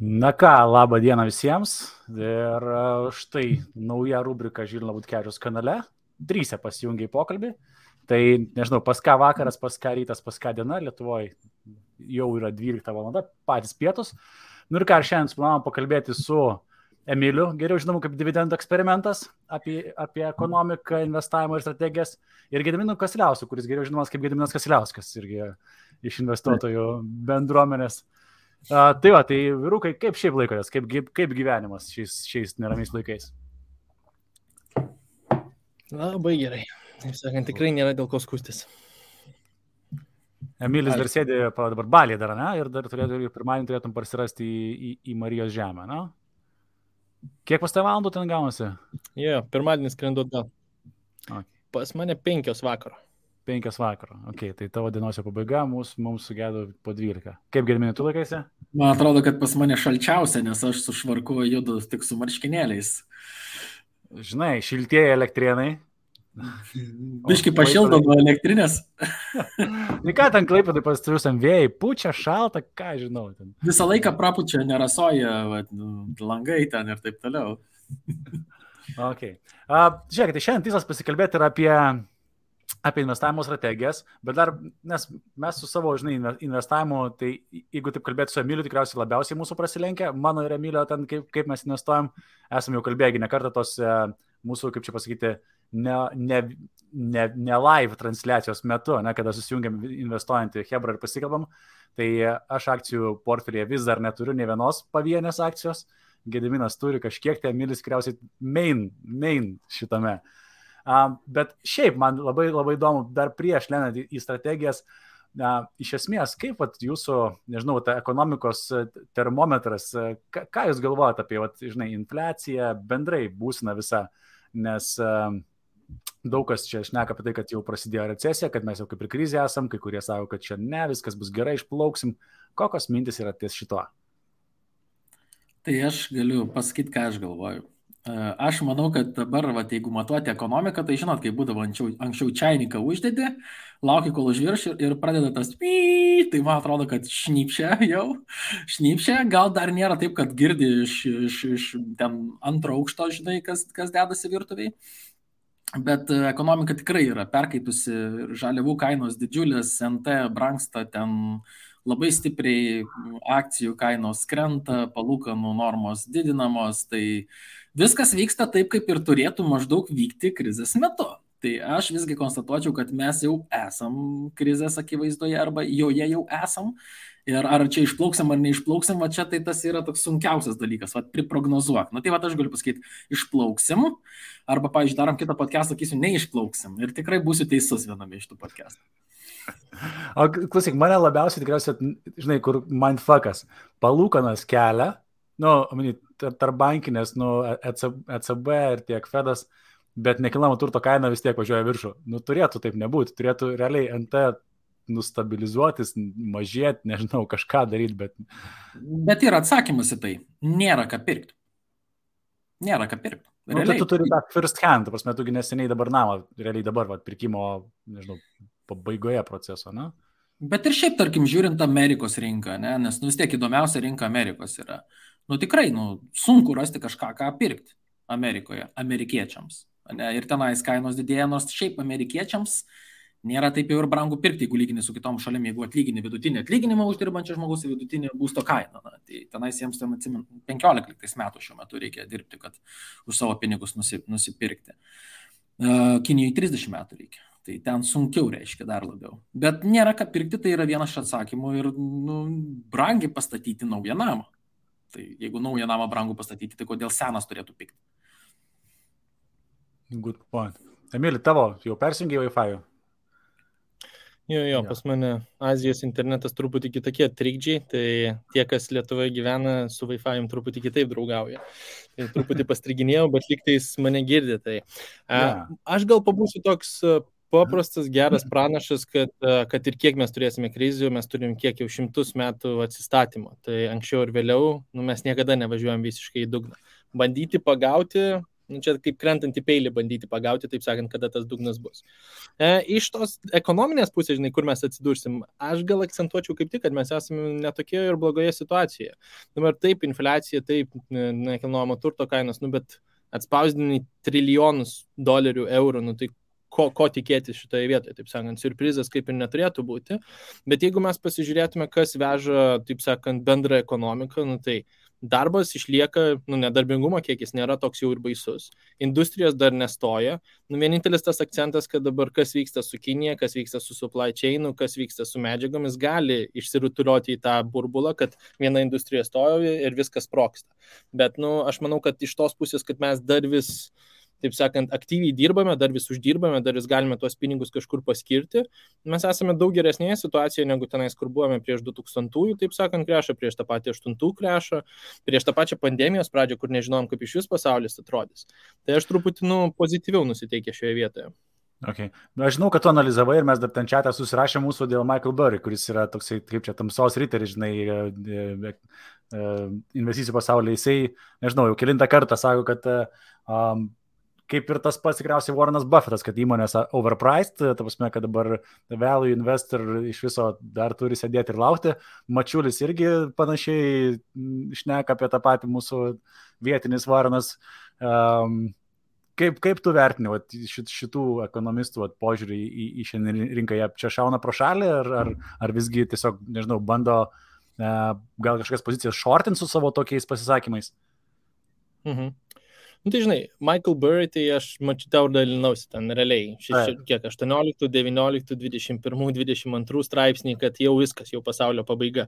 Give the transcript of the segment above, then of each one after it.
Na ką, labą dieną visiems. Ir štai nauja rubrika Žilino Butkevičiaus kanale. 3 pasijungia į pokalbį. Tai nežinau, pas ką vakaras, pas ką rytas, pas ką diena. Lietuvoje jau yra 12 valanda, patys pietus. Nu ir ką, šiandien planavom pakalbėti su Emiliu, geriau žinomu kaip dividendų eksperimentas, apie ekonomiką, investavimą ir strategijas. Ir Gediminu Kasiliausku, kuris geriau žinomas kaip Gediminas Kasiliauskas, irgi iš investuotojų bendruomenės. Tai va, tai vyrukai, kaip šiaip laikotės, kaip gyvenimas šiais neramiais laikais? Labai gerai. Taip sakant, tikrai nėra dėl ko skūstis. Emilis dar sėdė dabar Balyje dar, ne? Ir dar pirmadienį turėtum parsirasti į Marijos žemę, ne? Kiek pas tai valandų ten gaunasi? Jo, pirmadienis skrendu atgal. Okay. Pas mane 5 vakaro. 5 vakaro, ok, tai tavo dienos pabaiga mums sugėdo po 12. Kaip Gediminai, tu laikaisi? Man atrodo, kad pas mane šalčiausia, nes aš su švarku judu tik su marškinėliais. Žinai, šiltieji elektrienai. Biški pašildo nuo elektrinės. Tai ką ten Klaipėdai pasitriusiam vėjai, pučia, šalta, ką žinau. Ten. Visą laiką prapučia, nerasoja, langai ten ir taip toliau. Ok. Žiūrėkite, tai šiandien tikslas pasikalbėti yra apie investavimo strategijas, bet dar, nes mes su savo, investavimu, tai jeigu taip kalbėti su Emiliu, tikriausiai labiausiai mūsų prasilenkia, mano ir Emilio ten, kaip mes investuojam, esame jau kalbėję ne kartą tos mūsų, kaip čia pasakyti, ne live transliacijos metu, ne, kada susijungiam investuojantį Hebra ir pasikalbam, tai aš akcijų portfelėje vis dar neturiu ne vienos pavienės akcijos, Gediminas turi kažkiek, tai Emilis tikriausiai main šitame. Bet šiaip man labai įdomu, dar prieš lendant į strategijas, iš esmės, kaip jūsų, nežinau, ta ekonomikos termometras, ką jūs galvojate apie, infliaciją, bendrai būseną visą, nes daug kas čia šneka apie tai, kad jau prasidėjo recesija, kad mes jau kaip ir krizė esam, kai kurie sako, kad čia ne, viskas bus gerai, išplauksim. Kokios mintis yra ties šito? Tai aš galiu pasakyti, ką aš galvoju. Aš manau, kad dabar, jeigu matuoti ekonomiką, tai žinot, kai būdavo anksčiau čainiką uždedi, lauki, kol užvirš ir pradeda tas tai man atrodo, kad šnypšia, gal dar nėra taip, kad girdi iš ten antro aukšto, žinai, kas dedasi virtuviai. Bet ekonomika tikrai yra perkaitusi, žaliavų kainos didžiulės, NT brangsta, ten labai stipriai akcijų kainos krenta, palūkanų normos didinamos, tai viskas vyksta taip, kaip ir turėtų maždaug vykti krizės metu. Tai aš visgi konstatuočiau, kad mes jau esam krizės akivaizdoje arba joje jau esam. Ir ar čia išplauksim ar neišplauksim, čia tai tas yra toks sunkiausias dalykas, priprognozuok. Tai aš galiu pasakyti, išplauksim, arba, pavyzdžiui, darom kitą podcastą, sakysiu, neišplauksim. Ir tikrai būsiu teisus viename iš tų podcastų. O klausyk, mane labiausiai tikriausiai, žinai, kur mindfuckas, palūkanas kelia, tarp bankinės, ECB ir tiek Fedas, bet nekilnojamo turto kaina vis tiek važiuoja viršų. Turėtų taip nebūti, turėtų realiai NT nustabilizuotis, mažėti, nežinau, kažką daryti, bet... Bet yra atsakymas į tai. Nėra ką pirkti. Tai tu turi tą first hand, prasme, tugi neseniai dabar namą, realiai dabar, pirkimo, nežinau, pabaigoje proceso, ne? Bet ir šiaip, tarkim, žiūrint Amerikos rinką, ne? Nes vis tiek įdomiausia rinka Amerikos yra. Tikrai, sunku rasti kažką, ką pirkti Amerikoje, amerikiečiams. Ne? Ir tenais kainos didėja, nors šiaip amerikiečiams nėra taip jau ir brangu pirkti, jeigu lygini su kitom šalim, jeigu atlygini vidutinį atlyginimą uždirbančią žmogus į vidutinį būsto kainą. Tai tenais jiems 15 metų šiuo metu reikia dirbti, kad už savo pinigus nusipirkti. Kinijai 30 metų reikia. Tai ten sunkiau reiškia dar labiau. Bet nėra ką pirkti, tai yra vienas iš atsakymų ir brangiai pastatyti naują namą. Tai jeigu naują namą brangu pastatyti, tai kodėl senas turėtų pikti? Good point. Emili, tavo jau persijungė Wi-Fi? Jo, pas mane Azijos internetas truputį kitokie trikdžiai, tai tie, kas Lietuvoje gyvena, su Wi-Fi truputį kitaip draugauja. Tai truputį pastriginėjau, bet lygtais mane girdi. Tai. Aš gal pabūsiu toks paprastas, geras pranašas, kad ir kiek mes turėsime krizių, mes turim kiek jau 100 metų atsistatymo. Tai anksčiau ir vėliau mes niekada nevažiuojam visiškai į dugną. Bandyti pagauti Čia kaip krentant į peilį bandyti pagauti, taip sakant, kada tas dugnas bus. Iš tos ekonominės pusės, žinai, kur mes atsidursim, aš gal akcentuočiau kaip tik, kad mes esame netokioje ir blogoje situacijoje. Dabar taip, infliacija, taip, nekilnojamo turto kainos, bet atspausdini trilijonus dolerių, eurų, tai ko tikėtis šitoje vietoje, taip sakant, siurprizas kaip ir neturėtų būti, bet jeigu mes pasižiūrėtume, kas veža, taip sakant, bendrą ekonomiką, tai darbas išlieka, nedarbingumo kiekis nėra toks jau ir baisus, industrijos dar nestoja, vienintelis tas akcentas, kad dabar kas vyksta su Kinija, kas vyksta su supply chainu, kas vyksta su medžiagomis, gali išsirutuliuoti į tą burbulą, kad viena industrija stoja ir viskas sprogsta. Bet, aš manau, kad iš tos pusės, kad mes dar vis, taip sakant, aktyviai dirbame, dar vis uždirbame, dar vis galime tuos pinigus kažkur paskirti. Mes esame daug geresnėje situacijoje, negu tenais, kur buvome prieš 2000-ųjų, taip sakant, krešą, prieš tą patį 8-ųjų krešą, prieš tą pačią pandemijos pradžią, kur nežinom, kaip iš vis pasaulis atrodys. Tai aš truputį, pozityviau nusiteikė šioje vietoje. Okay. Aš žinau, kad tu analizavai ir mes dar ten čiatą susirašė mūsų dėl Michael Burry, kuris yra toksai, kaip čia, tamsos riteris, žinai, investicijų pasaulyje. Jisai, nežinau, jau kelintą kartą sako, kad kaip ir tas pats tikriausiai Warrenas Buffettas, kad įmonės overpriced, ta prasme, kad dabar value investor iš viso dar turi sėdėti ir laukti. Mačiulis irgi panašiai šneka apie tą patį mūsų vietinis Warrenas. Kaip tu vertini šitų ekonomistų požiūrį į šiandien rinką? Jie čia šauna pro šalį ar visgi tiesiog, nežinau, bando gal kažkokias pozicijas shortint su savo tokiais pasisakymais? Tai žinai, Michael Burry, tai aš tau dalinausi ten realiai, 18, 19, 21, 22 straipsniai, kad jau viskas, jau pasaulio pabaiga.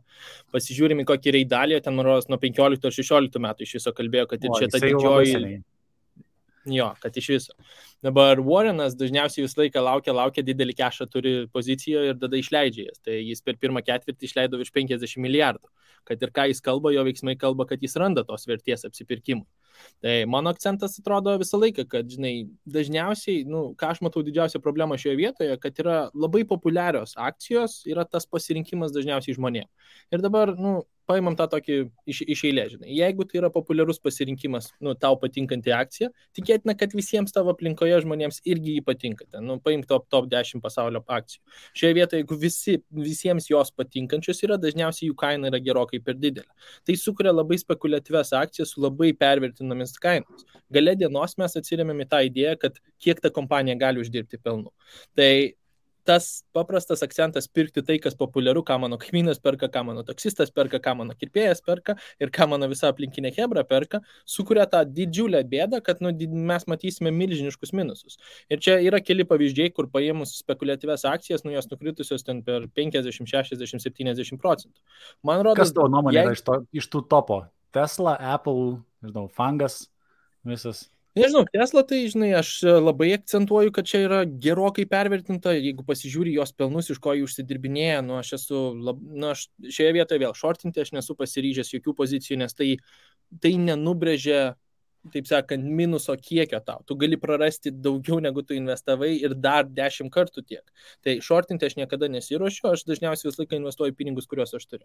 Pasižiūrime, kokį reidalį, ten nuo 15 ar 16 metų iš viso kalbėjo, kad ir čia ta didžioji... Jo, kad iš viso. Dabar Warrenas dažniausiai visą laiką laukia, didelį kešą turi pozicijoje ir tada išleidžia jas. Tai jis per pirmą ketvirtį išleido virš 50 milijardų. Kad ir ką jis kalba, jo veiksmai kalba, kad jis randa tos vertės apsipirkimui. Tai mano akcentas atrodo visą laiką, kad, žinai, dažniausiai, ką aš matau didžiausią problemą šioje vietoje, kad yra labai populiarios akcijos, yra tas pasirinkimas dažniausiai žmonėms. Ir dabar, paimam tą tokį iš eilės, žinai. Jeigu tai yra populiarus pasirinkimas, tau patinkanti akcija, tikėtina, kad visiems tavo aplinkoje žmonėms irgi jį patinka. Paimk top 10 pasaulio akcijų. Šioje vietoje, jeigu visiems jos patinkančios yra, dažniausiai jų kaina yra gerokai per didelė. Tai sukuria labai spekuliatyvias akcijas su labai pervertinomis kainos. Gale dienos mes atsiremiam į tą idėją, kad kiek ta kompanija gali uždirbti pelnų. Tai tas paprastas akcentas pirkti tai, kas populiaru, ką mano kaimynas perka, ką mano taksistas perka, ką mano kirpėjas perka ir ką mano visa aplinkinė chebra perka, sukuria tą didžiulę bėdą, kad mes matysime milžiniškus minusus. Ir čia yra keli pavyzdžiai, kur paėmus spekuliatyvias akcijas, jos nukritusios ten per 50, 60, 70%. Man rodo, kas tavo nuomonė yra iš tų topo? Tesla, Apple, nežinau, Fangas, visas... Nežinau, Tesla, tai, žinai, aš labai akcentuoju, kad čia yra gerokai pervertinta, jeigu pasižiūri jos pelnus, iš ko jį užsidirbinėja, aš šioje vietoje vėl shortinti, aš nesu pasiryžęs jokių pozicijų, nes tai nenubrėžia, taip sakant, minuso kiekio tau. Tu gali prarasti daugiau, negu tu investavai ir dar 10 kartų tiek. Tai shortinti aš niekada nesiruošiu, aš dažniausiai visą laiką investuoju pinigus, kuriuos aš turiu.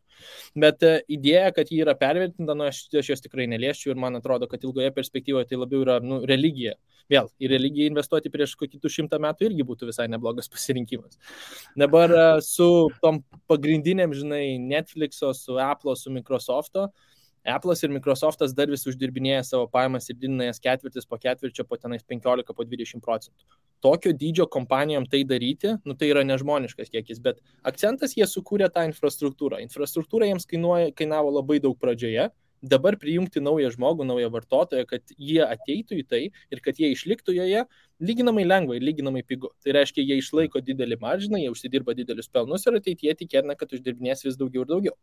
Bet idėja, kad ji yra pervertinta, aš jos tikrai neliesčiau ir man atrodo, kad ilgoje perspektyvoje tai labiau yra religija. Vėl, į religiją investuoti prieš kokį 100 metų irgi būtų visai neblogas pasirinkimas. Dabar su tom pagrindinėm, žinai, Netflix'o, su Apple'o, su Microsoft'o, Apple'as ir Microsoft'as dar vis uždirbinėja savo pajamas ir didina jas ketvirtis po ketvirčio, po tenais 15, po 20%. Tokio dydžio kompanijom tai daryti, tai yra nežmoniškas kiekis, bet akcentas jie sukūrė tą infrastruktūrą. Infrastruktūra jiems kainavo labai daug pradžioje. Dabar prijungti naują žmogų, naują vartotoją, kad jie ateitų į tai ir kad jie išliktų joje, lyginamai lengva ir lyginamai pigu. Tai reiškia, jie išlaiko didelį maržiną, jie užsidirba didelius pelnus ir ateityje tikėtina, kad uždirbinės vis daugiau ir daugiau.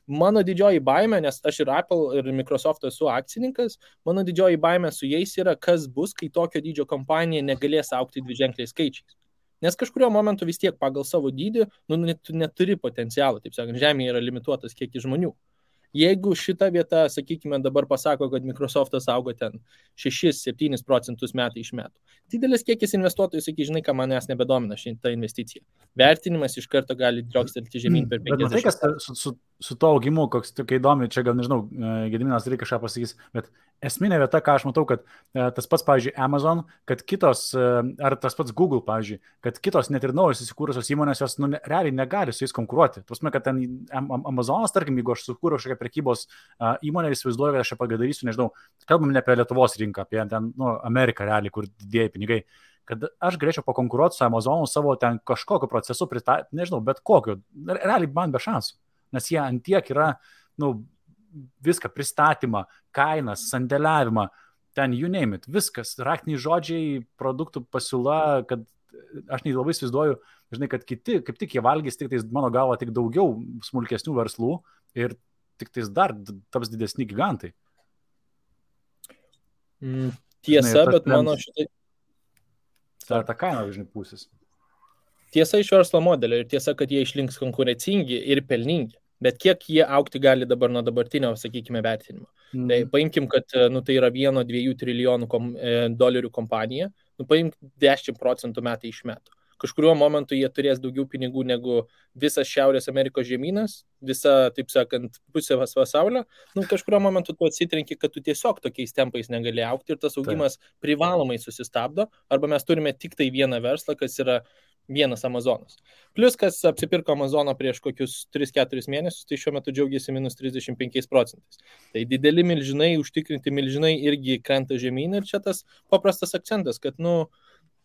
Mano didžioji baimė, nes aš ir Apple ir Microsoft esu akcininkas, mano didžioji baimė su jais yra, kas bus, kai tokio dydžio kompanija negalės augti dviženkliais skaičiais. Nes kažkurio momentu vis tiek pagal savo dydį neturi potencialą, taip sakant, žemėje yra limituotas kiekis žmonių. Jeigu šita vieta, sakykime, dabar pasako, kad Microsoftas augo ten 6-7% metai iš metų. Didelis kiekis investuotojų, sakai, žinai, ką manęs nebedomina šitą investiciją. Vertinimas iš karto gali driokstelti žemyn per 50. Bet matai, kas su to augimu, koks tokia įdomi, čia gal nežinau, Gediminas reikia kažką pasakys, bet esminė vieta, ką aš matau, kad tas pats, pavyzdžiui, Amazon, kad kitos, ar tas pats Google, pavyzdžiui, kad kitos net ir naujos įsikūrusios įmonės, jos realiai negali su jais konkuruoti. Tuosme, kad ten Amazonas, tarkim, jeigu aš sukūriau kažkokią prekybos įmonę, įsivaizduoju, kad aš ją pagadarysiu, nežinau, kalbam ne apie Lietuvos rinką, apie ten, Ameriką realiai, kur didieji pinigai. Kad aš galėčiau pakonkuruoti su Amazonu savo ten kažkokiu procesu, nežinau, bet kokiu, realiai man be šansų. Nes jie antiek yra, viską, pristatymą, kainas, sandėliavimą, ten you name it, viskas, raktiniai žodžiai, produktų pasiūla, kad aš labai įsivaizduoju, žinai, kad kiti, kaip tik jie valgys, tik tais mano galva, tik daugiau smulkesnių verslų ir tik tais dar taps didesni gigantai. Tiesa, žinai, bet mano šitai... Tai ta kaina, žinai, pusės. Tiesa iš verslo modelio ir tiesa, kad jie išlinks konkurencingi ir pelningi. Bet kiek jie aukti gali dabar nuo dabartinio, sakykime, vertinimo. Tai paimkim, kad tai yra 1-2 trilijonų dolerių kompanija, paimk 10% metai iš metų. Kažkuriuo momentu jie turės daugiau pinigų negu visas Šiaurės Amerikos žemynas, visa, taip sakant, pusė pasaulio. Kažkuriuo momentu tu atsitrenki, kad tu tiesiog tokiais tempais negali aukti ir tas augimas privalomai susistabdo, arba mes turime tik tai vieną verslą, kas yra vienas Amazonas. Plius, kas apsipirko Amazoną prieš kokius 3-4 mėnesius, tai šiuo metu džiaugiasi -35%. Tai dideli milžinai, užtikrinti milžinai irgi krenta žemyn ir čia tas paprastas akcentas, kad,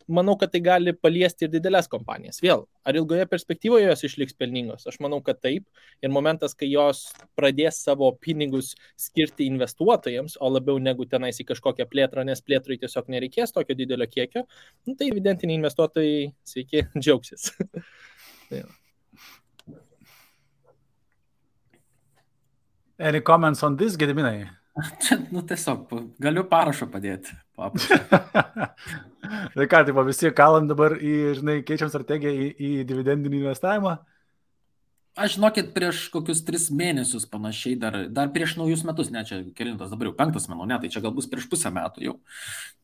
manau, kad tai gali paliesti ir didelės kompanijas. Vėl, ar ilgoje perspektyvoje jos išliks pelningos? Aš manau, kad taip. Ir momentas, kai jos pradės savo pinigus skirti investuotojams, o labiau negu tenais į kažkokią plėtrą, nes plėtrai tiesiog nereikės tokio didelio kiekio, tai evidentiniai investuotojai, sveiki, džiaugsis. Any comments on this, Gediminai? Čia, tiesiog, galiu parašą padėti. Tai ką, tai visi kalam dabar keičiam strategiją į dividendinį investavimą? Aš žinokit, prieš kokius 3 mėnesius panašiai, dar prieš naujus metus, ne, čia kelintas dabar jau 5 manau, ne, tai čia gal bus prieš pusę metų jau.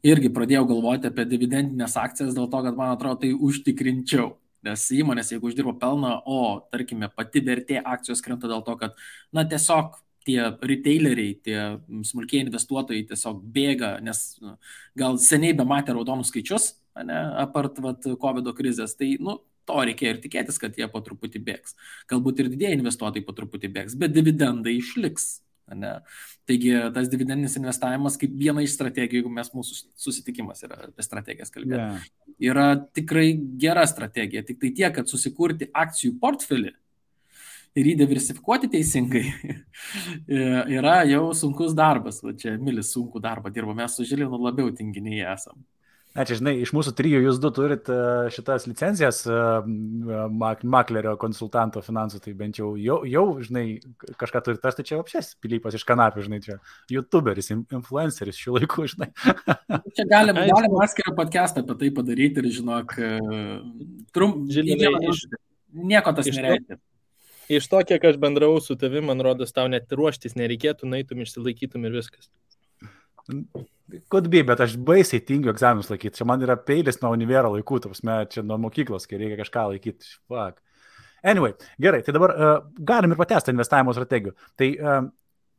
Irgi pradėjau galvoti apie dividendinės akcijas dėl to, kad man atrodo tai užtikrinčiau. Nes įmonės, jeigu uždirbo pelną, o, tarkime, pati vertė akcijos krenta dėl to, kad, tiesiog tie retaileriai, tie smulkiai investuotojai tiesiog bėga, nes gal seniai bematė raudonus skaičius, apart COVID krizės, tai to reikėjo ir tikėtis, kad jie po truputį bėgs. Galbūt ir didieji investuotojai po truputį bėgs, bet dividendai išliks. Taigi tas dividendinis investavimas kaip viena iš strategijų, jeigu mūsų susitikimas yra apie strategijas kalbėti, yra tikrai gera strategija, tik tai tiek, kad susikurti akcijų portfelį ir jį diversifikuoti teisingai yra jau sunkus darbas. Čia Milis sunkų darbą dirbo, mes su Žilinu labiau tinginiai esam. Na, čia, žinai, iš mūsų 3 jūs 2 turit šitas licencijas maklerio konsultanto finansų, tai bent jau, žinai, kažką turit, tai čia apšės Pilypas iš kanapių, žinai, čia youtuberis, influenceris šių laikų, žinai. Čia galim atskirą podcastą apie tai padaryti ir, žinok, nieko tas nereikia. Iš to, kiek aš bendravau su tavim, man rodos, tau net ruoštis nereikėtų, naitum, išsilaikytum ir viskas. Could be, bet aš baisiai tingiu egzaminus laikyti. Čia man yra peilis nuo univero laikų, čia nuo mokyklos, kai reikia kažką laikyti. Fuck. Anyway, gerai, tai dabar galim ir patęsti investavimo strategijų. Tai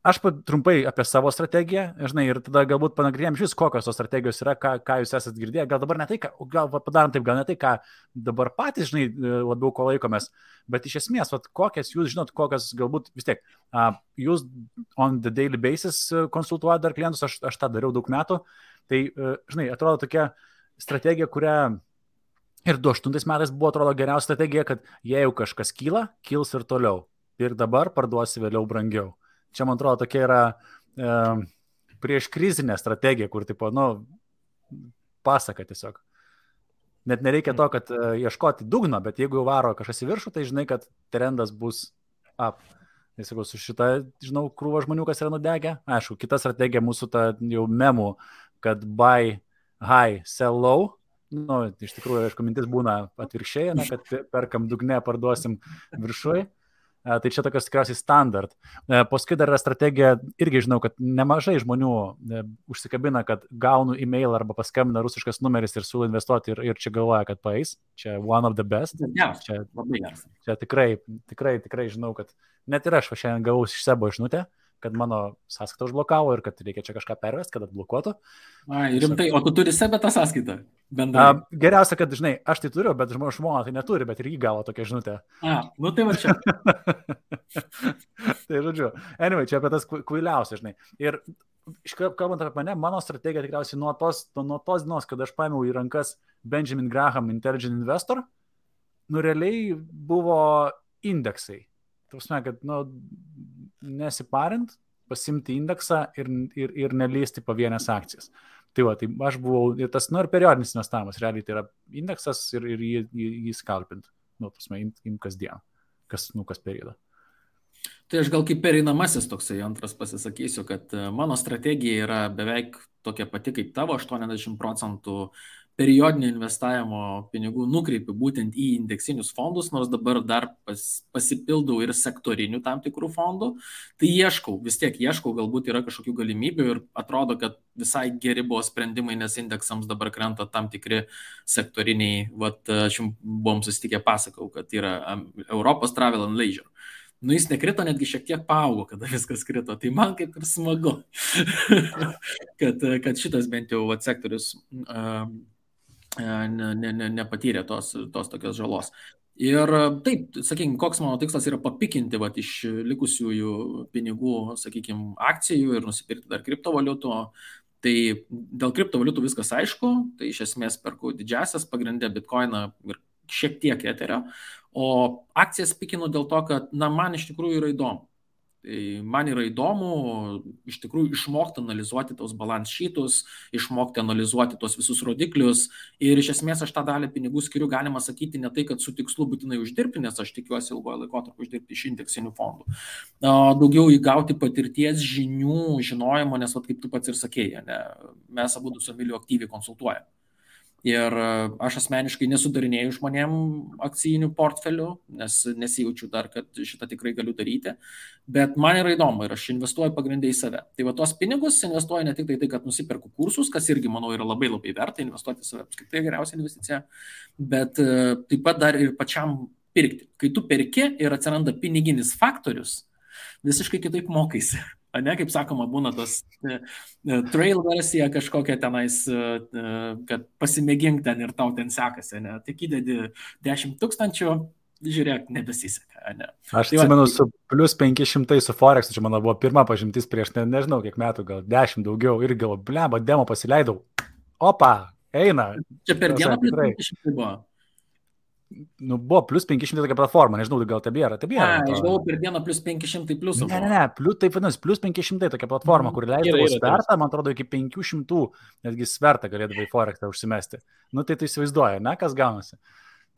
aš trumpai apie savo strategiją, žinai, ir tada galbūt panagrinėjom šis, kokios tos strategijos yra, ką jūs esat girdėję. Gal dabar ne tai, gal padarom taip, gal ne tai, ką dabar patys, žinai, labiau ko laikomės, bet iš esmės, kokias jūs žinot, kokias galbūt vis tiek, jūs on the daily basis konsultuojate dar klientus, aš tą dariau daug metų, tai, žinai, atrodo tokia strategija, kurią ir 2008 metais buvo, atrodo, geriausia strategija, kad jei jau kažkas kyla, kils ir toliau. Ir dabar parduosi vėliau brangiau. Čia, man atrodo, tokia yra prieš krizinė strategija, kur, tipo, pasaka tiesiog. Net nereikia to, kad ieškoti dugno, bet jeigu jau varo kažkas į viršų, tai žinai, kad trendas bus up. Tai sakau, su šitą, žinau, krūva žmonių, kas yra nudegę. Aišku, kita strategija mūsų ta jau memų, kad buy high, sell low. Iš tikrųjų, aišku, mintis būna atvirkščiai, kad perkam dugne, parduosim viršui. Tai čia tokios tikriausiai standart. Paskui dar yra strategija, irgi žinau, kad nemažai žmonių užsikabina, kad gaunu e-mail arba paskambina rusiškas numeris ir siūlo investuoti ir čia galvoja, kad paeis. Čia one of the best. Čia labai geras. Čia tikrai žinau, kad net ir aš šiandien gavau iš Sebo žinutę, kad mano sąskaitą užblokavo ir kad reikia čia kažką pervesti, kad atblokuotų. Ai, rimtai, o tu turi Sebe tą sąskaitą? Geriausia, kad, žinai, aš tai turiu, bet žmona tai neturi, bet ir jį gavo tokią žinutę. Nu tai va čia. Tai žodžiu, anyway, čia apie tas kvailiausia, žinai. Ir kalbant apie mane, mano strategija tikriausiai nuo tos dienos, kad aš paėmiau į rankas Benjamin Graham Intelligent Investor, realiai buvo indeksai. Tausme, kad, nesiparint, pasimti indeksą ir nelysti pavienės akcijas. Tai va, tai aš buvau, ir tas, ir periodinis investavimas, realiai tai yra indeksas ir jį skalpint. Tausme, im kasdien, kas periodą. Tai aš gal kaip pereinamasis toksai antras pasisakysiu, kad mano strategija yra beveik tokia pati kaip tavo, 80% periodinio investavimo pinigų nukreipiu būtent į indeksinius fondus, nors dabar dar pasipildau ir sektorinių tam tikrų fondų. Tai vis tiek ieškau, galbūt yra kažkokių galimybių ir atrodo, kad visai geri buvo sprendimai, nes indeksams dabar krenta tam tikri sektoriniai, aš jums buvom susitikę pasakau, kad yra Europos Travel and Leisure. Jis nekrito, netgi šiek tiek paaugo, kada viskas krito. Tai man kaip ir smagu, kad šitas bent jau sektorius nepatyrė tos tokios žalos. Ir taip, sakykime, koks mano tikslas yra papikinti iš likusiųjų pinigų, sakykime, akcijų ir nusipirkti dar kriptovaliutų. Tai dėl kriptovaliutų viskas aišku, tai iš esmės perku didžiasias pagrindė Bitcoiną ir šiek tiek Etherio, o akcijas pikinu dėl to, kad man iš tikrųjų yra įdomu. Man yra įdomu iš tikrųjų išmokti analizuoti tos balance sheetus, išmokti analizuoti tos visus rodiklius ir iš esmės aš tą dalį pinigų skiriu, galima sakyti, ne tai, kad su tikslu būtinai uždirbti, nes aš tikiuosi ilgojo laikotarpio uždirbti iš indeksinių fondų. Daugiau įgauti patirties, žinių, žinojimo, nes kaip tu pats ir sakėjai, mes abudu su Emiliu aktyviai konsultuojame. Ir aš asmeniškai nesudarinėjau žmonėm akcijinių portfelių, nes nesijaučiu dar, kad šitą tikrai galiu daryti, bet man yra įdomu ir aš investuoju pagrindai į save. Tai va tos pinigus investuoju ne tik tai, kad nusiperku kursus, kas irgi, manau, yra labai labai verta, investuoti į save apskritai geriausia investicija, bet taip pat dar ir pačiam pirkti. Kai tu perki ir atsiranda piniginis faktorius, visiškai kitaip mokaisi. Kaip sakoma, būna tos trail versija kažkokia tenais, kad pasimėgink ten ir tau ten sekasi, tik įdedi 10 000, žiūrėk, nebesiseka. Aš atsimenu su plus 500 su Forex, čia mano buvo pirma pažintis prieš, nežinau kiek metų, gal 10 daugiau ir gal, bleba, demo pasileidau. Opa, eina. Čia per dieną plus 500 buvo. Buvo plus 500 tokia platforma, nežinau, gal tebėra. Aš galvoju, per dieną plus 500 pliusų. Ne, taip vadinasi, plus 500 tokia platforma, kur leisdavo svertą, man atrodo, iki 500, netgi svertą galėdavo į Forexą užsimesti. Tai tu įsivaizduoji, kas gaunasi.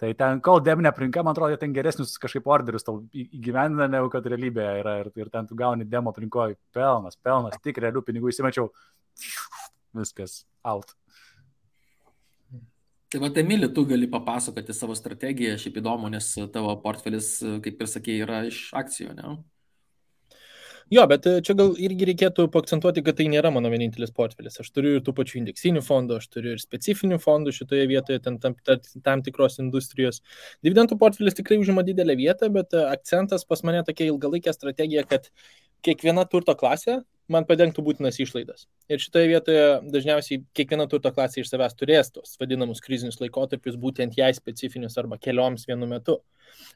Tai ten, kol debinė aplinka, man atrodo, ten geresnius kažkaip orderius tau įgyvendina, negu kad realybėje yra ir ten tu gauni demo aplinkoje pelnas, tik realių pinigų įsimečiau, viskas, out. Tai va, Emili, tu gali papasakoti savo strategiją, šiaip įdomu, nes tavo portfelis, kaip ir sakė, yra iš akcijų, ne? Jo, bet čia gal irgi reikėtų paakcentuoti, kad tai nėra mano vienintelis portfelis. Aš turiu ir tų pačių indeksinių fondų, aš turiu ir specifinių fondų šitoje vietoje, tam tikros industrijos. Dividendų portfelis tikrai užima didelę vietą, bet akcentas pas mane tokia ilgalaikė strategija, kad kiekviena turto klasė man padengtų būtinas išlaidas. Ir šitoje vietoje dažniausiai kiekviena turto klasė iš savęs turės tos vadinamus krizinius laikotarpius, būtent jai specifinius arba kelioms vienu metu.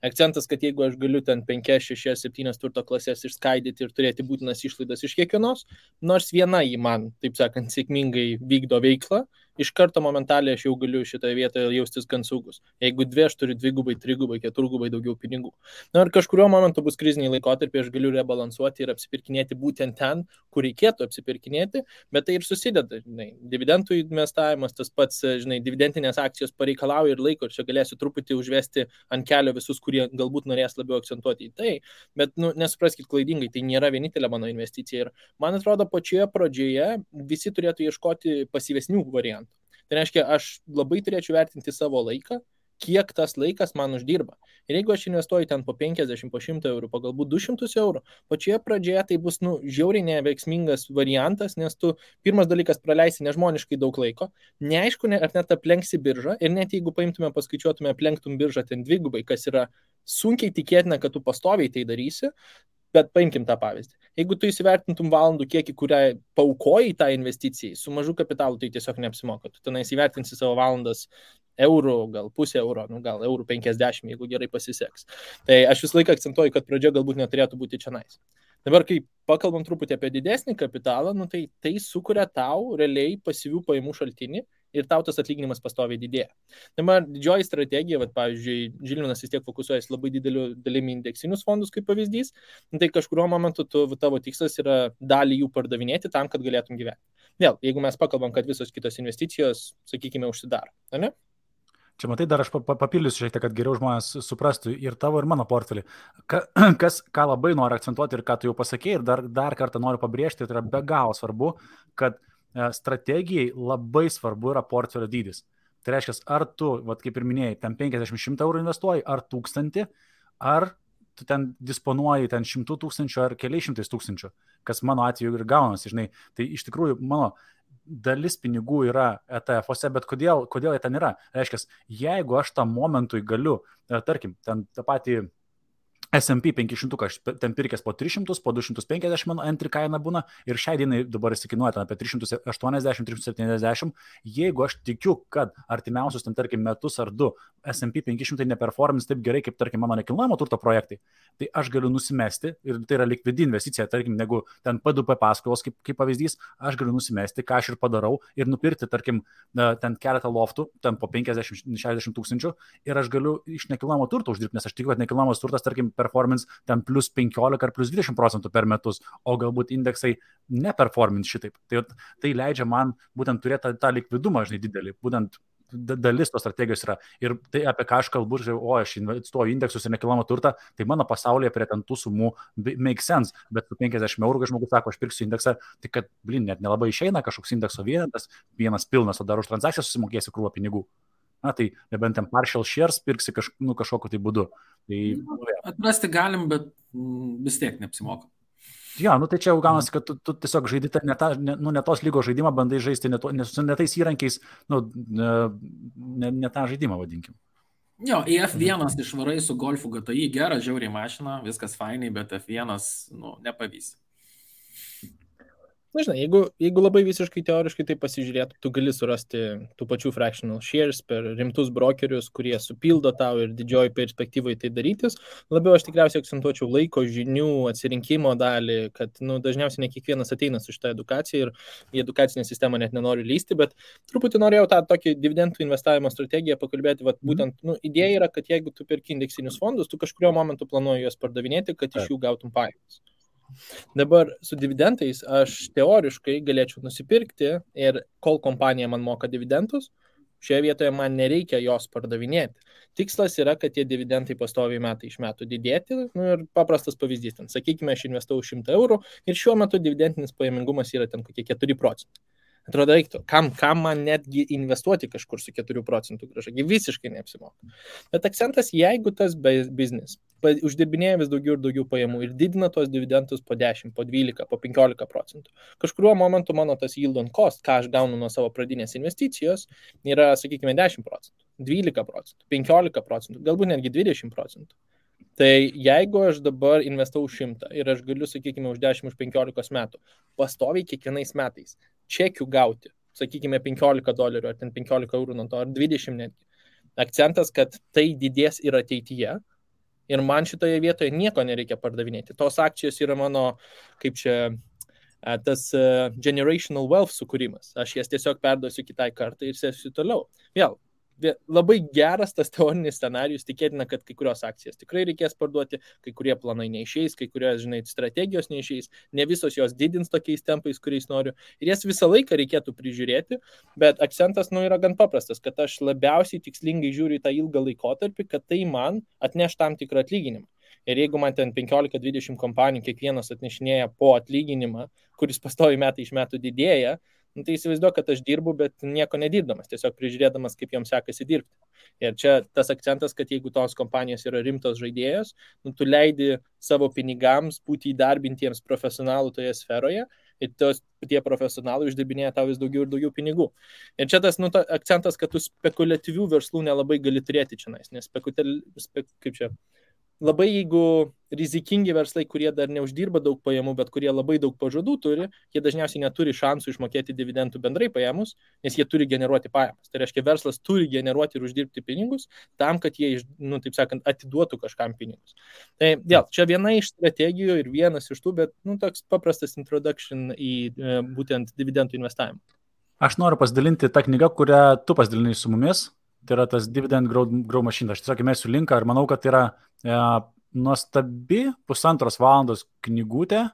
Akcentas, kad jeigu aš galiu ten 5, 6, 7 turto klasės išskaidyti ir turėti būtinas išlaidas iš kiekvienos, nors viena į man, taip sakant, sėkmingai vykdo veiklą, iš karto momentaliai aš jau galiu šitoje vietoje jaustis gan saugus. Jeigu 2, aš turiu 2, 3, 4 daugiau pinigų. Ir kažkurio momentu bus kriziniai laikotarpiai, aš galiu rebalansuoti ir apsipirkinėti būtent ten, kur reikėtų apsipirkinėti, bet tai ir susideda. Dividendų investavimas, tas pats, dividendinės akcijos pareikalauja ir laiko, ir čia galėsiu truputį užvesti ant kelio visus, kurie galbūt norės labiau akcentuoti į tai, bet nesupraskit klaidingai, tai nėra vienintelė mano investicija. Ir man atrodo, pačioje pradžioje visi turėtų ieškoti pasyvesnių variantų. Tai reiškia, aš labai turėčiau vertinti savo laiką kiek tas laikas man uždirba. Ir jeigu aš investuoju ten po 50, po 100 eurų, po galbūt 200 eurų, pačioje pradžioje tai bus, žiauriai neveiksmingas variantas, nes tu pirmas dalykas praleisi nežmoniškai daug laiko, neaišku, ar net aplenksi biržą, ir net jeigu paimtume, paskaičiuotume, aplenktum biržą ten dvigubai, kas yra sunkiai tikėtina, kad tu pastoviai tai darysi, bet paimkim tą pavyzdį. Jeigu tu įsivertintum valandų kiekį, kurią paukojai tą investicijai, su mažu kapitalu tai tiesiog neapsimoka. Tu tenais įvertinsi savo valandas eurų, gal pusę euro, gal eurų 50, jeigu gerai pasiseks. Tai aš visą laiką akcentuoju, kad pradžia galbūt neturėtų būti čionais. Dabar, kai pakalbam truputį apie didesnį kapitalą, tai sukuria tau realiai pasyvių pajamų šaltinį ir tau tas atlyginimas pastoviai didėja. Dabar didžioji strategija, pavyzdžiui, Žilvinas vis tiek fokusuojasi labai dideliu dalimi indeksinius fondus kaip pavyzdys, tai kažkurio momentu tavo tikslas yra dalį jų pardavinėti tam, kad galėtum gyventi. Vėl, jeigu mes pakalbam, kad visos kitos investicijos, sakykime, užsidaro, ne? Čia matai, dar aš papildysiu šiek tiek, kad geriau žmonės suprastų ir tavo, ir mano portfelį. Ką labai noriu akcentuoti ir ką tu jau pasakėjai, ir dar kartą noriu pabrėžti, tai yra be galo svarbu, kad strategijai labai svarbu yra portfelio dydis. Tai reiškia, ar tu, kaip ir minėjai, ten 50-100 eurų investuoji, ar 1000, ar tu ten disponuoji ten 100 000 ar keliais 100 000, kas mano atveju ir gaunasi, žinai. Tai iš tikrųjų mano dalis pinigų yra ETF-ose, bet kodėl jie ten yra? Reiškia, jeigu aš tam momentui galiu, tarkim, ten tą patį S&P 500, aš ten pirkęs po 300, po 250 mano entry kaina būna ir šiai dienai dabar įsikinuoja ten apie 380-370. Jeigu aš tikiu, kad artimiausius ten, tarkim, metus ar du S&P 500 neperformins taip gerai, kaip, tarkim, mano nekilnojamo turto projektai, tai aš galiu nusimesti ir tai yra likvidi investicija, tarkim, negu ten P2P paskolos, kaip pavyzdys, aš galiu nusimesti, ką aš ir padarau ir nupirkti, tarkim, ten keletą loftų, ten po 50-60 tūkstančių ir aš galiu iš nekilnojamo turto uždirbti, nes aš tikiu, kad nekilnojamas turtas, tarkim, performance ten plus 15 ar plus 20% per metus, o galbūt indeksai neperformins šitaip. Tai leidžia man būtent turėti tą likvidumą, žinai, didelį, būtent dalis tos strategijos yra. Ir tai, apie ką aš kalbu, aš investuoju indeksus ir nekilnojamą turtą, tai mano pasaulyje prie ten tų sumų make sense, bet su 50 eurų, kai žmogus sako, aš pirksiu indeksą, tai kad, net nelabai išeina kažkoks indekso vienetas, vienas pilnas, o dar už transakciją susimokėsi krūvą pinigų. Na, tai nebent ten partial shares pirksi kažkokiu tai būdu. Tai, atrasti galim, bet vis tiek neapsimoka. Jo, tai čia jau gaunasi, kad tu tiesiog žaidi ne tos lygos žaidimą, bandai žaisti ne tais įrankiais, ne tą žaidimą vadinkim. Jo, į F1 išvarai su Golfu GTI, gera, žiauriai mašina, viskas fainai, bet F1 nepavys. Na, žinai, jeigu labai visiškai teoriškai tai pasižiūrėtų, tu gali surasti tų pačių fractional shares per rimtus brokerius, kurie supildo tau ir didžioji perspektyvai tai darytis. Labiau aš tikriausiai akcentuočiau laiko, žinių, atsirinkimo dalį, kad dažniausiai ne kiekvienas ateina su šitą edukaciją ir į edukacinę sistemą net nenori lysti, bet truputį norėjau tą tokį dividendų investavimo strategiją pakalbėti. Būtent idėja yra, kad jeigu tu perki indeksinius fondus, tu kažkurio momentu planuoji juos pardavinėti, kad iš jų gautum pajamas. Dabar su dividendais aš teoriškai galėčiau nusipirkti ir kol kompanija man moka dividendus, šioje vietoje man nereikia jos pardavinėti. Tikslas yra, kad tie dividendai pastoviai metai iš metų didėti. Ir paprastas pavyzdys, ten, sakykime, aš investavau 100 eurų ir šiuo metu dividendinis pajamingumas yra ten kokie 4%. Atrodo, reiktų, kam man netgi investuoti kažkur su 4% grąža, visiškai neapsimoka. Bet akcentas, jeigu tas biznis uždirbinėja vis daugiau ir daugiau pajamų ir didina tos dividendus po 10, po 12, po 15%, kažkuriuo momentu mano tas yield on cost, ką aš gaunu nuo savo pradinės investicijos, yra, sakykime, 10%, 12%, 15%, galbūt netgi 20%. Tai jeigu aš dabar investau 100 ir aš galiu, sakykime, už 10, už 15 metų pastoviai kiekvienais metais čekių gauti, sakykime, $15 ar ten 15 eurų nuo to, ar 20 netgi. Akcentas, kad tai didės ir ateityje ir man šitoje vietoje nieko nereikia pardavinėti. Tos akcijos yra mano, kaip čia, tas generational wealth sukūrimas. Aš jas tiesiog perduosiu kitai kartai ir sėsiu toliau. Vėl. Labai geras tas teorinis scenarijus, tikėtina, kad kai kurios akcijas tikrai reikės parduoti, kai kurie planai neišeis, kai kurios, žinai, strategijos neišeis, ne visos jos didins tokiais tempais, kuriais noriu. Ir jas visą laiką reikėtų prižiūrėti, bet akcentas yra gan paprastas, kad aš labiausiai tikslingai žiūriu į tą ilgą laikotarpį, kad tai man atneš tam tikrą atlyginimą. Ir jeigu man ten 15-20 kompanijų kiekvienas atnešinėja po atlyginimą, kuris pastoviai metai iš metų didėja, Tai įsivaizduoju, kad aš dirbu, bet nieko nedirbdamas, tiesiog prižiūrėdamas, kaip joms sekasi dirbti. Ir čia tas akcentas, kad jeigu tos kompanijos yra rimtos žaidėjos, tu leidi savo pinigams būti įdarbintiems profesionalų toje sferoje ir tie profesionalai uždirbinėja tau vis daugiau ir daugiau pinigų. Ir čia tas akcentas, kad tu spekuliatyvių verslų nelabai gali turėti čia, nes labai jeigu rizikingi verslai, kurie dar neuždirba daug pajamų, bet kurie labai daug pažadų turi, jie dažniausiai neturi šansų išmokėti dividendų bendrai pajamus, nes jie turi generuoti pajamas. Tai reiškia, verslas turi generuoti ir uždirbti pinigus tam, kad jie, taip sakant, atiduotų kažkam pinigus. Tai dėl, čia viena iš strategijų ir vienas iš tų, bet toks paprastas introduction į būtent dividendų investavimą. Aš noriu pasidalinti tą knygą, kurią tu pasidalinai su mumis. Tai yra tas Dividend Grow Machine. Aš tiesiog įmesiu linką ir manau, kad tai yra nuostabi 1,5 valandos knygutė,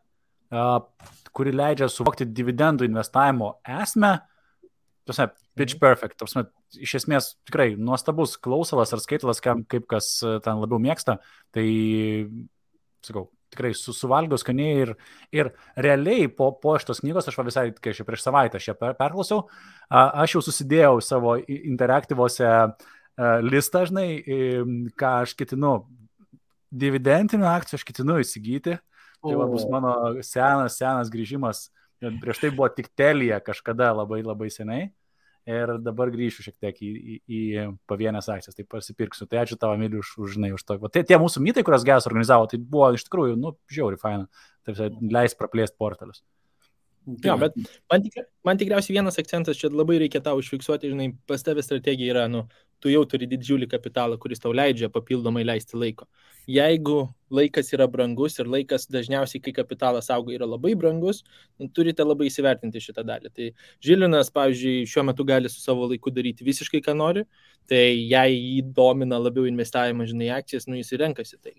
kuri leidžia suvokti dividendų investavimo esmę. Pitch perfect. Iš esmės tikrai nuostabus klausalas ar skaitalas, kaip kas ten labiau mėgsta. Tai, sakau, tikrai suvalgiau skaniai ir realiai po šitos knygos, aš visai, kai aš prieš savaitę aš ją perklausiau, aš jau susidėjau savo interaktyvose listą, žinai, ką aš ketinu, dividendinių akcijų aš ketinu įsigyti, tai bus mano senas grįžimas, prieš tai buvo tik Telia kažkada labai labai seniai. Ir dabar grįšiu šiek tiek į pavienės akcijas, tai pasipirksiu. Tai ačiū tavo, Emili, už to. Tie mūsų mytai, kurios Geas organizavo, tai buvo iš tikrųjų, žiauriai faina. Taip, leis praplėsti portalius. Jo, bet man tikriausiai vienas akcentas, čia labai reikia tau užfiksuoti, žinai, pas tavę strategija yra, tu jau turi didžiulį kapitalą, kuris tau leidžia papildomai leisti laiko. Jeigu laikas yra brangus ir laikas dažniausiai, kai kapitalas auga, yra labai brangus, turite labai įsivertinti šitą dalį. Tai Žilinas, pavyzdžiui, šiuo metu gali su savo laiku daryti visiškai, ką nori, tai jei jį domina labiau investavimas, žinai, akcijas, jis renkasi tai.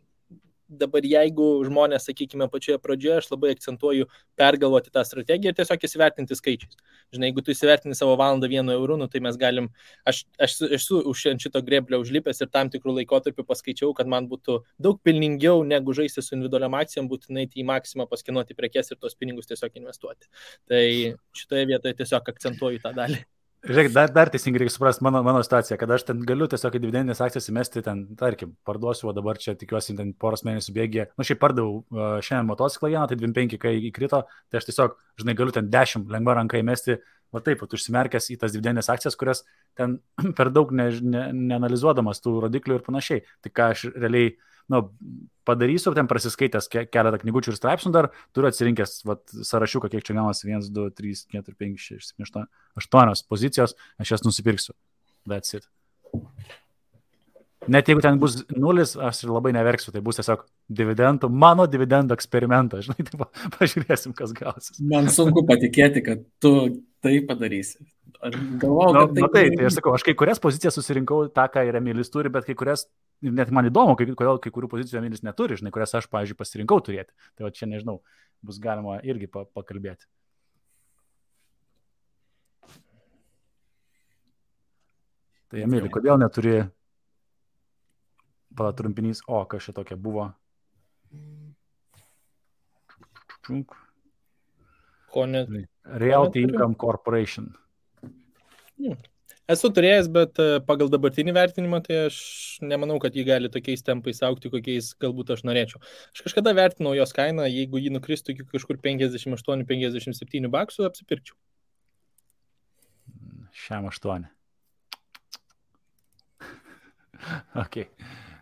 Dabar jeigu žmonės, sakykime, pačioje pradžioje, aš labai akcentuoju pergalvoti tą strategiją ir tiesiog įsivertinti skaičiais. Žinai, jeigu tu įsivertini savo valandą 1 euru, tai mes galim, aš esu už šito greblio užlipęs ir tam tikrų laikotarpių paskaičiau, kad man būtų daug pelningiau negu žaisti su individualiam akcijom, būtinai į maksimą paskinuoti prekes ir tos pinigus tiesiog investuoti. Tai šitoje vietoje tiesiog akcentuoju tą dalį. Žiūrėk, dar teisingai reikia suprasti mano situaciją, kad aš ten galiu tiesiog į dividendinės akcijas įmesti ten, tarkim, parduosiu, o dabar čia tikiuosi ten poros mėnesių bėgyje. Šiaip pardavau šiandien motociklą vieną, tai 25, kai įkrito, tai aš tiesiog, žinai, galiu ten 10 lengva ranka įmesti, taip, užsimerkęs į tas dividendinės akcijas, kurias ten per daug neanalizuodamas tų rodiklių ir panašiai. Tai ką aš realiai, padarysiu, ten prasiskaitęs keletą knygučių ir straipsnių dar, turiu atsirinkęs sąrašiuką, kiek čia gaunasi, 1, 2, 3, 4, 5, 6, 7, 8 pozicijos, aš jas nusipirksiu. That's it. Net jeigu ten bus 0, aš ir labai neverksiu, tai bus tiesiog mano dividendų eksperimentas, žinai, tai pažiūrėsim, kas gausis. Man sunku patikėti, kad tu tai padarysi. Galvojau, kad tai aš sakau, aš kai kurias pozicijas susirinkau tą, ką ir Emilis turi, bet kai kurias, net man įdomu, kodėl kai kurių pozicijų Emilis neturi, žinai, kurias aš, pavyzdžiui, pasirinkau turėti. Tai čia, nežinau, bus galima irgi pakalbėti. Tai Emili, kodėl neturi trumpinys, kas čia tokia buvo? Realty Income Corporation. Esu turėjęs, bet pagal dabartinį vertinimą, tai aš nemanau, kad jį gali tokiais tempais augti, kokiais galbūt aš norėčiau. Aš kažkada vertinau jos kainą, jeigu jį nukristų iki kažkur 58-57 baksų, apsipirkčiau. Šiam 8. Ok,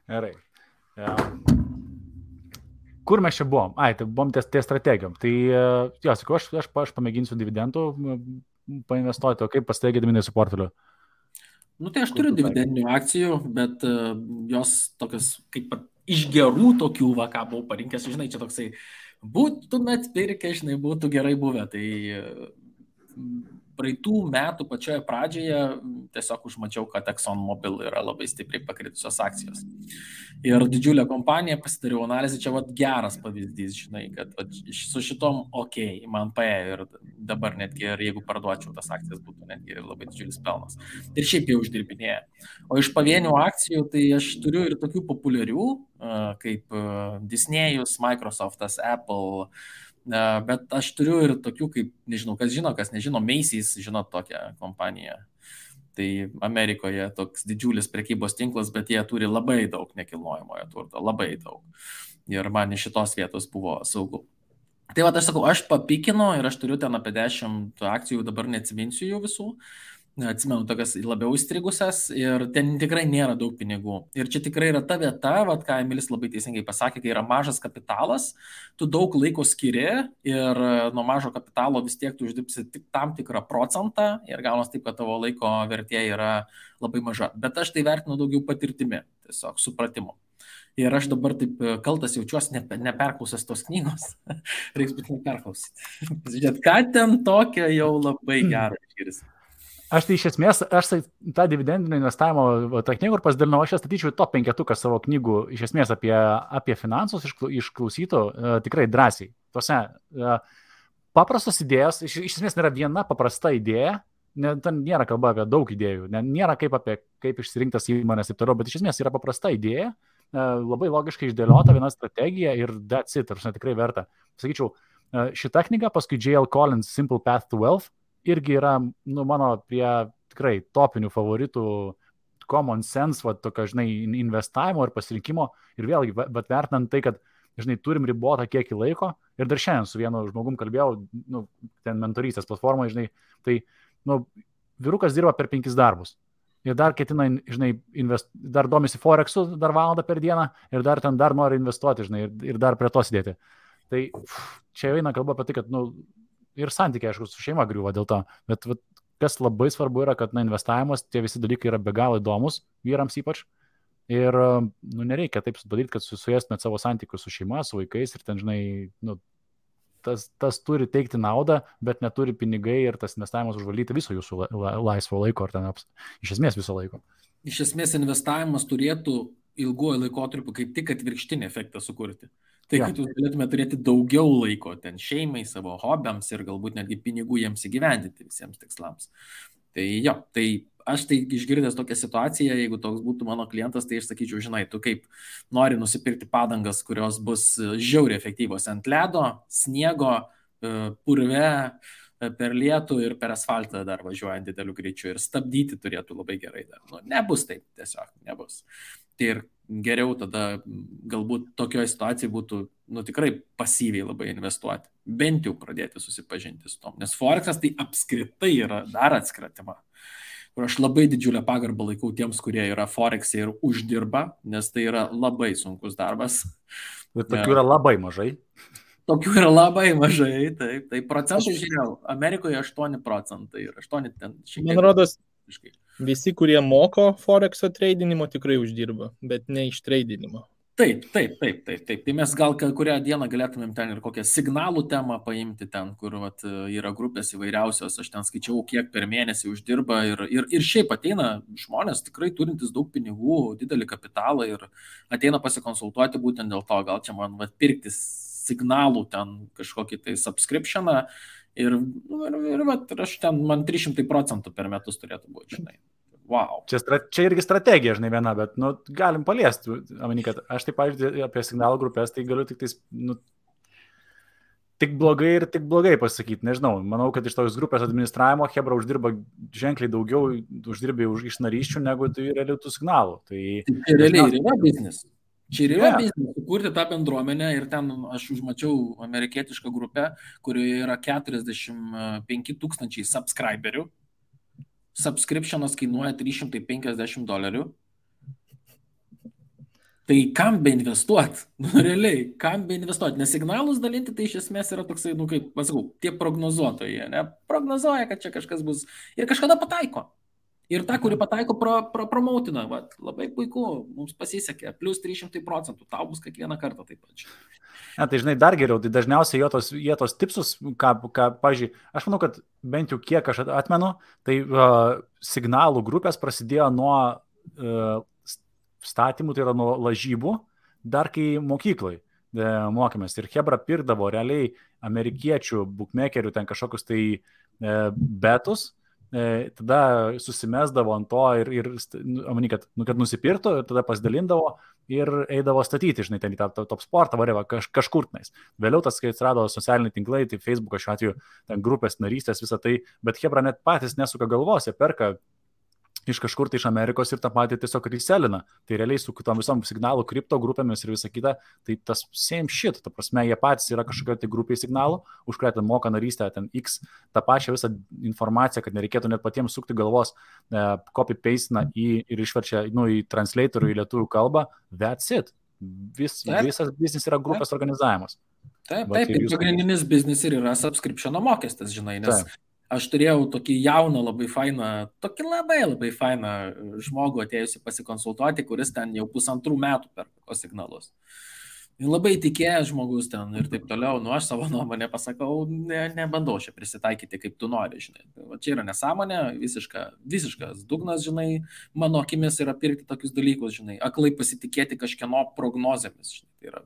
gerai. Kur mes čia buvom? Tai buvom ties strategijom. Tai, sakau, aš pamėginsiu dividendų painvestuoti, o kaip pas tai Gediminai su portfeliu? Tai aš turiu dividendinių akcijų, bet jos tokios kaip iš gerų tokių, ką buvau parinkęs, žinai, čia toksai, būtumėt pirkę, žinai, būtų gerai buvę. Tai praeitų metų pačioje pradžioje tiesiog užmačiau, kad ExxonMobil yra labai stipriai pakritusios akcijos. Ir didžiulė kompanija, pasidariau analizę, čia geras pavyzdys, žinai, kad su šitom man paėjo ir dabar netgi, jeigu parduočiau tas akcijas, būtų netgi labai didžiulis pelnas. Ir šiaip jau uždirbinėja. O iš pavienių akcijų, tai aš turiu ir tokių populiarių, kaip Disney'us, Microsoft'as, Apple, Bet aš turiu ir tokių, kaip, nežinau, kas žino, kas nežino, Macy's, žinot tokią kompaniją. Tai Amerikoje toks didžiulis prekybos tinklas, bet jie turi labai daug nekilnojamojo turto, labai daug. Ir man iš šitos vietos buvo saugu. Tai va, aš sakau, aš papikinu ir aš turiu ten apie 10 akcijų, dabar neatsiminsiu jų visų. Atsimenu, tokias labiau įstrigusias ir ten tikrai nėra daug pinigų. Ir čia tikrai yra ta vieta, vat, ką Emilis labai teisingai pasakė, kai yra mažas kapitalas, tu daug laiko skiri ir nuo mažo kapitalo vis tiek tu uždirbsi tik tam tikrą procentą ir gaunas taip, kad tavo laiko vertė yra labai maža. Bet aš tai vertinu daugiau patirtimi, tiesiog supratimu. Ir aš dabar taip kaltas jaučiuosi neperklausęs tos knygos. Reiks būti neperklausyti. Žiūrėt, ką ten tokio jau labai gero išgirsti. Aš tai iš esmės, aš tą dividendinio investavimo tą knygų ir pasidalinau, aš statyčiau top 5 savo knygų iš esmės apie finansus išklausytų tikrai drąsiai. Tose paprastos idėjos, iš esmės nėra viena paprasta idėja, ten nėra kalba apie daug idėjų, nėra kaip išsirinktas įmonės ir toliau, bet iš esmės yra paprasta idėja, labai logiškai išdėliota viena strategija ir that's it, tikrai verta. Sakyčiau, šita knyga, paskui J.L. Collins Simple Path to Wealth, irgi yra, mano prie tikrai topinių favoritų common sense, tokio, investavimo ir pasirinkimo. Ir vėlgi, bet vertinant tai, kad, turim ribotą kiekį laiko. Ir dar šiandien su vienu žmogum kalbėjau, ten mentorystės platformai, tai, vyrukas dirba per 5 darbus. Ir dar ketina, dar domisi Forexu, dar valandą per dieną ir dar nori investuoti, ir dar prie to sėdėti. Tai čia eina kalba apie tai, kad, ir santykiai, aišku, su šeima griūva dėl to, bet kas labai svarbu yra, kad investavimas, tie visi dalykai yra be galo įdomus, vyrams ypač, ir nereikia taip padaryti, kad suėstumėt savo santykius su šeima, su vaikais ir ten, tas turi teikti naudą, bet neturi pinigai ir tas investavimas užvaldyti viso jūsų laisvo laiko, ar ten iš esmės viso laiko. Iš esmės investavimas turėtų ilguoju laikotarpiu kaip tik atvirkštinį efektą sukurti. Tai, kad jūs galėtume turėti daugiau laiko ten šeimai, savo hobiams ir galbūt netgi pinigų jiems įgyvendinti visiems tikslams. Tai tai aš tai išgirdęs tokią situaciją, jeigu toks būtų mano klientas, tai aš sakyčiau, tu kaip nori nusipirkti padangas, kurios bus žiauriai efektyvos ant ledo, sniego, purve, per lietų ir per asfaltą dar važiuojant dideliu greičiu ir stabdyti turėtų labai gerai dar. Nebus taip, tiesiog nebus. Tai ir geriau tada galbūt tokioje situacijoje būtų tikrai pasyviai labai investuoti, bent jau pradėti susipažinti su tom, nes Forexas tai apskritai yra dar atskira tema. Ir aš labai didžiulę pagarbą laikau tiems, kurie yra Forex'e ir uždirba, nes tai yra labai sunkus darbas. Ir tokių yra labai mažai. Tokių yra labai mažai, taip. Tai procentų žiūrėjau, Amerikoje 8% ir 8 ten šiek tiek. Man rodos, visi, kurie moko Forex'o treidinimo, tikrai uždirba, bet ne iš treidinimo. Taip. Tai mes gal kurią dieną galėtumėm ten ir kokią signalų temą paimti ten, kur yra grupės įvairiausios, aš ten skaičiau, kiek per mėnesį uždirba ir šiaip ateina žmonės tikrai turintis daug pinigų, didelį kapitalą ir ateina pasikonsultuoti būtent dėl to, gal čia man pirkti signalų ten kažkokį tai subscriptioną ir aš ten, man 300% per metus turėtų būti, Wow. Čia irgi strategija, viena, bet galim paliesti. Kad aš taip, pavyzdžiui, apie signalų grupės, tai galiu tik tik blogai pasakyti, nežinau. Manau, kad iš tos grupės administravimo Hebra uždirba ženkliai daugiau iš narysčių, negu tai realių tų signalų. Tai realiai yra biznis. Čia ir yra biznis, sukurti tą bendruomenę ir ten aš užmačiau amerikietišką grupę, kurioje yra 45,000 subscriberių. Subscriptionas kainuoja $350. Tai kam be investuoti? Realiai, kam be investuoti? Nes signalus dalinti tai iš esmės yra toksai, kaip pasakau, tie prognozuotojai, prognozuoja, kad čia kažkas bus ir kažkada pataiko. Ir ta, kuri pataiko, promautina. Labai puiku, mums pasisekė, plus 300%, tau bus kiekvieną kartą taip pat. Tai dar geriau, tai dažniausiai jie tos tipsus, pavyzdžiui, aš manau, kad bent jau kiek aš atmenu, tai signalų grupės prasidėjo nuo statymų, tai yra nuo lažybų, dar kai mokyklai mokėmės. Ir Hebra pirkdavo realiai amerikiečių bookmakerių ten kažkokius tai betus, tada susimesdavo ant to ir kad nusipirktų ir tada pasidalindavo ir eidavo statyti, žinai, ten į tą top sportą, varėva kažkur tenais. Vėliau tas, kai atsirado socialiniai tinklai, tai Facebook'o šiuo atveju, ten grupės narystės, visą tai, bet hebra net patys nesuka galvos, jie perka iš kažkur tai iš Amerikos ir tą patį tiesiog reselina. Tai realiai su kitom visom signalų, kripto grupėmis ir visa kita, tai tas same shit, ta prasme, jie patys yra kažkokia tai grupiai signalų, už kurią ten moka narystę, ten X, tą pačią visą informaciją, kad nereikėtų net patiems sukti galvos, copy-paste ir išverčia į translatorių į lietuvių kalbą, that's it. Visas biznis yra grupės organizavimas. Taip, ir pagrindinis biznis ir yra subscription mokestis, žinai, nes aš turėjau tokį jauną, labai fainą žmogų atėjusi pasikonsultuoti, kuris ten jau 1,5 metų per signalus. Labai tikėjęs žmogus ten ir taip toliau, aš savo nuomonę pasakau, nebandau čia prisitaikyti, kaip tu nori, žinai. Čia yra nesąmonė, visiškas dugnas, žinai, mano akimis yra pirkti tokius dalykus, žinai, aklai pasitikėti kažkieno prognozėmis, žinai. Tai yra.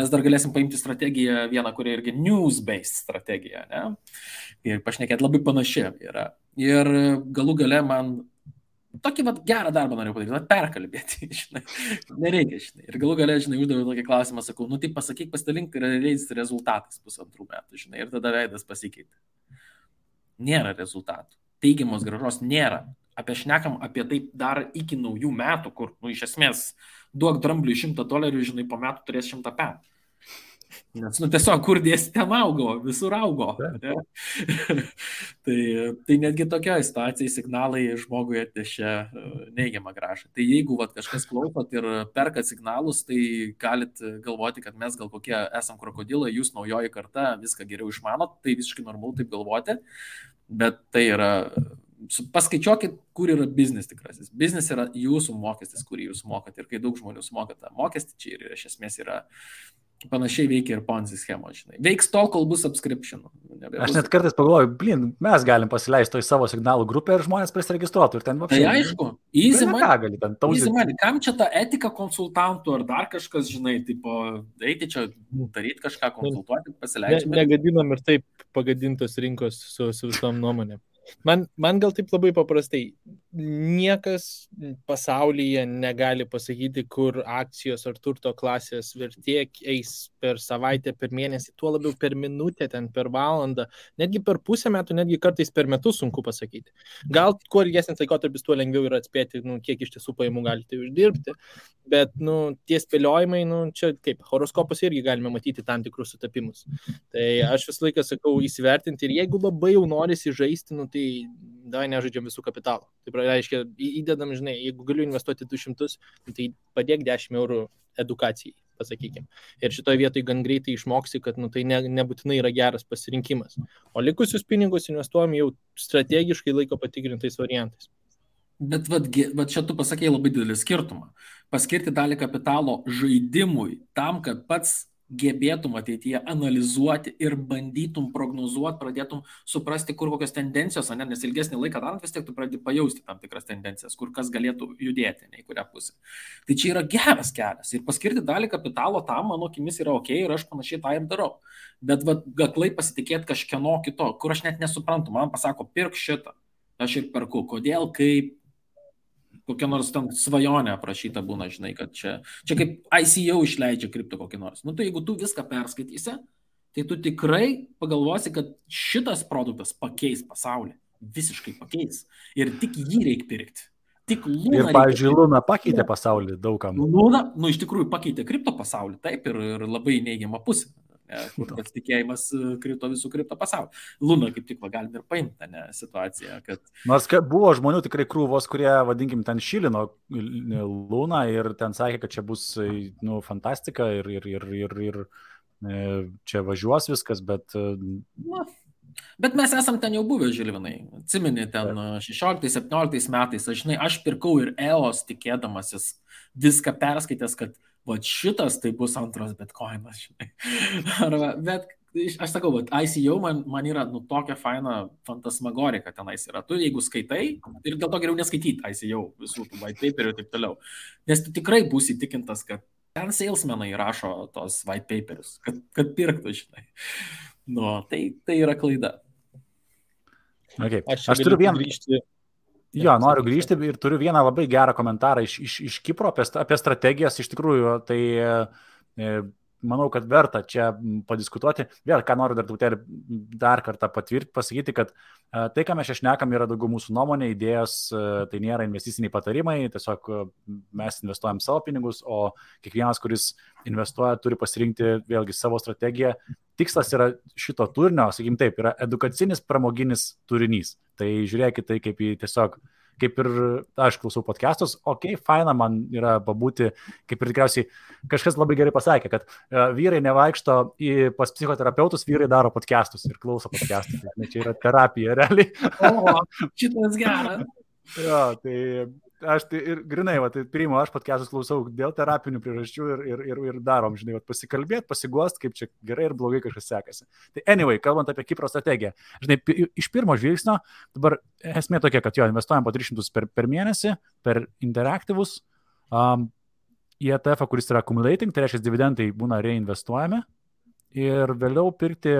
Mes dar galėsim paimti strategiją vieną, kuri irgi news-based strategija, ne? Ir pašnekėti labai panašiai yra. Ir galų gale man tokį gerą darbą noriu padaryti, perkalbėti, žinai, nereikia, žinai. Ir galų gale, žinai, uždaviau tokį klausimą, sakau, tai pasakyk, pasidalink realiais rezultatais 1,5 metų, žinai, ir tada veidas pasikeitė. Nėra rezultatų. Teigiamos grąžos nėra. Šnekam apie tai dar iki naujų metų, kur, iš esmės, duok drambliui $100, žinai, po metų turės 100 pem. Nes, tiesiog, kur dėsi ten augo, visur augo. Tai netgi tokioje situacijoje signalai žmogui atnešė neigiamą grąžą. Tai jeigu kažkas klausot ir perkat signalus, tai galit galvoti, kad mes gal kokie esam krokodilai, jūs naujoji karta viską geriau išmanot, tai visiškai normalu taip galvoti, bet tai yra... Paskaičiuokit, kur yra biznis tikrasis. Biznis yra jūsų mokestis, kurį jūs mokat. Ir kai daug žmonių sumoka tą mokestį, čia ir iš esmės yra panašiai veikia ir Ponzi schemo, žinai. Veiks tol, kol bus subscription. Aš net kartais pagalvoju, mes galim pasileisti to į savo signalų grupę ir žmonės prisiregistruotų. Ir ten tai aišku, easy money. Kam čia ta etika konsultantų ar dar kažkas, žinai, tipo, eiti čia, daryti kažką, konsultuoti, pasileidžiame. Negadinam ir taip pagadintos rinkos su visom nuomonėm. Man gal taip labai paprastai, niekas pasaulyje negali pasakyti, kur akcijos ar turto klasės vertė eis per savaitę, per mėnesį, tuo labiau per minutę, ten per valandą, netgi per pusę metų, netgi kartais per metus sunku pasakyti. Gal kuo ilgesnis laikotarpis, tuo lengviau yra atspėti, kiek iš tiesų pajamų galite uždirbti, bet tie spėliojimai, čia kaip, horoskopus irgi galime matyti tam tikrus sutapimus. Tai aš visą laiką sakau įsivertinti ir jeigu labai jau norisi žaisti, tai davai nežaidžiam visų kapitalų. Tai reiškia, įdedam, žinai, jeigu galiu investuoti 200, tai padėk 10 eurų edukacijai, pasakykime. Ir šitoje vietoje gan greitai išmoksi, kad tai nebūtinai yra geras pasirinkimas. O likusius pinigus investuojam jau strategiškai laiko patikrintais variantais. Bet čia tu pasakėjai labai didelį skirtumą. Paskirti dalį kapitalo žaidimui tam, kad pats gebėtum ateityje analizuoti ir bandytum prognozuoti, pradėtum suprasti, kur kokios tendencijos, nes ilgesnį laiką darant vis tiek tu pradedi pajausti tam tikras tendencijas, kur kas galėtų judėti, į kurią pusę. Tai čia yra geras kelias ir paskirti dalį kapitalo tam, mano akimis, yra ok ir aš panašiai tą ir darau. Bet aklai pasitikėti kažkieno kito, kur aš net nesuprantu, man pasako, pirk šitą, aš ir perku, kodėl, kaip, kokia nors ten svajonė aprašyta būna, žinai, kad čia kaip ICO išleidžia kripto kokį nors. Tai jeigu tu viską perskaitysi, tai tu tikrai pagalvosi, kad šitas produktas pakeis pasaulį. Visiškai pakeis. Ir tik jį reikia pirkti. Tik Luna. Ir, pavyzdžiui, Luna pakeitė pasaulį daugam. Luna, iš tikrųjų pakeitė kripto pasaulį, taip, ir labai neigiamą pusę. Kur pasitikėjimas krito visų kripto pasaulį. Luna kaip tik galim ir paimti situaciją, kad... Nors buvo žmonių tikrai krūvos, kurie, vadinkim, ten šilino Luna ir ten sakė, kad čia bus fantastika ir čia važiuos viskas, bet... Bet mes esam ten jau buvę, Žilvinai. Atsimeni, ten 16-17 metais, aš pirkau ir EOS tikėdamasis viską perskaitęs, kad šitas tai bus antras bitcoinas, žinai. Bet aš sakau, ICO man yra tokia faina fantasmagorika tenais yra. Tu jeigu skaitai, ir dėl to geriau neskaityti ICO visų tų white paperių ir taip toliau. Nes tu tikrai būsi įtikintas, kad ten salesmenai rašo tos white paperius, kad pirktų, žinai. Tai yra klaida. Okay. Aš turiu vieną grįžti. Jo, noriu grįžti ir turiu vieną labai gerą komentarą iš Kipro apie strategijas. Iš tikrųjų, tai manau, kad verta čia padiskutuoti. Vėl, ką noriu dar kartą pasakyti, kad tai, ką mes čia šnekam, yra daugiau mūsų nuomonė, idėjos, tai nėra investiciniai patarimai, tiesiog mes investuojam savo pinigus, o kiekvienas, kuris investuoja, turi pasirinkti vėlgi savo strategiją. Tikslas yra šito turinio, sakykim taip, yra edukacinis, pramoginis turinys. Tai žiūrėkit tai kaip į tiesiog, kaip ir aš klausau podcastus, faina man yra pabūti, kaip ir tikriausiai kažkas labai gerai pasakė, kad vyrai nevaikšto pas psichoterapeutus, vyrai daro podcastus ir klauso podcastus. Čia yra terapija, realiai. O, šitas geras. Jo, tai aš tai ir grinai, tai priimu, aš podcastus klausau dėl terapinių priežasčių ir darom, žinai, pasikalbėti, pasiguost, kaip čia gerai ir blogai kažkas sekasi. Tai anyway, kalbant apie Kipro strategiją, žinai, iš pirmo žvilgsnio, dabar esmė tokia, kad jo, investuojam po 300 per mėnesį, per interaktyvus, į ETF, kuris yra accumulating, tai reiškia dividendai būna reinvestuojami ir vėliau pirkti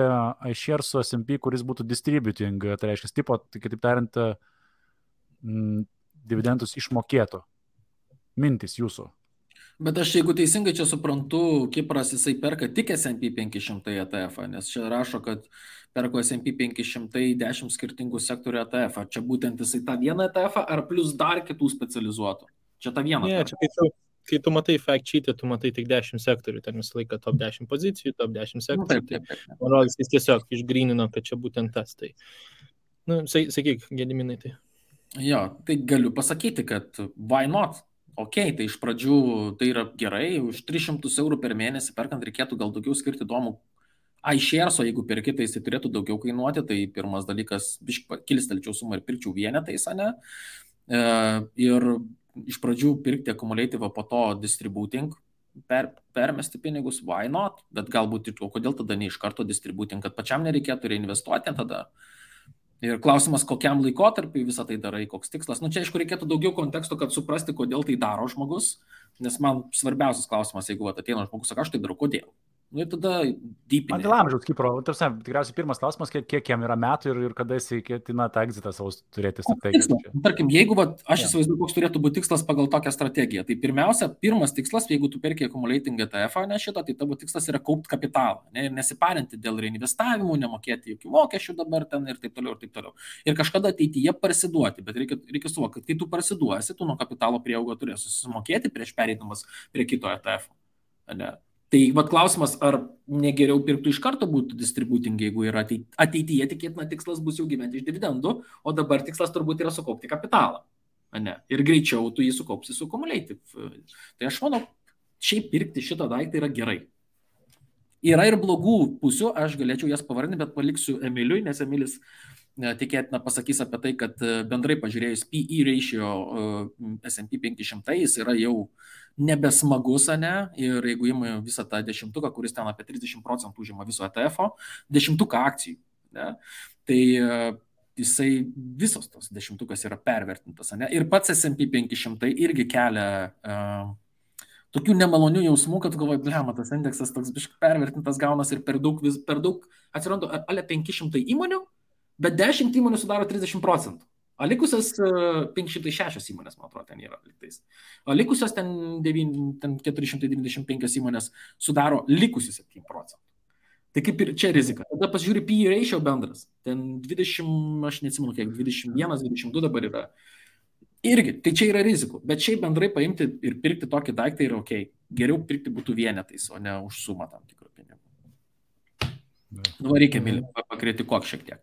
iShares su S&P, kuris būtų distributing, tai reiškia tipo, tai kitaip tariant, dividendus išmokėtų. Mintis jūsų. Bet aš, jeigu teisingai čia suprantu, Kipras jisai perka tik S&P 500 ETF, nes čia rašo, kad perko S&P 510 skirtingų sektorių ETF. Ar čia būtent jisai tą vieną ETF, ar plus dar kitų specializuotų? Čia tą vieną. Ne, čia kai tu matai fact sheet'e, tu matai tik 10 sektorių, ten visą laiką top 10 pozicijų, top 10 sektorių. Taip. Man rodos, jis tiesiog išgrynino, kad čia būtent tas. Tai, sakyk, Gediminai, tai. Jo, tai galiu pasakyti, kad why not? Tai iš pradžių tai yra gerai, už 300 eurų per mėnesį perkant reikėtų gal daugiau skirti įdomų iShares, o jeigu perki, tai jis turėtų daugiau kainuoti, tai pirmas dalykas, kilstelčiau sumą ir pirkčiau vienetais, ne? Ir iš pradžių pirkti accumulative, po to distributing, permesti pinigus, why not? Bet galbūt, kodėl tada ne iš karto distributing, kad pačiam nereikėtų reinvestuoti tada. Ir klausimas, kokiam laikotarpiui visą tai darai, koks tikslas. Čia, aišku, reikėtų daugiau konteksto, kad suprasti, kodėl tai daro žmogus, nes man svarbiausias klausimas, jeigu ateina žmogus, sako, aš tai darau, kodėl. Ir tada dypinė. Dėl amžiaus, Kipro, tikriausiai pirmas klausimas, kiek jam yra metų ir kada jis ketina tą egzitą savo turėti strategiją. Tarkim, jeigu aš įsivaizduoju, koks turėtų būti tikslas pagal tokią strategiją, tai pirmiausia, pirmas tikslas, jeigu tu perki accumulating ETF, ne šitą, tai tavo tikslas yra kaupti kapitalą, ne, ir nesiparinti dėl reinvestavimų, nemokėti jokių mokesčių dabar ten ir taip toliau, ir taip toliau. Ir kažkada ateityje parsiduoti, bet reikia suvokti, kad kai tu parsiduosi, tu nuo kapitalo prieaugo turėsi susimokėti prieš pereidamas prie kito ETF. Ne? Tai klausimas, ar negeriau pirktų iš karto būtų distributing, jeigu yra ateityje tikėtina tikslas bus jau gyventi iš dividendų, o dabar tikslas turbūt yra sukaupti kapitalą. Ne? Ir greičiau tu jį sukaupsi su accumulative. Tai aš manau, šiaip pirkti šitą daiktą yra gerai. Yra ir blogų pusių, aš galėčiau jas pavardinti, bet paliksiu Emiliui, nes Emilis tikėtina pasakys apie tai, kad bendrai pažiūrėjus PE ratio S&P 500, jis yra jau nebesmagus, ne? Ir jeigu ima visą tą dešimtuką, kuris ten apie 30% užima viso ETF-o, dešimtuką akcijų, ne? Tai jisai visos tos dešimtukas yra pervertintas, ne? Ir pats S&P 500 irgi kelia tokių nemalonių jausmų, kad galvoju, blema, tas indeksas toks biškai pervertintas gaunas ir per daug atsiranda ale 500 įmonių, bet 10 įmonių sudaro 30%. O likusios 506 įmonės, man atrodo, ten yra liktais. O likusios ten 495 įmonės sudaro likusius 7%. Tai kaip ir čia rizika. Tada pasižiūri PE ratio bendras. Ten 20, aš neatsimenu kiek, 21, 22 dabar yra. Irgi, tai čia yra rizikų. Bet šiaip bendrai paimti ir pirkti tokį daiktą yra ok. Geriau pirkti būtų vienetais, o ne už sumą tam tikrų pinigų. Reikia pakritikuok šiek tiek.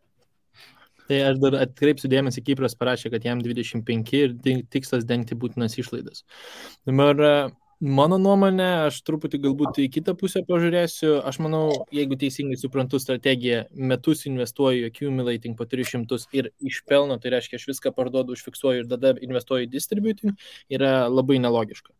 Tai aš dar atkreipsiu dėmesį, Kipras parašė, kad jam 25 ir tikslas dengti būtinas išlaidas. Dabar mano nuomonė, aš truputį galbūt į kitą pusę pažiūrėsiu. Aš manau, jeigu teisingai suprantu strategiją, metus investuoju accumulating po 300 ir iš pelno, tai reiškia, aš viską parduodu, užfiksuoju ir tada investuoju į distributing, yra labai nelogiška.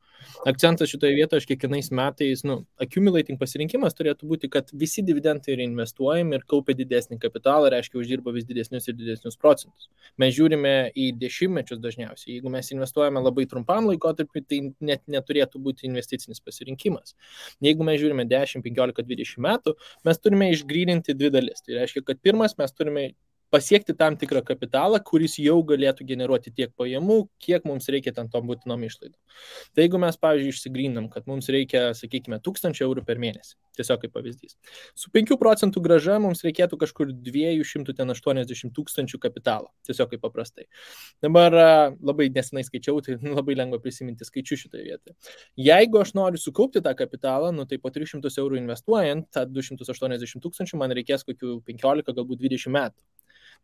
Akcentas šitoje vietoje, aš kiekvienais metais, accumulating pasirinkimas turėtų būti, kad visi dividendai yra investuojami ir kaupia didesnį kapitalą, reiškia, uždirba vis didesnius ir didesnius procentus. Mes žiūrime į dešimtmečius dažniausiai. Jeigu mes investuojame labai trumpam laikotarpiu, tai net neturėtų būti investicinis pasirinkimas. Jeigu mes žiūrime 10, 15, 20 metų, mes turime išgryninti dvi dalis. Tai reiškia, kad pirmas mes turime pasiekti tam tikrą kapitalą, kuris jau galėtų generuoti tiek pajamų, kiek mums reikia ten tom būtinom išlaidom. Tai jeigu mes, pavyzdžiui, išsigrindam, kad mums reikia, sakykime, 1000 eurų per mėnesį, tiesiog kaip pavyzdys. Su 5% grąža mums reikėtų kažkur 280 tūkstančių kapitalo, tiesiog kaip paprastai. Dabar labai nesenai skaičiau, tai labai lengva prisiminti skaičių šitoje vietoje. Jeigu aš noriu sukaupti tą kapitalą, tai po 300 eurų investuojant, tą 280 tūkstančių man reikės kokių 15, galbūt 20 metų.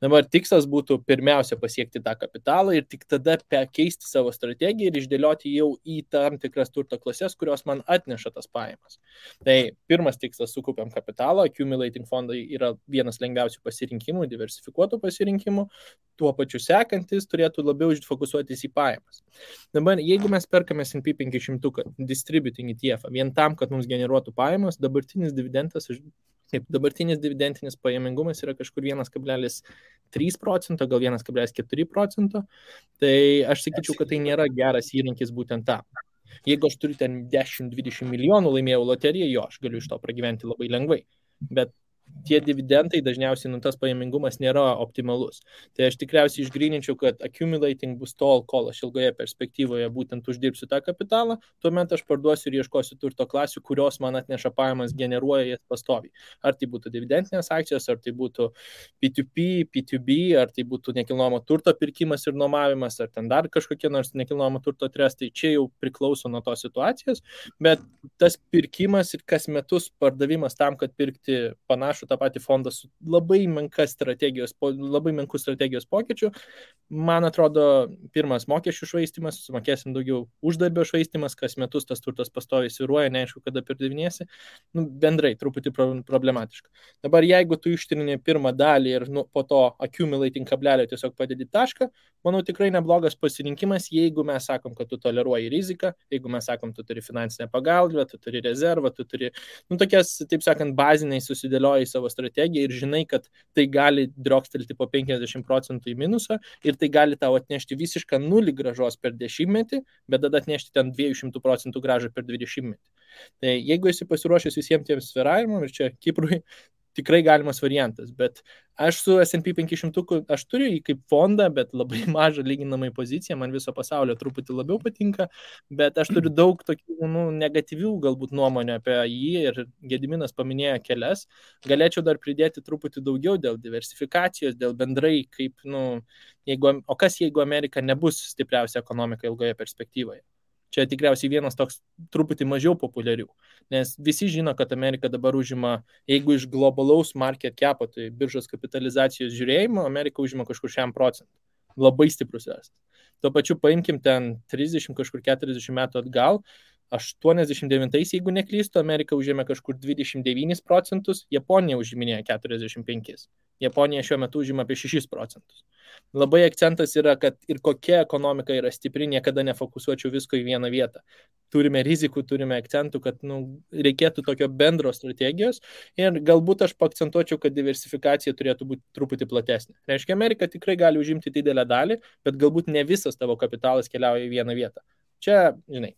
Dabar tikslas būtų pirmiausia pasiekti tą kapitalą ir tik tada keisti savo strategiją ir išdėlioti jau į tam tikras turto klases, kurios man atneša tas pajamas. Tai pirmas tikslas - sukaupiam kapitalą, accumulating fondai yra vienas lengviausių pasirinkimų, diversifikuotų pasirinkimų, tuo pačiu sekantis turėtų labiau fokusuotis į pajamas. Dabar, jeigu mes perkame S&P 500 distributing ETF vien tam, kad mums generuotų pajamas, dabartinis dividentinis pajamingumas yra kažkur 1,3%, gal 1,4%, tai aš sakyčiau, kad tai nėra geras įrankis būtent tam. Jeigu aš turiu ten 10-20 milijonų laimėjau loteriją, jo, aš galiu iš to pragyventi labai lengvai, bet tie dividendai dažniausiai tas pajamingumas nėra optimalus. Tai aš tikriausiai išgryninčiau, kad accumulating bus tol, kol aš ilgoje perspektyvoje būtent uždirbsiu tą kapitalą, tuomet aš parduosiu ir ieškosiu turto klasių, kurios man atneša pajamas, generuoja jas pastoviai. Ar tai būtų dividendinės akcijos, ar tai būtų P2P, P2B, ar tai būtų nekilnojamo turto pirkimas ir nuomavimas, ar ten dar kažkokie nors nekilnojamo turto trestai, čia jau priklauso nuo tos situacijos, bet tas pirkimas ir kas metus pardavimas tam, kad pirkti panašų tą patį fondą su labai menkų strategijos pokyčių, man atrodo, pirmas mokesčių švaistimas, sumokėsim daugiau uždarbio švaistimas, kas metus tas turtas pastoviai svyruoja, neaišku, kada pardavinėsi, bendrai truputį problematiška. Dabar jeigu tu ištrini pirmą dalį ir po to accumulating kablelio tiesiog padedi tašką, manau, tikrai neblogas pasirinkimas, jeigu mes sakom, kad tu toleruoji riziką, jeigu mes sakom, tu turi finansinę pagalbą, tu turi rezervą, tu turi, tokias, taip sakant, baziniai susidėlioji savo strategiją ir žinai, kad tai gali driokstelti po 50% į minusą ir tai gali tau atnešti visišką nulį grąžos per 10-metį, bet tada atnešti ten 200% grąžą per 20-metį. Tai jeigu esi pasiruošęs visiems tiems svyravimams, ir čia Kiprui tikrai galimas variantas, bet aš su S&P 500, aš turiu jį kaip fondą, bet labai mažą lyginamai poziciją, man viso pasaulio truputį labiau patinka, bet aš turiu daug tokių negatyvių galbūt nuomonių apie jį ir Gediminas paminėjo kelias, galėčiau dar pridėti truputį daugiau dėl diversifikacijos, dėl bendrai kaip, o kas jeigu Amerika nebus stipriausia ekonomika ilgoje perspektyvoje? Čia tikriausiai vienas toks truputį mažiau populiarių, nes visi žino, kad Amerika dabar užima, jeigu iš globalaus market capo, tai biržos kapitalizacijos žiūrėjimo, Amerika užima kažkur 100%. Labai stiprus esas. Tuo pačiu paimkim ten 30, kažkur 40 metų atgal, 89, jeigu neklystu, Amerika užėmė kažkur 29%, Japonija užiminėjo 45%. Japonija šiuo metu užima apie 6%. Labai akcentas yra, kad ir kokia ekonomika yra stipri, niekada nefokusuočiau visko į vieną vietą. Turime rizikų, turime akcentų, kad reikėtų tokio bendro strategijos ir galbūt aš paakcentuočiau, kad diversifikacija turėtų būti truputį platesnė. Reiškia, Amerika tikrai gali užimti didelę dalį, bet galbūt ne visas tavo kapitalas keliauja į vieną vietą. Čia,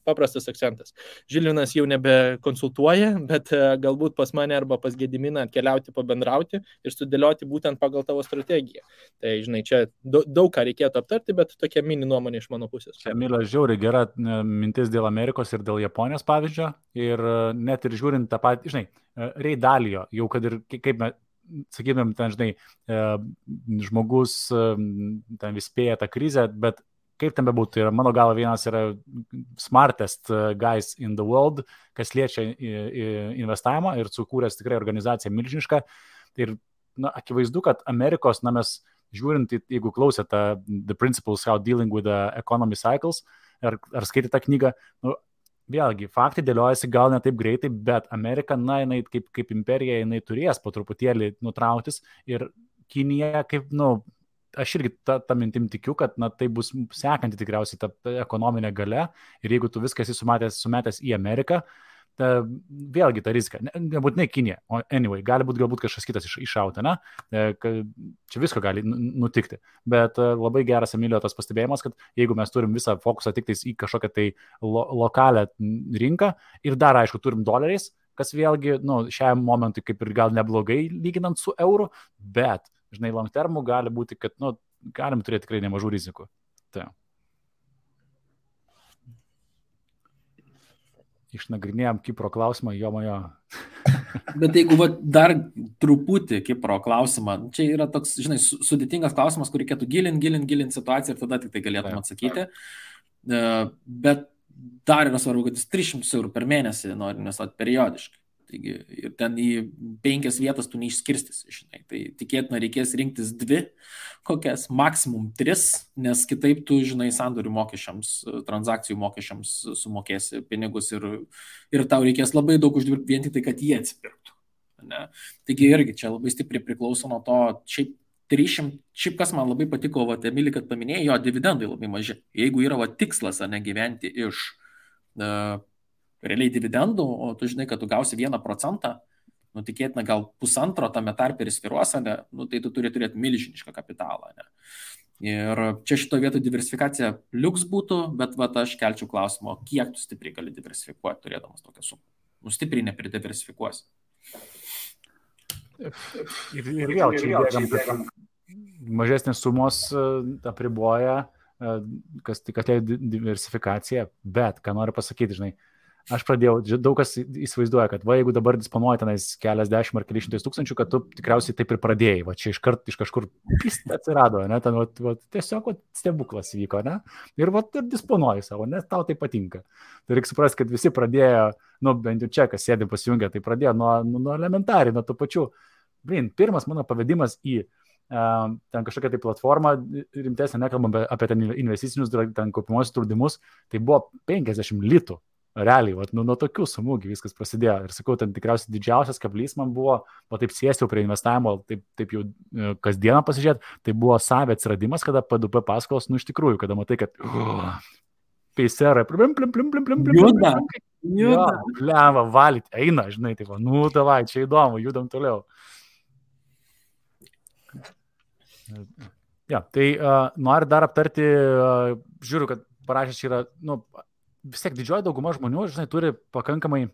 paprastas akcentas. Žilvinas jau nebekonsultuoja, bet galbūt pas mane arba pas Gediminą atkeliauti, pabendrauti ir sudėlioti būtent pagal tavo strategiją. Tai, čia daug ką reikėtų aptarti, bet tokia mini nuomonė iš mano pusės. Čia, Emilio, žiauriai gera mintis dėl Amerikos ir dėl Japonijos pavyzdžio. Ir net ir žiūrint tą patį, Ray Dalio, jau kad ir kaip mes, sakytumėm, ten, žmogus ten vis spėja tą krizę, bet kaip ten bebūtų, ir mano galva vienas yra smartest guys in the world, kas liečia investavimą ir sukūręs tikrai organizaciją milžinišką. Ir akivaizdu, kad Amerikos, mes žiūrint, jeigu klausėte The Principles How Dealing with the Economy Cycles, ar skaitėte tą knygą, vėlgi, faktai dėliojasi gal ne taip greitai, bet Amerika, jinai kaip imperija, jinai turės po truputėlį nutrauktis ir Kinija kaip, aš irgi tą mintim tikiu, kad tai bus sekanti tikriausiai ta ekonominė galia ir jeigu tu viską esi sumetęs į Ameriką, vėlgi ta rizika, nebūtinai Kinija, o anyway, gali būti galbūt kažkas kitas iššauta, čia visko gali nutikti, bet labai geras Emilio tas pastebėjimas, kad jeigu mes turim visą fokusą tik tais į kažkokią tai lokalią rinką ir dar, aišku, turim doleriais, kas vėlgi, šiam momentui kaip ir gal neblogai lyginant su euru, bet žinai, long termų gali būti, kad, nu, galim turėti tikrai nemažų rizikų. Tai. Išnagrinėjom Kipro klausimą, jo majo. Bet jeigu dar truputį Kipro klausimą, čia yra toks, žinai, sudėtingas klausimas, kur reikėtų gilint situaciją ir tada tik tai galėtum atsakyti. Bet dar yra svarbu, kad jis 300 eurų per mėnesį nori investuoti periodiškai. Taigi, ir ten į 5 vietas tu neišskirstysi, žinai. Tai tikėtina reikės rinktis 2, kokias, maksimum 3, nes kitaip tu, žinai, sandorių mokesčiams, transakcijų mokesčiams sumokėsi pinigus ir tau reikės labai daug uždirbti vien tik tai, kad jie atsipirktų. Ne? Taigi irgi čia labai stipriai priklauso nuo to, šiaip kas man labai patiko, Emilį, kad paminėjo, jo dividendai labai maži. Jeigu yra tikslas, ne gyventi iš realiai dividendų, o tu žinai, kad tu gausi 1%, nu tikėtina gal 1,5 tame tarpe ir sviruos, ne, nu tai tu turi turėti milžinišką kapitalą. Ne. Ir čia šito vietoj diversifikacija liuks būtų, bet aš kelčiau klausimą, kiek tu stipriai gali diversifikuoti, turėdamas tokią sumą. Nu stipriai nepridiversifikuosi. Ir vėl čia mažesnės sumos apriboja, kas tai diversifikacija, bet ką noriu pasakyti, žinai, aš pradėjau, daug kas įsivaizduoja, kad jeigu dabar disponuoji tenais keliasdešimt ar kelišimtais tūkstančių, kad tu tikriausiai taip ir pradėjai, čia iš kažkur atsirado, ne, ten tiesiog stebuklas vyko, ne, ir ir disponuoji savo, nes tau tai patinka. Tai reikia suprasti, kad visi pradėjo, nu bent jau čia, kas sėdi pasijungia, tai pradėjo nuo elementariai, nuo tų pačių. Pirmas mano pavedimas į ten kažkokią tai platformą rimtesnę, nekalbam apie ten investicinius, ten kaupimuosius draudimus, tai buvo 50 litų. Realiai, nuo tokių sumų viskas prasidėjo. Ir sakau, ten tikriausiai didžiausias kablys man buvo, taip sėsti jau prie investavimo, taip jau kasdieną pasižiūrėti, tai buvo savė atsiradimas, kada P2P paskolos, nu iš tikrųjų, kada matai, kad peiserai, Juda, valyti, eina, žinai, tai nu davai, čia įdomu, judam toliau. Ja, tai noriu dar aptarti, žiūriu, kad parašęs čia yra, nu, vis tiek didžioji dauguma žmonių, žinai, turi pakankamai,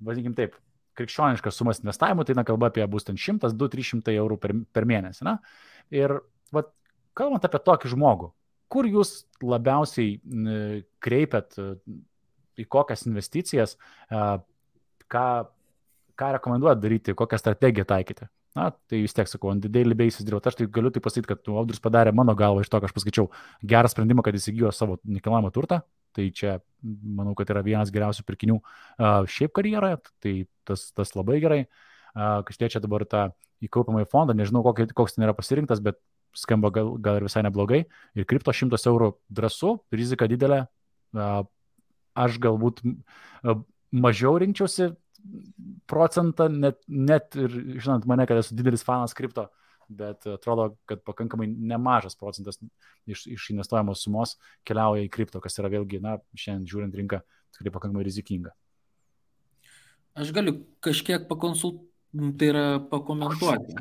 vadinkim taip, krikščioniškas sumas investavimų, tai kalba apie bus ten 100, 200, 300 eurų per mėnesį. Na? Ir kalbant apie tokį žmogų, kur jūs labiausiai kreipiat, į kokias investicijas, ką rekomenduojat daryti, kokią strategiją taikyti? Na, tai vis tiek sakau, on the daily basis dirbti. Aš tai galiu tai pasakyti, kad Audrius padarė mano galvą iš to, kad aš paskaičiau gerą sprendimą, kad įsigijo savo nekilnojamą turtą. Tai čia, manau, kad yra vienas geriausių pirkinių šiaip karjeroje, tai tas labai gerai. Kas liečia dabar tą įkaupamąjį fondą, nežinau, koks ten yra pasirinktas, bet skamba gal ir visai neblogai. Ir kripto 100 eurų drąsu, rizika didelė. Aš galbūt mažiau rinkčiausi procentą, net ir žinant mane, kad esu didelis fanas kripto, bet atrodo, kad pakankamai nemažas procentas iš investuojamos sumos keliauja į kripto, kas yra vėlgi, na, šiandien žiūrint rinką, tikrai pakankamai rizikinga. Aš galiu kažkiek pakomentuoti.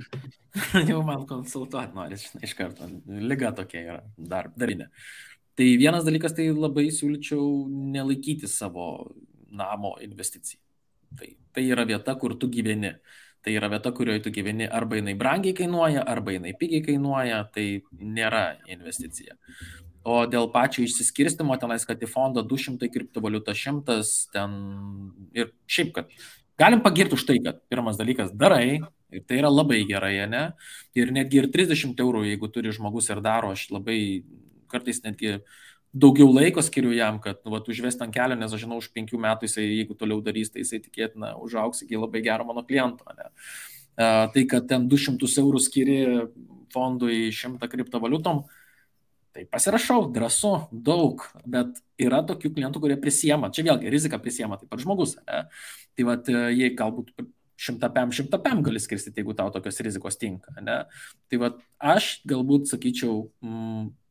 Jau man konsultuoti nori, iš karto. Liga tokia yra, darinė. Tai vienas dalykas, tai labai siūlyčiau nelaikyti savo namo investicijai. Tai yra vieta, kur tu gyveni. Tai yra vieta, kurioje tu gyveni, arba jinai brangiai kainuoja, arba jinai pigiai kainuoja, tai nėra investicija. O dėl pačio išsiskirstimo, tenais, kad į fondą 200 kriptovaliuta 100, ten ir šiaip, kad galim pagirti už tai, kad pirmas dalykas darai, ir tai yra labai gerai, ne? Ir netgi ir 30 eurų, jeigu turi žmogus ir daro, aš labai kartais netgi daugiau laiko skiriu jam, kad užvesti ant kelio, nes aš žinau, už 5 metų jisai, jeigu toliau darys, tai jisai tikėtina užaugs iki labai gero mano kliento. Ne? Tai, kad ten 200 eurų skiri fondui 100 kriptovaliutom, tai pasirašau, drąsu, daug, bet yra tokių klientų, kurie prisiema, čia vėlgi rizika prisiema, taip pat žmogus. Ne? Tai jie galbūt 100 gali skirstyti, jeigu tau tokios rizikos tinka. Ne? Tai aš galbūt sakyčiau,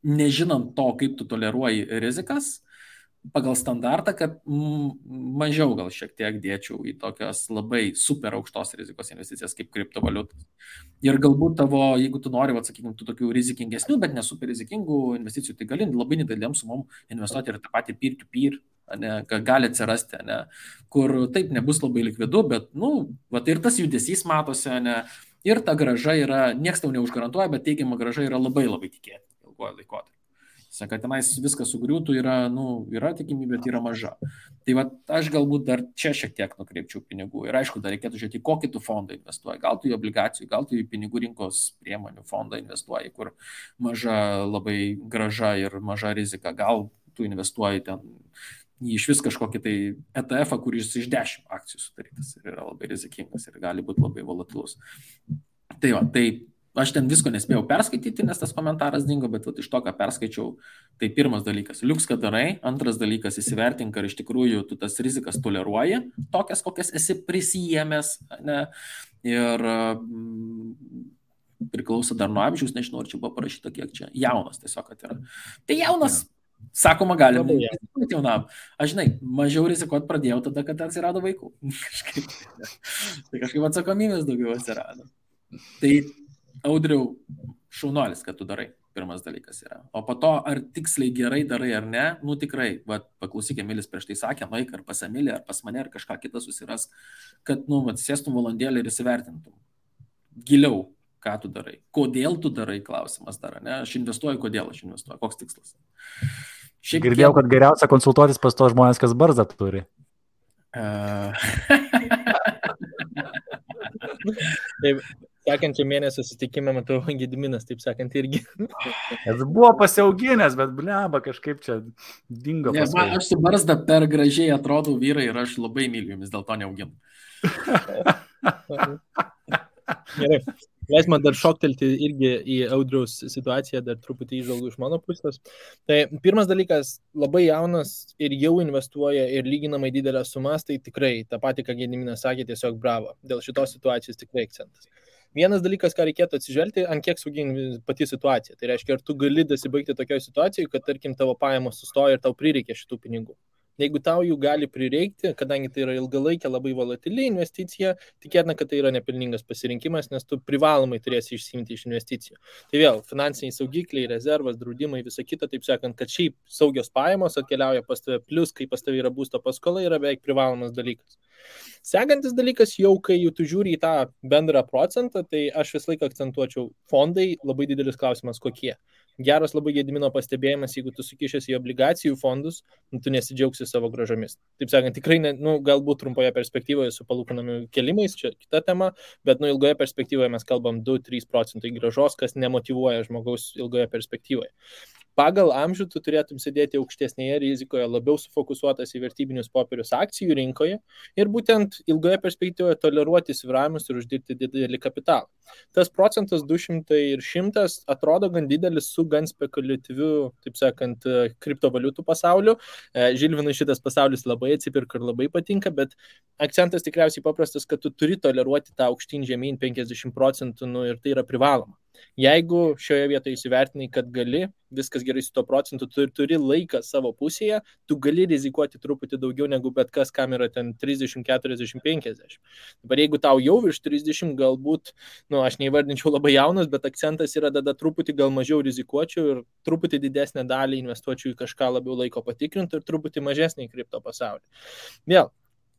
nežinant to, kaip tu toleruoji rizikas, pagal standartą, kad mažiau gal šiek tiek dėčiau į tokias labai super aukštos rizikos investicijas kaip kriptovaliutas. Ir galbūt tavo, jeigu tu nori, sakykime, tų tokių rizikingesnių, bet nesuper rizikingų investicijų, tai gali labai nedėlėm sumom investuoti ir tą patį peer-to-peer, gali atsirasti, ne, kur taip nebus labai likvidu, bet, ir tas judesys matosi, ne, ir ta grąža yra, nieks tau neužgarantuoja, bet teigiama grąža yra labai labai tikėtina ilgojo laikotarpio. Kad tenais viskas sugriūtų yra tikimybė, bet yra maža. Tai va, aš galbūt dar čia šiek tiek nukreipčiau pinigų. Ir aišku, dar reikėtų žiūrėti, kokį tu fondą investuoji. Gal tu į obligacijų, gal tu į pinigų rinkos priemonių fondą investuoji, kur maža labai grąža ir maža rizika. Gal tu investuoji ten į iš vis kažkokį tai ETF, kuris iš 10 akcijų sudarytas ir yra labai rizikingas ir gali būti labai volatilus. Tai va, tai aš ten visko nespėjau perskaityti, nes tas komentaras dingo, bet iš to, ką perskaičiau, tai pirmas dalykas, liuks, kad darai, antras dalykas, įsivertink, ar iš tikrųjų tu tas rizikas toleruoji, tokias, kokias esi prisijėmęs, ne? Ir priklauso dar nuo amžiaus, nežinau, ar čia buvo parašyta, kiek čia jaunas tiesiog, kad yra. Tai jaunas, sakoma, galim rizikuoti jaunam. Aš žinai, mažiau rizikuoti pradėjau tada, kad atsirado vaikų. Tai kažkaip atsakomybės daugiau atsirado. Tai Audriau, šaunuolis, kad tu darai, pirmas dalykas yra. O po to, ar tiksliai gerai darai ar ne, tikrai, paklausyk, Emilis prieš tai sakė, nueik ar pas Emilį, ar pas mane, ar kažką kitą susiras, kad, sėstum valandėlį ir įsivertintum. Giliau, ką tu darai. Kodėl tu darai, klausimas dar, ne? Aš investuoju, kodėl aš investuoju, koks tikslas. Girdėjau, kad geriausia konsultuotis pas to žmonės, kas barzdą turi. Taip. Sekančią mėnesį susitikimą matau Gediminas, taip sakant, irgi. Jis buvo pasiauginęs, bet bleba kažkaip čia dingo. Ne, aš su barzda per gražiai atrodau vyrai ir aš labai myliu jumis, dėl to neauginu. Gerai. Leis man dar šoktelti irgi į Audriaus situaciją, dar truputį įžvalgų iš mano pusės. Tai pirmas dalykas, labai jaunas ir jau investuoja ir lyginamai didelės sumas, tai tikrai tą patį, ką Gediminas sakė, tiesiog bravo. Dėl šitos situacijos tikrai akcentas. Vienas dalykas, ką reikėtų atsižvelgti, ant kiek sugini pati situacija. Tai reiškia, ar tu gali dasibaigti tokioje situacijoje, kad, tarkim, tavo pajamos sustoja ir tau prireikia šitų pinigų. Jeigu tau jų gali prireikti, kadangi tai yra ilgalaikė, labai volatili investicija, tikėtina, kad tai yra nepelningas pasirinkimas, nes tu privalomai turėsi išsiimti iš investicijų. Tai vėl, finansiniai saugikliai, rezervas, draudimai, visa kita, taip sakant, kad šiaip saugios pajamos atkeliauja pas tave, plus, kai pas tave yra būsto paskola, yra beveik privalomas dalykas. Sekantis dalykas, jau kai tu žiūri į tą bendrą procentą, tai aš visą laiką akcentuočiau fondai, labai didelis klausimas kokie. Geras labai Gedimino pastebėjimas, jeigu tu sukišęs į obligacijų fondus, tu nesidžiaugsi savo grąžomis. Taip sakant, tikrai, galbūt trumpoje perspektyvoje su palūkanų kelimais, čia kita tema, bet ilgoje perspektyvoje mes kalbam 2-3% grąžos, kas nemotyvuoja žmogaus ilgoje perspektyvoje. Pagal amžių tu turėtum sėdėti aukštesnėje rizikoje, labiau sufokusuotas į vertybinius popierius akcijų rinkoje ir būtent ilgoje perspektyvoje toleruoti svyravimus ir uždirbti didelį kapitalą. Tas procentas 200 ir 100 atrodo gan didelis su gan spekuliatyviu, taip sakant, kriptovaliutų pasauliu. Žilvinui šitas pasaulis labai atsipirka ir labai patinka, bet akcentas tikriausiai paprastas, kad tu turi toleruoti tą aukštyn žemyn 50% ir tai yra privaloma. Jeigu šioje vietoje įsivertinai, kad gali, viskas gerai su to procentu, tu turi laiką savo pusėje, tu gali rizikuoti truputį daugiau negu bet kas, kam yra ten 30, 40, 50. Dabar jeigu tau jau virš 30, galbūt, aš neįvardinčiau labai jaunas, bet akcentas yra tada truputį gal mažiau rizikuočiau ir truputį didesnę dalį investuočiau į kažką labiau laiko patikrinti ir truputį mažesnį į kripto pasaulį. Vėl.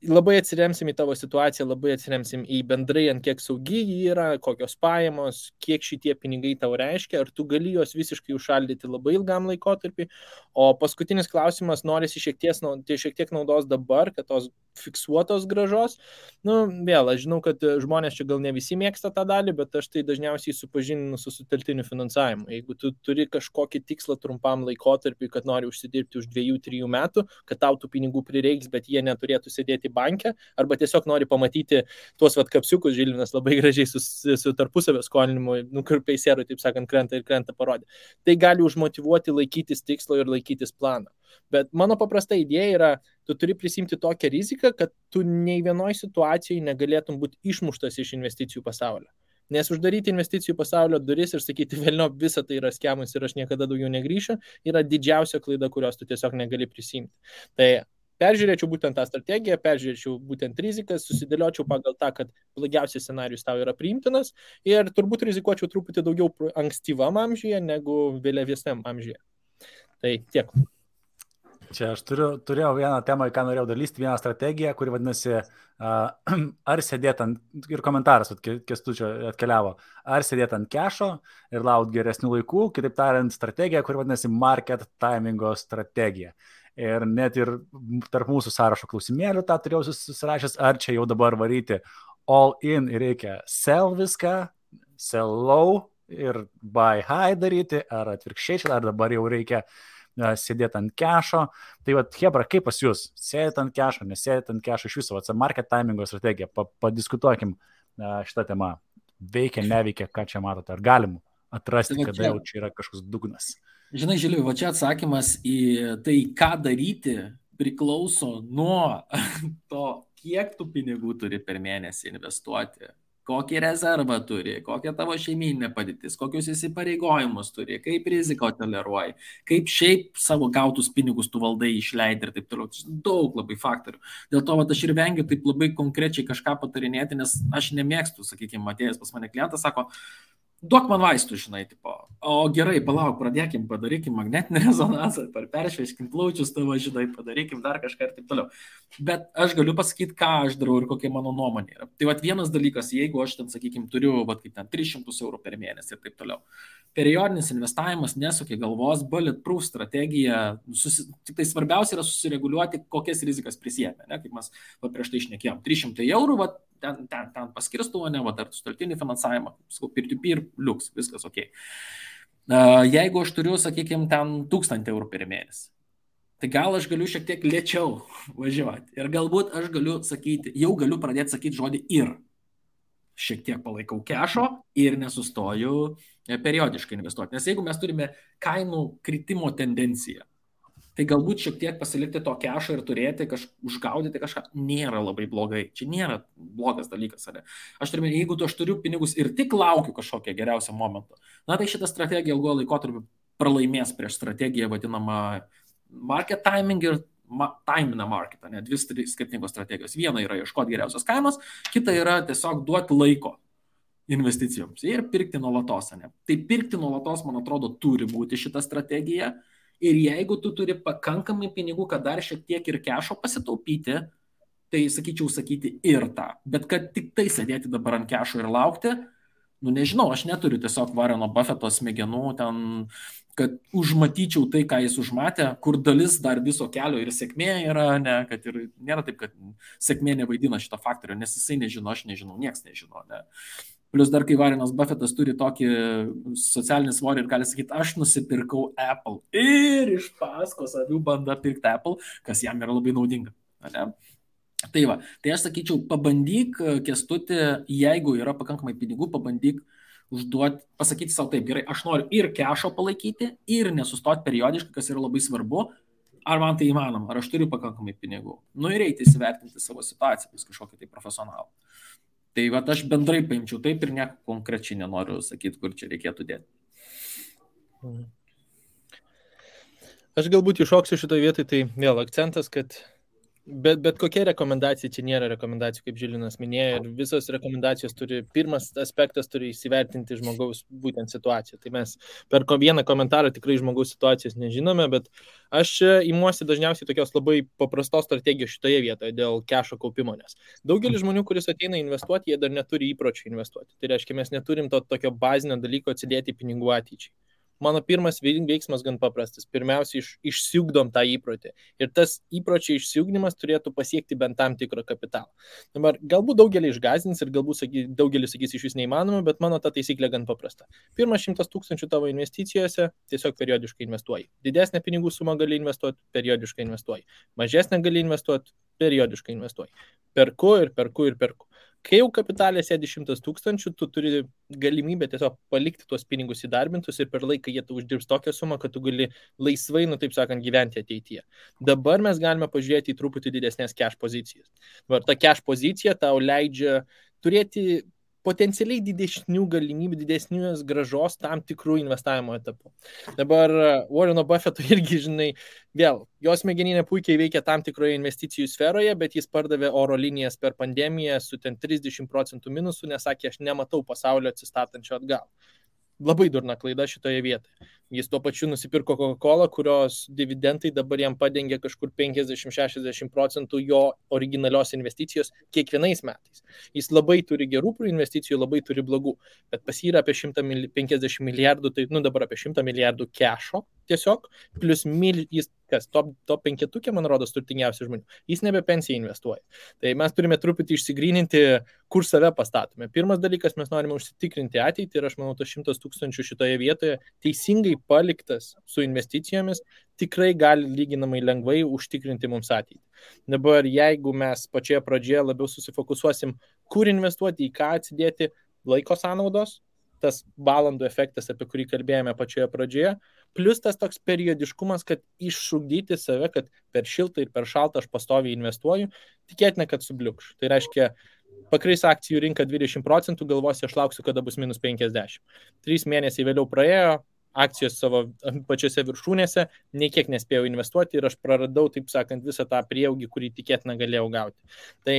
Labai atsiremsim į tavo situaciją, labai atsiremsim į bendrai, ant kiek saugi jį yra, kokios pajamos, kiek šitie pinigai tau reiškia, ar tu gali juos visiškai užšaldyti labai ilgam laikotarpį. O paskutinis klausimas, norisi šiek tiek naudos dabar, kad tos fiksuotos grąžos. Vėl, aš žinau, kad žmonės čia gal ne visi mėgsta tą dalį, bet aš tai dažniausiai supažindinu su sutelktiniu finansavimu. Jeigu tu turi kažkokį tikslą trumpam laikotarpį, kad nori užsidirbti už 2-3 metų, kad tau tų pinigų prireiks, bet jie neturėtų sėdėti banke, arba tiesiog nori pamatyti tuos kapsiukus, Žilvinas labai gražiai su tarpusavio skolinimu, kur peisierui, taip sakant, krenta parodė. Tai gali užmotyvuoti laikytis tikslo ir laikytis planą. Bet mano paprasta idėja yra, tu turi prisimti tokią riziką, kad tu nei vienoj situacijoje negalėtum būti išmuštas iš investicijų pasaulio. Nes uždaryti investicijų pasaulio duris ir sakyti, velnio, visa tai yra skemas ir aš niekada daugiau negrįšiu, yra didžiausia klaida, kurios tu tiesiog negali prisimti. Tai peržiūrėčiau būtent tą strategiją, peržiūrėčiau būtent rizikas, susidėliočiau pagal tą, kad blogiausias scenarius tau yra priimtinas ir turbūt rizikuočiau truputį daugiau ankstyvam amžiuje negu vėliavesniam amžiuje. Tai tiek. Čia aš turėjau vieną temą, ką norėjau dalysti, vieną strategiją, kuri vadinasi, ar sėdėt ant, ir komentaras Kęstučio atkeliavo, ar sėdėt ant kešo ir laukti geresnių laikų, kitaip tariant, strategija, kuri vadinasi market timingo strategija. Ir net ir tarp mūsų sąrašo klausimėlių tą turėjau susirašęs, ar čia jau dabar varyti all in ir reikia sell viską, sell low ir buy high daryti, ar atvirkščiai, ar dabar jau reikia sėdėti ant kešo. Tai va, Hebra, kaip pas jūs? Sėdėti ant kešo, nesėdėti ant kešo iš viso, market timingo strategija, padiskutuokim šitą temą. Veikia, neveikia, ką čia matote, ar galim atrasti, kada jau čia yra kažkoks dugnas? Žinai, Žiliu, va čia atsakymas į tai, ką daryti, priklauso nuo to, kiek tu pinigų turi per mėnesį investuoti. Kokį rezervą turi, kokia tavo šeimyninė padėtis, kokius įsipareigojimus turi, kaip riziko toleruoji, kaip šiaip savo gautus pinigus tu valdai išleidai ir taip toliau. Daug labai faktorių. Dėl to aš ir vengiu taip labai konkrečiai kažką patarinėti, nes aš nemėgstu, sakykime, atėjęs pas mane klientas, sako, duok man vaistų, žinai, tipo, o gerai, palauk, pradėkim, padarykim magnetinį rezonansą, peršveiškim plaučius tavo, žinai, padarykim dar kažką ir taip toliau. Bet aš galiu pasakyti, ką aš darau ir kokia mano nuomonė yra. Tai vat vienas dalykas, jeigu aš ten, sakykime, turiu, vat kaip ten 300 eurų per mėnesį ir taip toliau. Periodinis investavimas nesukia galvos, bulletproof strategija, tik tai svarbiausia yra susireguliuoti, kokias rizikas prisėmė, ne, kaip mes prieš tai šnekėjom. 300 eurų, vat, ten paskirstu, ne, va, dar sutartinį finansavimą, peer-to-peer, liuks, viskas ok. Jeigu aš turiu, sakykime, ten 1000 eurų per mėnesį, tai gal aš galiu šiek tiek lėčiau važiuoti. Ir galbūt aš galiu sakyti, jau galiu pradėti sakyti žodį ir. Šiek tiek palaikau kešo ir nesustoju periodiškai investuoti. Nes jeigu mes turime kainų kritimo tendenciją, tai galbūt šiek tiek pasilikti to kešo ir turėti, užgaudyti kažką, nėra labai blogai. Čia nėra blogas dalykas. Ar? Aš turiu pinigus ir tik laukiu kažkokio geriausio momento, na tai šitą strategiją ilgo laikotarpį pralaimės prieš strategiją vadinamą market timing ir time in the market. Ne? Dvi skirtingos strategijos. Viena yra ieškoti geriausios kainos, kita yra tiesiog duoti laiko investicijoms ir pirkti nuolatos. Ne? Tai pirkti nuolatos, man atrodo, turi būti šita strategija. Ir jeigu tu turi pakankamai pinigų, kad dar šiek tiek ir kešo pasitaupyti, tai sakyčiau sakyti ir tą. Bet kad tik tai sėdėti dabar ant kešo ir laukti, nu nežinau, aš neturiu tiesiog Warreno Buffetto smegenų ten, kad užmatyčiau tai, ką jis užmatė, kur dalis dar viso kelio ir sėkmė yra, ne, kad ir nėra taip, kad sėkmė nevaidina šito faktorio, nes jisai nežino, aš nežinau, nieks nežino. Ne. Plus dar, kai Warrenas Buffettas turi tokį socialinį svorį ir gali sakyti, aš nusipirkau Apple ir iš paskos avių banda pirkti Apple, kas jam yra labai naudinga. Ne? Tai va, tai aš sakyčiau, pabandyk, Kęstuti, jeigu yra pakankamai pinigų, pabandyk užduoti, pasakyti savo taip, gerai, aš noriu ir kešo palaikyti, ir nesustoti periodiškai, kas yra labai svarbu, ar man tai įmanoma, ar aš turiu pakankamai pinigų. Nu ir eiti įsivertinti savo situaciją, vis kažkokį tai profesionalą. Tai va, aš bendrai paimčiau taip ir nieko konkrečiai nenoriu sakyti, kur čia reikėtų dėti. Aš galbūt iššoksiu šitoje vietoje, tai vėl akcentas, kad bet kokia rekomendacija, čia nėra rekomendacijų, kaip Žilinas minėjo, ir visos rekomendacijos turi, pirmas aspektas turi įsivertinti žmogaus būtent situaciją. Tai mes per vieną komentarą tikrai žmogaus situacijos nežinome, bet aš imuosi dažniausiai tokios labai paprastos strategijos šitoje vietoje dėl kešo kaupimo, nes daugelis žmonių, kuris ateina investuoti, jie dar neturi įpročių investuoti. Tai reiškia, mes neturim to tokio bazinio dalyko atsidėti pinigų ateičiai. Mano pirmas veiksmas gan paprastas. Pirmiausia, išsiugdom tą įprotį. Ir tas įpročio išsiugdymas turėtų pasiekti bent tam tikrą kapitalą. Dabar galbūt daugelį išgąsdins ir galbūt daugelis sakys iš vis neįmanoma, bet mano ta taisyklė gan paprasta. Pirmas 100 000 tavo investicijose tiesiog periodiškai investuoji. Didesnę pinigų sumą gali investuoti, periodiškai investuoji. Mažesnę gali investuoti, periodiškai investuoji. Perku. Kai jau kapitalė sėdi 100 000, tu turi galimybę tiesiog palikti tuos pinigus įdarbintus ir per laiką jie tu uždirbs tokią sumą, kad tu gali laisvai, taip sakant, gyventi ateityje. Dabar mes galime pažiūrėti į truputį didesnės cash pozicijas. Ta cash pozicija tau leidžia turėti potencialiai didesnių galimybių, didesnės gražos tam tikrų investavimo etapų. Dabar Warreno Buffetto irgi, žinai, vėl, jos smegeninė puikiai veikia tam tikroje investicijų sferoje, bet jis pardavė oro linijas per pandemiją su ten 30% minusų, nes sakė, aš nematau pasaulio atsistatančio atgal. Labai durna klaida šitoje vietoje. Jis tuo pačiu nusipirko Coca-Cola, kurios dividendai dabar jam padengia kažkur 50-60% jo originalios investicijos kiekvienais metais. Jis labai turi gerų investicijų, labai turi blogų, bet pas jį yra apie 150 milijardų, tai dabar apie 100 milijardų kešo tiesiog, plus jis top 5, man rodos, turtingiausių žmonių. Jis nebe pensiją investuoja. Tai mes turime truputį išsigryninti, kur save pastatome. Pirmas dalykas, mes norime užsitikrinti ateitį ir aš manau, tas 100 000 šitoje vietoje teisingai paliktas su investicijomis tikrai gali lyginamai lengvai užtikrinti mums ateitį. Dabar, jeigu mes pačioje pradžioje labiau susifokusuosim, kur investuoti, į ką atsidėti, laiko sąnaudos, tas valandų efektas, apie kurį kalbėjome pačioje pradžioje, plus tas toks periodiškumas, kad iššugdyti save, kad per šiltą ir per šaltą aš pastoviai investuoju, tikėtina, kad subliukš. Tai reiškia, pakris akcijų rinka 20%, galvosi, aš lauksiu, kada bus minus 50. 3 mėnesiai vėliau praėjo, akcijos savo pačiose viršūnėse, nei kiek nespėjau investuoti ir aš praradau, taip sakant, visą tą prieaugį, kurį tikėtina galėjau gauti. Tai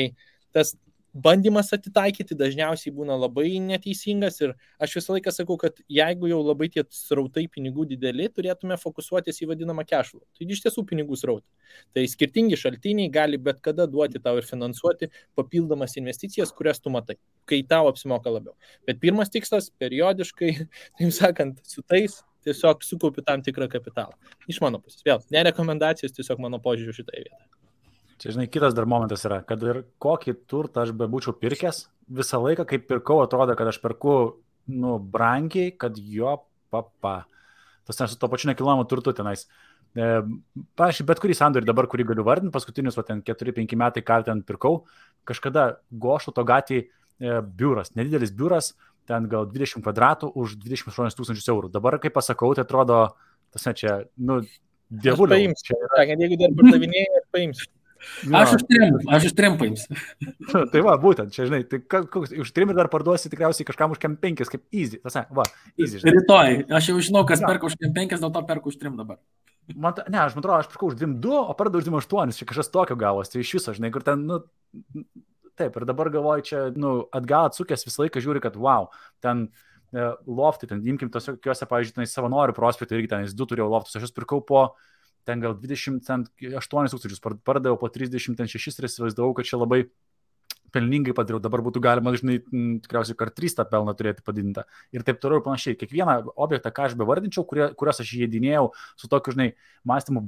tas bandymas atitaikyti dažniausiai būna labai neteisingas ir aš visą laiką sakau, kad jeigu jau labai tie srautai pinigų dideli, turėtume fokusuotis į vadinamą cash flow. Tai iš tiesų pinigų srautai. Tai skirtingi šaltiniai gali bet kada duoti tau ir finansuoti papildomas investicijas, kurias tu matai, kai tau apsimoka labiau. Bet pirmas tikslas periodiškai, taip sakant, su tais tiesiog sukaupi tam tikrą kapitalą. Iš mano pusės. Vėl, ne rekomendacijos, tiesiog mano požiūriu šitoje vietoje. Čia, žinai, kitas dar momentas yra, kad ir kokį turtą aš bebūčiau pirkęs, visą laiką, kai pirkau, atrodo, kad aš perku, brangiai, kad jo Tas ne su to pačiu nekilnojamu turtu tenais. Pavyzdžiui, bet kurį sandorį dabar, kurį galiu vardinti, paskutinius 4-5 metai, ką ten pirkau, kažkada Goštauto gatvėje biuras, nedidelis biuras, ten gal 20 kvadratų už 28 000 eurų. Dabar, kai pasakau, tai atrodo, tas ne čia, dievulio. Aš paimsiu, jeigu dar pardavinėjai, paimsiu. Aš už 3 paimsiu. Tai va, būtent, čia, žinai, tai už 3 ir dar parduosi tikriausiai kažkam už 5, kaip easy. Tas, easy, žinai. Rytoj, aš jau žinau, kas perka už 5, dėl to perku už 3 dabar. Aš atrodo, aš pirkau už 2, o pardavau už 8, čia kažkas tokio gavos, tai iš viso, žinai, kur ten, taip, ir dabar galvoju, čia, atgal atsukęs visą laiką žiūri, kad wow, ten loftai, ten imkim tokiuose, pavyzdžiui, Savanorių prospektų, irgi ten 2 turėjau loftus, aš jūs pirkau po ten gal 28 000, pardaviau po 36 ir įsivaizdavau, kad čia labai pelningai padariau, dabar būtų galima, žinai, tikriausiai kart 3 tą pelną turėti padidintą. Ir taip toliau ir panašiai. Kiekvieną objektą, ką aš bevardinčiau, kuriuos aš įdinėjau su tokiu, žinai, mąstymu,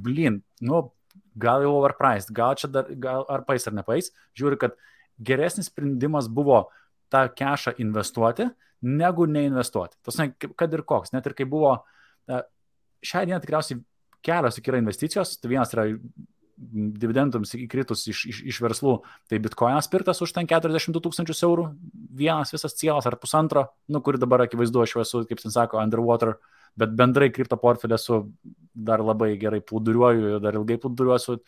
gal jau overpriced, gal čia dar, ar pais ar nepais, žiūri, kad geresnis sprendimas buvo tą cashą investuoti, negu neinvestuoti. Tas, kad ir koks, net ir kai buvo, šią dieną tikriausiai kelios yra investicijos, tai vienas yra dividendams įkritus iš verslų, tai bitkoinas pirktas už ten 42 000 eurų, vienas visas cielas ar pusantro, kuri dabar akivaizdu, aš esu, kaip ten sako, underwater, bet bendrai kripto portfelį esu dar labai gerai plūduriuoju, dar ilgai plūduriuosiu,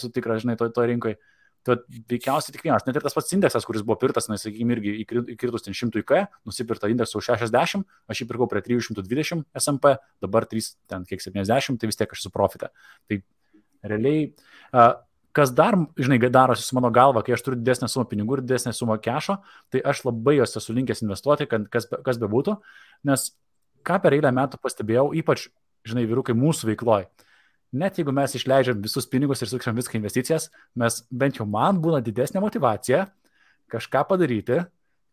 su tikra, žinai, to rinkoje. Tai veikiausiai tik vienas, net ir tas pats indeksas, kuris buvo pirktas, sakykime, irgi įkritus ten 100K, nusipirta indeksą už 60, aš jį pirkau prie 320 SMP, dabar 70, tai vis tiek aš esu profite. Tai realiai, kas dar, žinai, darosi su mano galva, kai aš turiu didesnę sumą pinigų ir didesnę sumą kešo, tai aš labai jos esu linkęs investuoti, kas bebūtų, nes ką per eilę metų pastebėjau, ypač, žinai, vyrukai mūsų veikloj. Net jeigu mes išleidžiam visus pinigus ir sukčiam viską investicijas, mes bent jau man būna didesnė motivacija kažką padaryti,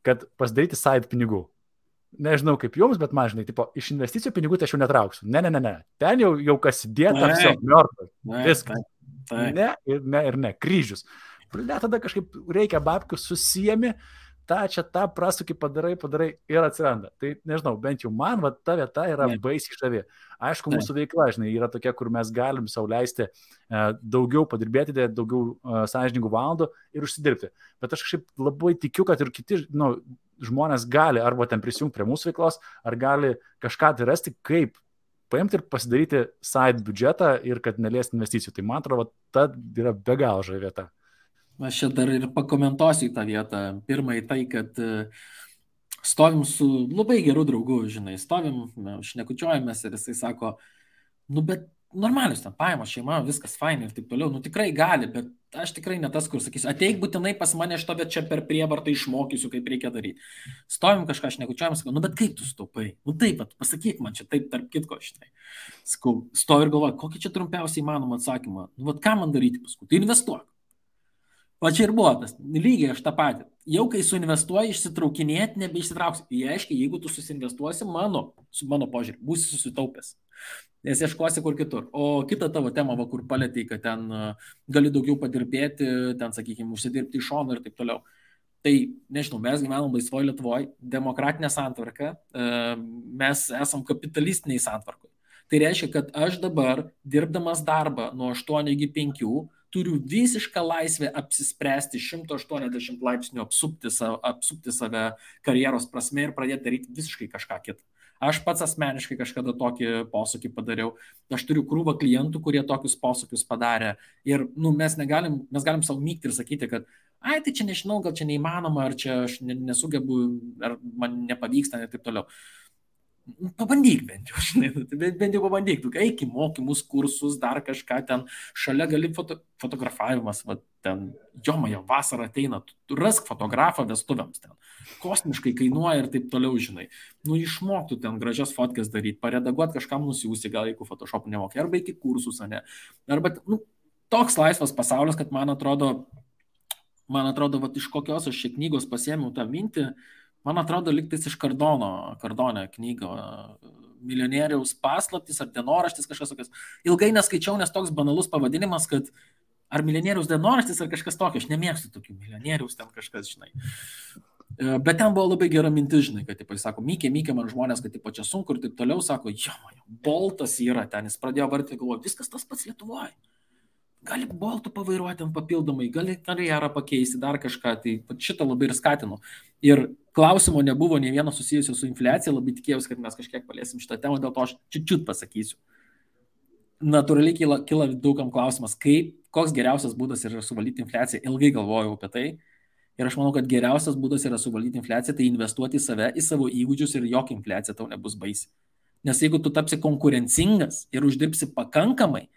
kad pasidaryti side pinigų. Nežinau kaip jums, bet man, žinai, iš investicijų pinigų tai aš jau netrauksiu. Ne. Ten jau kas įdėta, viso, mėrtas. Viskas. Ne, kryžius. Net tada kažkaip reikia babkių susijami, tą prasukį padarai ir atsiranda. Tai nežinau, bent jau man ta vieta yra baisiai žavi. Aišku, mūsų veikla, žinai, yra tokia, kur mes galim sau leisti daugiau padirbėti, daugiau sąžiningų valandų ir užsidirbti. Bet aš kažkaip labai tikiu, kad ir kiti žmonės gali arba ten prisijungti prie mūsų veiklos, ar gali kažką tai rasti, kaip paimti ir pasidaryti side biudžetą ir kad neliesti investicijų. Tai man atrodo, ta yra be galo žavi vieta. Aš čia dar ir pakomentuosiu į tą vietą. Pirmai tai, kad stovim su labai geru draugu, žinai, šnekučiuojamės ir jisai sako, bet normalius ten pajamos, šeima, viskas fain ir taip toliau, nu tikrai gali, bet aš tikrai ne tas, kur sakysiu, ateik būtinai pas mane šito, bet čia per prievartą išmokysiu, kaip reikia daryti. Stovim kažką, aš nekučiuojam, sakau, nu bet kaip tu staupai? Nu taip, pasakyk man čia taip, tarp kitko, štai. Sakau, stovi ir galvoju, kokį čia trumpiausiai įmanomą atsakymą. Nu, vat ką man daryti paskui? Tai investuok. Va čia ir buvo tas, lygiai aš tą patį. Jau kai suinvestuoji, išsitraukinėti, nebeišsitrauksi. Jie aiškiai, jeigu tu susinvestuosi, su mano požiūrį, būsi susitaupęs. Nes ieškosi kur kitur. O kita tavo tema, va, kur palėtei, kad ten gali daugiau padirbėti, ten, sakykime, užsidirbti iš šono ir taip toliau. Tai, nežinau, mes gyvenam laisvoje Lietuvoje, demokratinė santvarka, mes esam kapitalistiniai santvarkoje. Tai reiškia, kad aš dabar, dirbdamas darbą nuo 8 iki 5, turiu visišką laisvę apsispręsti 180 laipsnių apsupti save karjeros prasme ir pradėti daryti visiškai kažką kitą. Aš pats asmeniškai kažkada tokį posūkį padariau. Aš turiu krūvą klientų, kurie tokius posūkius padarė. Ir mes galim savo mygti ir sakyti, kad ai, tai čia nežinau, gal čia neįmanoma, ar čia aš nesugebu, ar man nepavyksta ir taip toliau. Pabandyk bent jau, žinai, bent jau pabandyk, tu eik į mokymus, kursus, dar kažką ten, šalia gali fotografavimas, va, ten, jomaja, vasara ateina, tu rask fotografą vestuvėms ten, kosmiškai kainuoja ir taip toliau, žinai, išmoktų ten gražias fotkės daryti, paredaguoti kažkam nusiųsti, gal jeigu Photoshop'u nemokai, arba iki kursus, ne, arba, toks laisvas pasaulis, kad man atrodo, va, iš kokios aš šią knygos pasiėmiau tą mintį. Man atrodo, liktais iš Kardonio knygą, Milijonieriaus paslaptis ar dienoraštis kažkas tokias. Ilgai neskaičiau, nes toks banalus pavadinimas, kad ar Milijonieriaus dienoraštis ar kažkas tokio. Aš nemėgstu tokių Milijonieriaus ten kažkas, žinai. Bet ten buvo labai gera mintis, žinai, kad, tipo, jis sako, mykė man žmonės, kad, tipo, čia sunku ir taip toliau, sako, Boltas yra ten, jis pradėjo vardyti, galvoju, viskas tas pats Lietuvoje. Gali Boltų pavairuoti ten papildomai, gali karjerą pakeisti, dar kažką, tai šitą labai ir skatinu. Ir klausimo nebuvo nei vieno susijusio su infliacija, labai tikėjausi, kad mes kažkiek paliesim šitą temą, dėl to aš čiut pasakysiu. Natūraliai kyla daugam klausimas, koks geriausias būdas yra suvaldyti infliaciją, ilgai galvojau apie tai. Ir aš manau, kad geriausias būdas yra suvaldyti infliaciją, tai investuoti į save, į savo įgūdžius ir jokia infliacija tau nebus baisi. Nes jeigu tu tapsi konkurencingas ir uždirbsi pakankamai,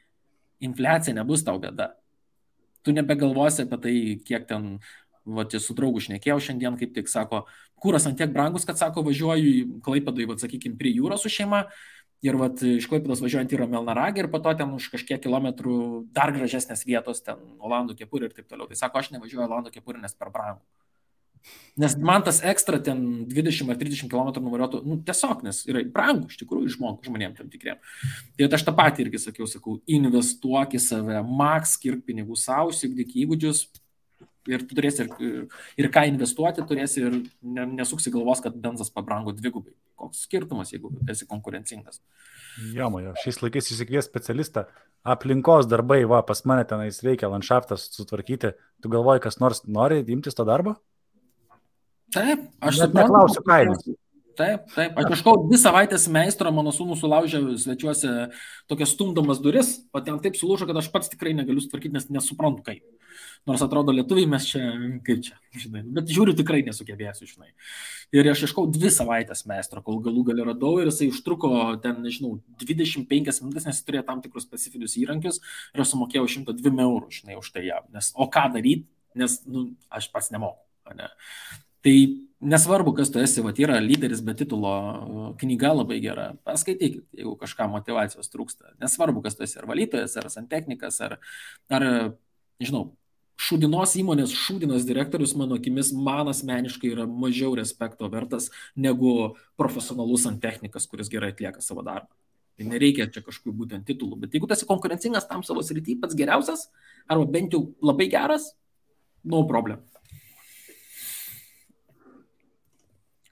infliacija nebus tau bėda. Tu nebegalvosi apie tai, kiek ten, su draugu šnekėjau šiandien, kaip tik sako, kuras ant tiek brangus, kad sako, važiuoju į Klaipėdai, sakykime, prie jūros su šeima ir iš Klaipėdos važiuojant į Melnragę ir po to ten už kažkiek kilometrų dar gražesnės vietos, ten Olandų kepurė ir taip toliau. Tai sako, aš nevažiuoju Olandų kepurė, nes per brangu. Nes man tas ekstra ten 20 ar 30 km nuvariuotų, tiesiog, nes yra brangu, iš tikrųjų, žmonėm tam tikriem. Tai aš tą patį irgi sakau, investuok į save, skirk pinigų savo, įsigdyk įgūdžius ir tu turėsi ir ką investuoti, turėsi ir nesuksi galvos, kad benzas pabrango dvigubai. Koks skirtumas, jeigu esi konkurencingas? Jomajo, šiais laikais įsikvies specialistą, aplinkos darbai, pas mane tenais reikia landšaftas sutvarkyti, tu galvoji, kas nors nori imtis to darbo? Taip, aš neklausiu kainos. Taip, aš kažkau 2 savaitės meistro, mano sūnų sulaužė svečiuose tokias stumdomas duris, o ten taip sulūžo, kad aš pats tikrai negaliu sutvarkyti, nes nesuprantu kaip. Nors atrodo lietuviai mes čia, kaip čia, žinai, bet žiūriu tikrai nesugebėsiu, žinai. Ir aš ieškau 2 savaitės meistro, kol galų gali radau ir jisai užtruko ten, nežinau, 25 minutės, nes jis turėjo tam tikrus specifinius įrankius ir aš sumokėjau 102 eurų, žinai, už tai jam. O ką daryti, nes, aš pats nemoku, ne. Tai nesvarbu, kas tu esi, yra lyderis be titulo, knyga labai gera, paskaitykit, jeigu kažką motivacijos trūksta. Nesvarbu, kas tu esi, ar valytojas, ar santechnikas, ar nežinau, šūdinos įmonės šūdinas direktorius, mano akimis, man asmeniškai yra mažiau respekto vertas negu profesionalus santechnikas, kuris gerai atlieka savo darbą. Tai nereikia čia kažkokių būtent titulų, bet jeigu tu esi konkurencingas tam savo srity, pats geriausias, arba bent jau labai geras, no problem.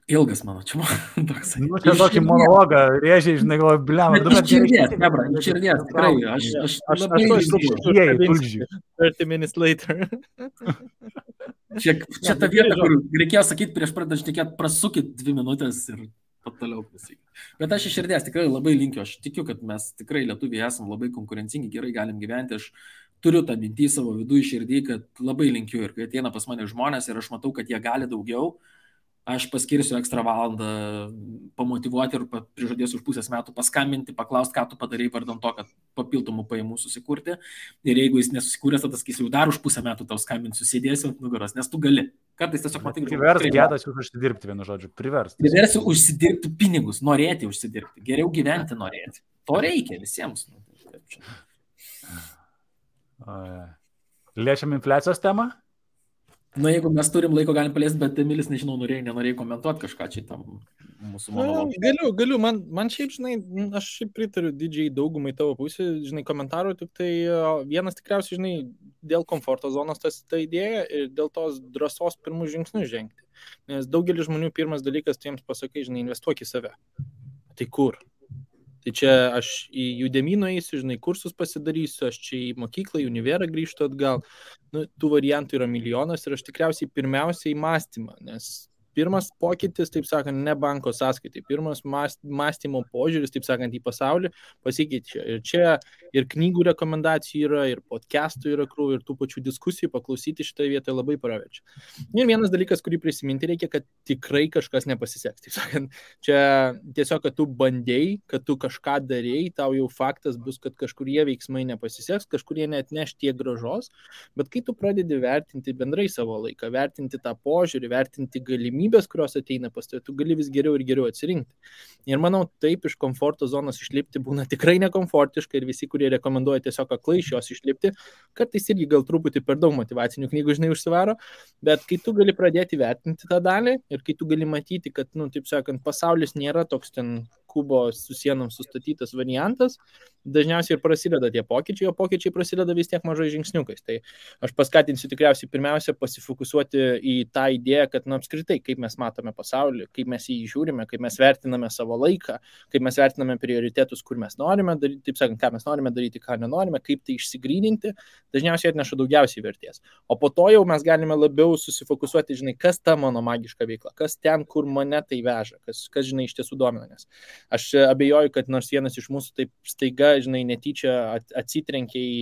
Ilgas mano, čia toks. Čia tokį monologą rėžiai, žinai, galvoju, bliam. Iš širdies, tikrai. Aš labai išdėjiai, tulžiai. 30 minutes later. Čia ta vieta, kur reikėjo sakyti prieš pradant šnekėti, prasukit 2 minutės ir toliau pasakyti. Bet aš iš širdies tikrai labai linkiu, aš tikiu, kad mes tikrai lietuviai esam labai konkurencingi, gerai galim gyventi. Aš turiu tą mintį savo vidų iš širdį, kad labai linkiu ir kai ateina pas mane žmonės ir aš matau, kad jie gali daugiau, aš paskirsiu ekstra valandą pamotyvuoti ir prižadėsiu už pusės metų paskambinti, paklausti, ką tu padarai vardan to, kad papildomų pajamų susikurti. Ir jeigu jis nesusikūręs, tada sakysiu, jau dar už pusę metų tau skambinsiu, sėdėsiu ant nugaros, nes tu gali. Kartais tiesiog matai, kad... Privers gedas jūs užsidirbti, vienu žodžiu, privers. Priversiu užsidirbti pinigus, norėti užsidirbti, geriau gyventi norėti. To reikia visiems. Liečiam infliacijos temą? Jeigu mes turim laiko, galim paliesti, bet Emilis, nežinau, norėjai komentuoti kažką čia tam mūsų monologą. Galiu, man šiaip, žinai, aš šiaip pritariu didžiai daugumai tavo pusė, žinai, komentarų, tik tai vienas tikriausiai, žinai, dėl komforto zonos ta idėja ir dėl tos drąsos pirmų žingsnių žengti. Nes daugelis žmonių pirmas dalykas, tu jiems pasakai, žinai, investuok į save. Tai kur? Tai čia aš į Udemy nueisiu, žinai, kursus pasidarysiu, aš čia į mokyklą, į univerą grįžtu atgal. Tų variantų yra milijonas ir aš tikriausiai pirmiausiai į mąstymą, nes pirmas pokytis, taip sakant, ne banko sąskaitai, pirmas mąstymo požiūris, taip sakant, į pasaulį pasikeičia. Ir čia ir knygų rekomendacijų yra, ir podcastų yra krūvų, ir tų pačių diskusijų paklausyti šitoje vietoje labai praverčia. Ir vienas dalykas, kurį prisiminti reikia, kad tikrai kažkas nepasiseks. Taip sakant, čia tiesiog, kad tu bandėjai, kad tu kažką darėjai, tau jau faktas bus, kad kažkurie veiksmai nepasiseks, kažkurie neatneš tiek gražos, bet kai tu pradedi vertinti bendrai savo laiką, vertinti tą požiūrį, vertinti galimybės, kurios ateina pas tave, tu gali vis geriau ir geriau atsirinkti. Ir manau, taip iš komforto zonos išlipti būna tikrai nekomfortiška ir visi, kurie rekomenduoja tiesiog aklai iš jos išlipti, kartais irgi gal truputį per daug motyvacinių knygų, žinai, užsivaro, bet kai tu gali pradėti vertinti tą dalį ir kai tu gali matyti, kad, taip sakant, pasaulis nėra toks ten kubo su sienom sustatytas variantas, dažniausiai ir prasideda tie pokyčiai, o pokyčiai prasideda vis tiek mažai žingsniukais. Tai aš paskatinsiu tikriausiai pirmiausia pasifokusuoti į tą idėją, kad apskritai, kaip mes matome pasaulį, kaip mes jį žiūrime, kaip mes vertiname savo laiką, kaip mes vertiname prioritetus, kur mes norime daryti, taip sakant, ką mes norime daryti, ką nenorime, kaip tai išsigryninti, dažniausiai atneša daugiausiai vertės. O po to jau mes galime labiau susifokusuoti, žinai, kas ta mano magiška veikla, kas ten, kur mane tai veža, kas žinai, iš tiesų domina. Nes aš abejoju, kad nors vienas iš mūsų taip staiga, žinai, netyčia atsitrenkė į,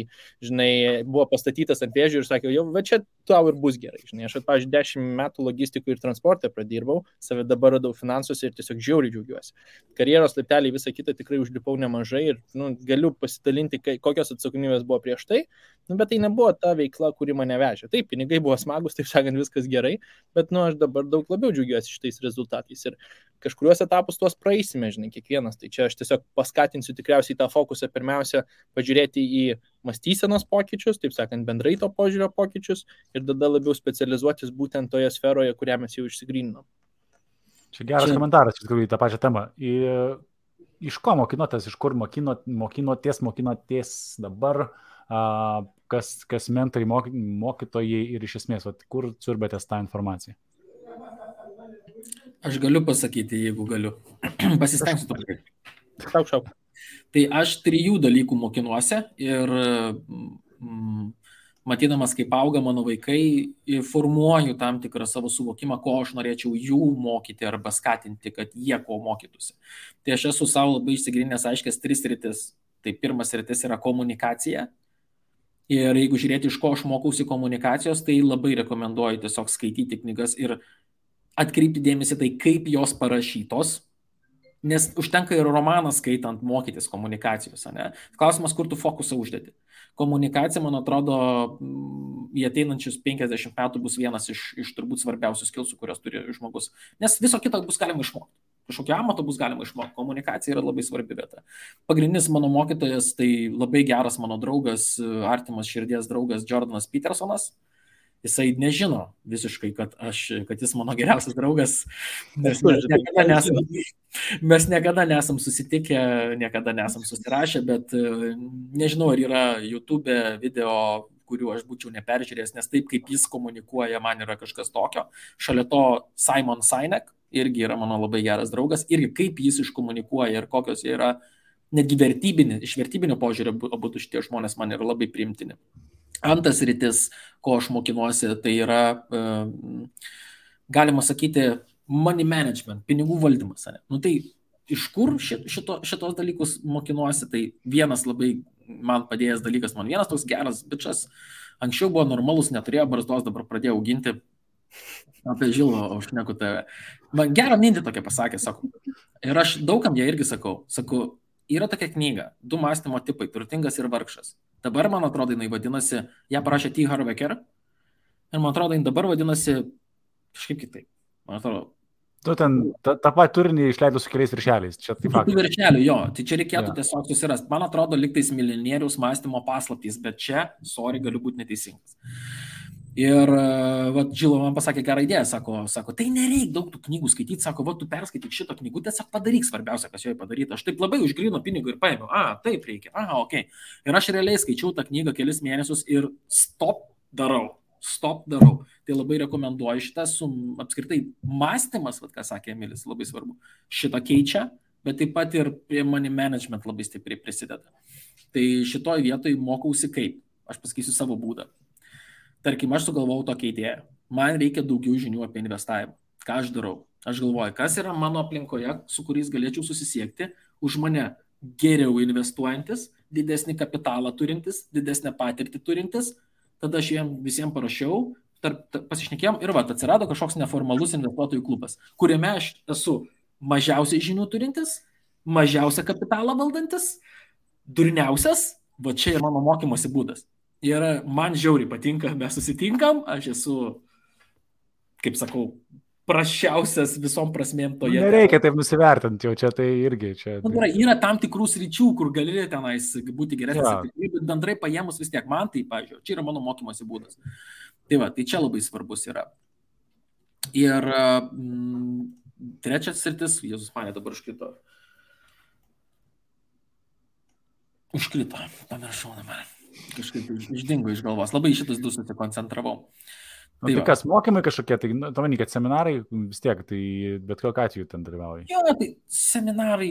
žinai, buvo pastatytas ant vėžių ir sakė, jau, va čia tau ir bus gerai. Žinai, aš, pavyzdžiui, 10 metų logistikų ir transporte pradirbau, save dabar radau finansuose ir tiesiog žiauriai džiaugiuosi. Karjeros laipteliai visą kitą tikrai užlipau nemažai ir galiu pasidalinti, kokios atsakomybės buvo prieš tai, bet tai nebuvo ta veikla, kuri mane vežė. Taip, pinigai buvo smagus, taip sakant, viskas gerai, bet aš dabar daug labiau džiaugiuosi šitais rezultatais ir kažkuriuos etapus tuos praeisime, žinai, kiekvienas. Tai čia aš tiesiog paskatinsiu tikriausiai tą fokusą pirmiausia pažiūrėti į mąstysenos pokyčius, taip sakant, bendrai to požiūrio pokyčius ir tada labiau specializuotis būtent toje sferoje, kurią mes jau išsigryninom. Čia geras komentaras, iš tikrųjų, į tą pačią temą. Iš ko mokinotės, iš kur mokinotės dabar, kas mentoriai, mokytojai ir iš esmės, kur siurbėtės tą informaciją? Aš galiu pasakyti, jeigu galiu. Pasistengsiu truputį. Šau. Tai aš 3 dalykų mokinuosi ir matydamas, kaip auga mano vaikai, formuoju tam tikrą savo suvokimą, ko aš norėčiau jų mokyti arba skatinti, kad jie ko mokytųsi. Tai aš esu savo labai išsigryninęs aiškias 3 sritis. Tai pirmas sritis yra komunikacija. Ir jeigu žiūrėti, iš ko aš mokausi komunikacijos, tai labai rekomenduoju tiesiog skaityti knygas ir atkreipti dėmesį tai, kaip jos parašytos, nes užtenka ir romaną skaitant mokytis komunikacijos. Ne? Klausimas, kur tu fokusą uždedi. Komunikacija, man atrodo, į ateinančius 50 metų bus vienas iš turbūt svarbiausių skilsų, kurios turi žmogus. Nes viso kito bus galima išmokti. Kažkokio amato bus galima išmokti. Komunikacija yra labai svarbi vieta. Pagrindinis mano mokytojas, tai labai geras mano draugas, artimas širdies draugas Jordanas Petersonas. Jisai nežino visiškai, kad jis mano geriausias draugas, nes mes niekada nesam susitikę, niekada nesam susirašę, bet nežinau, ar yra YouTube video, kurių aš būčiau neperžiūrėjęs, nes taip, kaip jis komunikuoja, man yra kažkas tokio. Šalia to Simon Sinek irgi yra mano labai geras draugas, irgi kaip jis iškomunikuoja ir kokios jie yra, netgi iš vertybinio požiūrio abu šitie žmonės man yra labai priimtini. Antras rytis, ko aš mokinuosi, tai yra, galima sakyti, money management, pinigų valdymas. Tai iš kur šitos dalykus mokinuosi, tai vienas labai man padėjęs dalykas, man vienas toks geras bičas, anksčiau buvo normalus, neturėjo barzdos, dabar pradėjo auginti, Apie Žilą, aš šneku tave. Man gerą mintį tokia pasakė, sako. Ir aš daugam ją irgi sakau. Sakau, yra tokia knyga, 2 mąstymo tipai, turtingas ir vargšas. Dabar, man atrodo, jinai vadinasi, ją parašė T. Harv Eker. Ir man atrodo, jinai dabar vadinasi kažkaip kitaip. Man atrodo. Tu ten tą patį turinį išleidai su keliais viršeliais. Čia taip pat. Viršelių, jo. Tai čia reikėtų tiesiog susirasti. Man atrodo, liktais milijonieriaus mąstymo paslaptys, bet čia, sorry, galiu būti neteisingas. Ir Žilo man pasakė gerą idėją, sako, tai nereik daug tų knygų skaityti, sako, tu perskaityk šito knygų, tiesiog padaryk svarbiausia, kas joje padaryta. Aš taip labai už gryno pinigų ir paėmiau, taip reikia, ok. Ir aš realiai skaičiau tą knygą kelis mėnesius ir stop darau. Tai labai rekomenduoju šitą, apskritai mąstymas, ką sakė Emilis, labai svarbu. Šitą keičia, bet taip pat ir prie money management labai stipriai prisideda. Tai šitoj vietoj mokausi kaip. Aš pasakysiu savo būdą. Tarkim, aš sugalvojau tokią idėją. Man reikia daugiau žinių apie investavimą. Ką aš darau? Aš galvoju, kas yra mano aplinkoje, su kuriais galėčiau susisiekti, už mane geriau investuojantis, didesnį kapitalą turintis, didesnę patirtį turintis. Tada aš jiems visiems parašiau, pasišnekėjom ir atsirado kažkoks neformalus investuotojų klubas, kuriame aš esu mažiausiai žinių turintis, mažiausią kapitalą valdantis, durniausias, čia yra mano mokymosi būdas. Ir man žiauriai patinka, mes susitinkam, aš esu, kaip sakau, prašiausias visom prasmėm toje. Nereikia taip nusivertinti, jau čia tai irgi. Yra tam tikrų sričių, kur gali tenais būti geresnis, bet bendrai paėmus vis tiek man tai, pavyzdžiui, čia yra mano mokymosi būdas. Tai čia labai svarbus yra. Ir trečias sritis, Jėzus mane dabar užkrito, pamiršau dabar. Kažkaip išdingo iš galvos. Labai šitus 2 susikoncentravau. Tai kas, mokymai kažkokie, tai manai, kad seminarai vis tiek, tai bet kokiu atveju ten dalyvauja. Jo, tai seminarai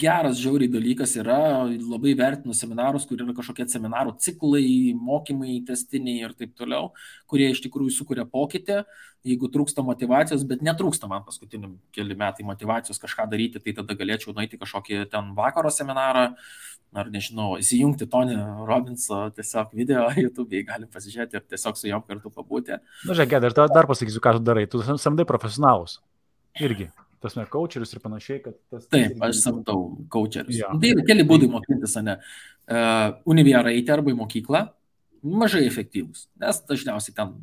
geras, žiauriai dalykas yra, labai vertinu seminarus, kur yra kažkokie seminarų ciklai, mokymai, testiniai ir taip toliau, kurie iš tikrųjų sukuria pokytį. Jeigu trūksta motivacijos, bet netrūksta man paskutiniam keli metai motivacijos kažką daryti, tai tada galėčiau nueiti kažkokį ten vakaro seminarą, ar nežinau, įsijungti Tony Robbinso tiesiog video YouTube'ai, galim pasižiūrėti ir tiesiog su jom kartu pabūti. Na, žiūrėk, aš dar pasakysiu, ką tu darai. Tu samdai profesionalus. Irgi. Tas ne coacherius ir panašiai, kad tas... Taip, aš samdau coacherius. Ja. Tai yra keli būdai mokintis, ne? Univiera eiti arba į mokyklą, mažai efektyvus, nes dažniausiai ten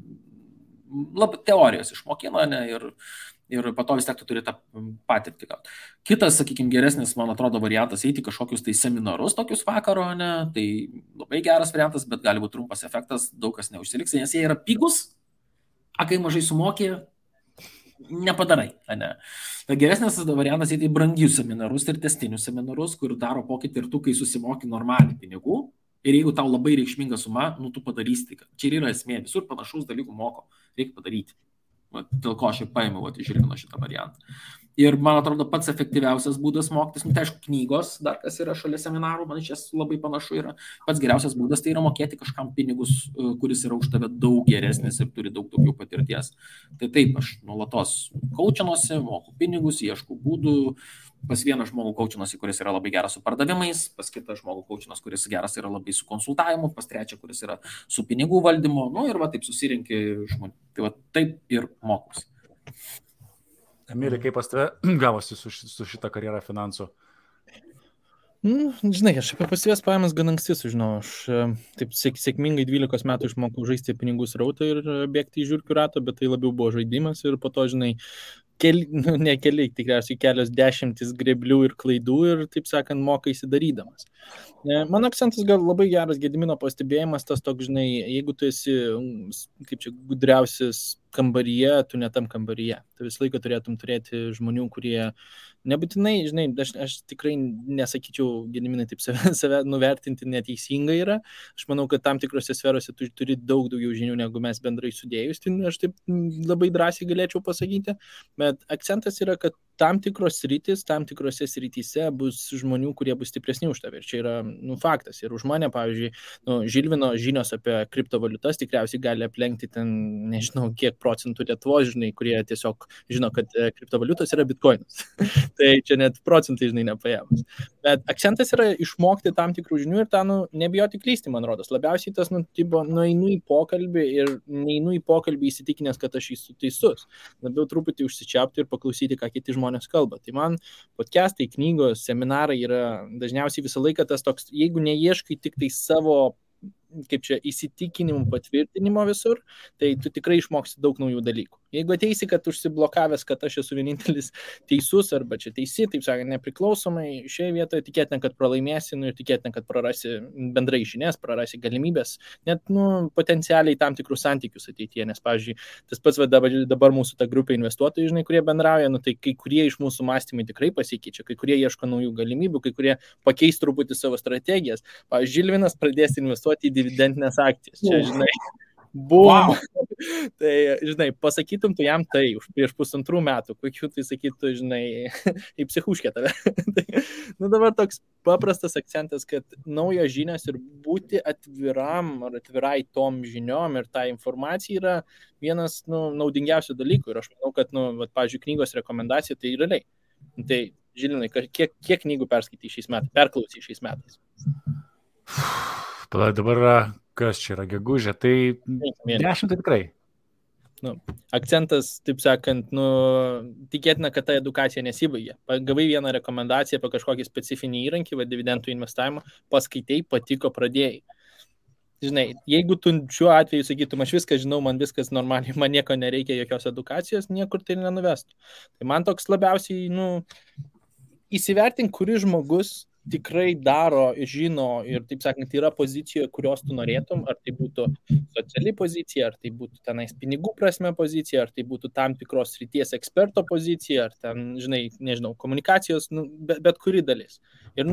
teorijos išmokina, ne? Ir po to vis tiek tu turi tą patirtį gauti. Kitas, sakykime, geresnis, man atrodo, variantas eiti kažkokius tai seminarus tokius vakaro, ne? Tai labai geras variantas, bet gali būti trumpas efektas, daug kas neužsiliks, nes jie yra pigus, kai mažai sumokė, nepadarai. Ne? Tai geresnis variantas eiti į brangius seminarus ir testinius seminarus, kur daro pokytį ir tu, kai susimoki normaliai pinigų, ir jeigu tau labai reikšminga suma, tu padarysi. Čia yra esmė, visur panašaus dalykų moko, reikia padaryti. Dėl ko aš ir paėmiau išrino šitą variantą. Ir man atrodo pats efektyviausias būdas mokytis, tai aišku, knygos, dar kas yra šalia seminarų, man iš jas labai panašu yra. Pats geriausias būdas tai yra mokėti kažkam pinigus, kuris yra už tave daug geresnis ir turi daug daugiau patirties. Tai taip, aš nuolatos kaučinuosi, moku pinigus, ieškau būdų. Pas vieną žmogų kaučinuosi, kuris yra labai geras su pardavimais, pas kitą žmogų kaučinuosi, kuris geras yra labai su konsultavimu, pas trečią, kuris yra su pinigų valdymu, ir taip susirinki žmonių. Tai taip ir mokus. Emilį, kaip pas tave gavosi su šitą karjerą finansų? Žinai, aš apie pasyvias pajamas gan anksti sužinau. Aš taip sėkmingai 12 metų išmokau žaisti pinigų srautą ir bėgti į žiurkių ratą, bet tai labiau buvo žaidimas ir po to, žinai, tikriausiai kelios dešimtis greblių ir klaidų ir, taip sakant, mokaisi darydamas. Mano akcentas gal labai geras Gedimino pastebėjimas, tas toks, žinai, jeigu tu esi, kaip čia, gudriausias kambaryje, tu ne tam kambaryje. Tu visą laiką turėtum turėti žmonių, kurie nebūtinai, žinai, aš tikrai nesakyčiau, Gediminai, taip save nuvertinti neteisingai yra. Aš manau, kad tam tikrose sferose tu turi daug daugiau žinių, negu mes bendrai sudėjus. Tai aš taip labai drąsiai galėčiau pasakyti. Bet akcentas yra, kad tam tikrose srityse bus žmonių, kurie bus stipresni už tave. Ir čia yra, faktas. Ir už mane, pavyzdžiui, Žilvino žinios apie kriptovaliutas tikriausiai gali aplenkti ten, nežinau, kiek procentų Lietuvos, žinai, kurie tiesiog žino, kad kriptovaliutos yra bitkoinas. Tai čia net procentai, žinai, nepaėmus. Bet akcentas yra išmokti tam tikrų žinių ir tą, nebijoti klysti, man rodos. Labiausiai tas, nueinu į pokalbį ir neinu į pokalbį įsitikinęs, kad aš esu teisus. Labiau truputį užsičiaupti ir paklausyti, ką kiti žmonės kalba. Tai man podcastai, knygos, seminarai yra dažniausiai visą laiką tas toks, jeigu neieškai tik tai savo įsitikinimų patvirtinimo visur, tai tu tikrai išmoksi daug naujų dalykų. Jeigu ateisi, kad užsiblokavęs, kad aš esu vienintelis teisus arba čia teisi, taip sakant, nepriklausomai, šioje vietoje tikėtina, kad pralaimėsi ir tikėtina, kad prarasi bendrai žinias, prarasi galimybės, net potencialiai tam tikrus santykius ateityje, nes, pavyzdžiui, tas pats dabar mūsų ta grupė investuotojų, žinai, kurie bendrauja, tai kai kurie iš mūsų mąstymai tikrai pasikeičia, kai kurie ieško naujų galimybių, kai kurie pakeis truputį savo strategijas. Pavyzdžiui, Žilvinas pradės investuoti į dividendinės akcijas. Čia, žinai, Wow. Tai, žinai, pasakytum tu jam tai prieš 1,5 metų, kokiu tai sakytų, žinai, į psichuškę tave. Tai, dabar toks paprastas akcentas, kad naujos žinios ir būti atviram ar atvirai tom žiniom ir tą informaciją yra vienas, naudingiausių dalykų. Ir aš manau, kad, pavyzdžiui, knygos rekomendacija tai realiai. Tai, Žilinai, kiek knygų perklausai šiais metais? Dabar kas čia yra gegužė, tai 10 tai tikrai. Akcentas, taip sakant, tikėtina, kad ta edukacija nesibaigė. Gavai vieną rekomendaciją apie kažkokį specifinį įrankį, dividendų investavimą, paskaitai, patiko, pradėjai. Žinai, jeigu tu šiuo atveju sakytum, aš viską žinau, man viskas normaliai, man nieko nereikia, jokios edukacijos, niekur tai nenuvestų. Tai man toks labiausiai, įsivertink, kuris žmogus tikrai daro, žino ir, taip sakant, yra pozicijoje, kurios tu norėtum, ar tai būtų sociali pozicija, ar tai būtų tenais pinigų prasme pozicija, ar tai būtų tam tikros srities eksperto pozicija, ar ten, žinai, nežinau, komunikacijos, bet kuri dalis. Ir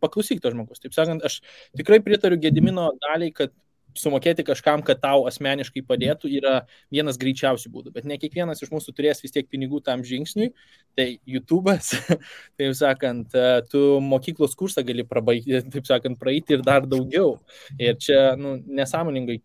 paklausyk to žmogus. Taip sakant, aš tikrai pritariu Gedimino daliai, kad sumokėti kažkam, kad tau asmeniškai padėtų, yra vienas greičiausių būdų, bet ne kiekvienas iš mūsų turės vis tiek pinigų tam žingsniui, tai YouTube'as, taip sakant, tu mokyklos kursą gali prabaigti, taip sakant, praeiti ir dar daugiau. Ir čia, nesąmoningai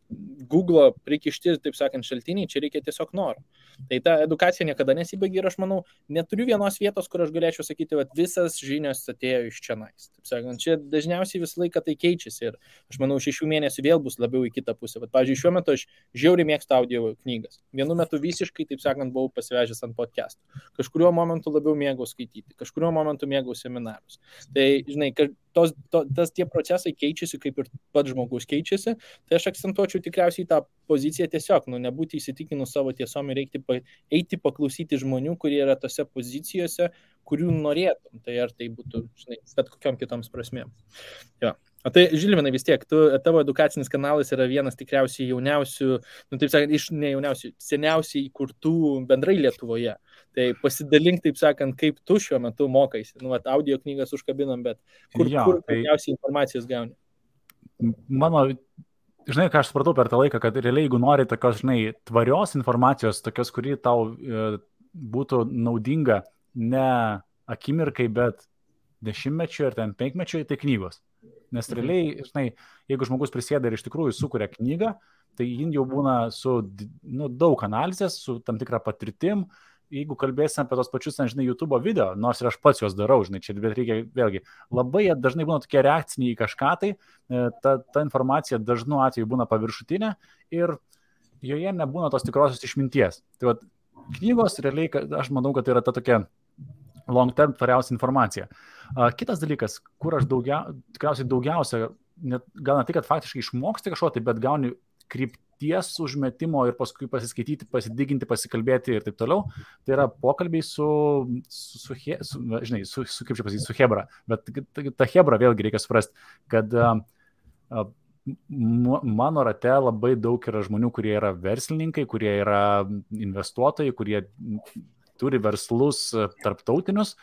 Google prikišti, taip sakant, šaltiniai, čia reikia tiesiog noro. Tai ta edukacija niekada nesibaigia ir aš manau, neturiu vienos vietos, kur aš galėčiau sakyti, kad visas žinios atėjo iš čionais. Taip sakant, čia dažniausiai visą laiką tai keičiasi ir aš manau, 6 mėnesių vėl bus labiau į kitą pusę. Bet, pavyzdžiui, šiuo metu aš žiauriai mėgstu audio knygas. Vienu metu visiškai, taip sakant, buvau pasivežęs ant podcastų. Kažkuriuo momentu labiau mėgau skaityti, kažkuriuo momentu mėgau seminarus. Tai, žinai, tie procesai keičiasi, kaip ir pats žmogus keičiasi, tai aš akcentuočiau tikriausiai tą poziciją tiesiog, nebūti įsitikinus savo tiesom ir eiti paklausyti žmonių, kurie yra tose pozicijose, kurių norėtum. Tai ar tai būtų, žinai, bet kokiom kitoms prasmėm. Jo. O tai, Žilvinai, vis tiek, tavo edukacinis kanalas yra vienas tikriausiai jauniausių, taip sakant, iš ne jauniausių, seniausiai įkurtų bendrai Lietuvoje. Tai pasidalink, taip sakant, kaip tu šiuo metu mokaisi. Audio knygas užkabinom, bet kur daugiausiai informacijos gauni? Žinai, ką aš supratau per tą laiką, kad realiai, jeigu nori tokios, žinai, tvarios informacijos, tokios, kuri tau būtų naudinga ne akimirkai, bet 10-mečiui ar 5-mečiui, tai knygos. Nes realiai, žinai, jeigu žmogus prisėda ir iš tikrųjų sukuria knygą, tai jin jau būna su daug analizės, su tam tikra patirtim. Jeigu kalbėsim apie tos pačius, žinai, YouTube video, nors ir aš pats juos darau, žinai, čia bet reikia vėlgi, labai dažnai būna tokie reakciniai į kažką, tai ta informacija dažnu atveju būna paviršutinė ir joje nebūna tos tikrosios išminties. Tai vat, knygos realiai, aš manau, kad tai yra ta tokia long term tvariausia informacija. Kitas dalykas, kur aš tikriausiai daugiausia, gal ne tai, kad faktiškai išmoksti kažko, tai bet gauni krypties užmetimo ir paskui pasiskaityti, pasidiginti, pasikalbėti ir taip toliau, tai yra pokalbiai su Hebra. Bet ta Hebra vėlgi reikia suprasti, kad mano rate labai daug yra žmonių, kurie yra verslininkai, kurie yra investuotojai, kurie turi verslus tarptautinius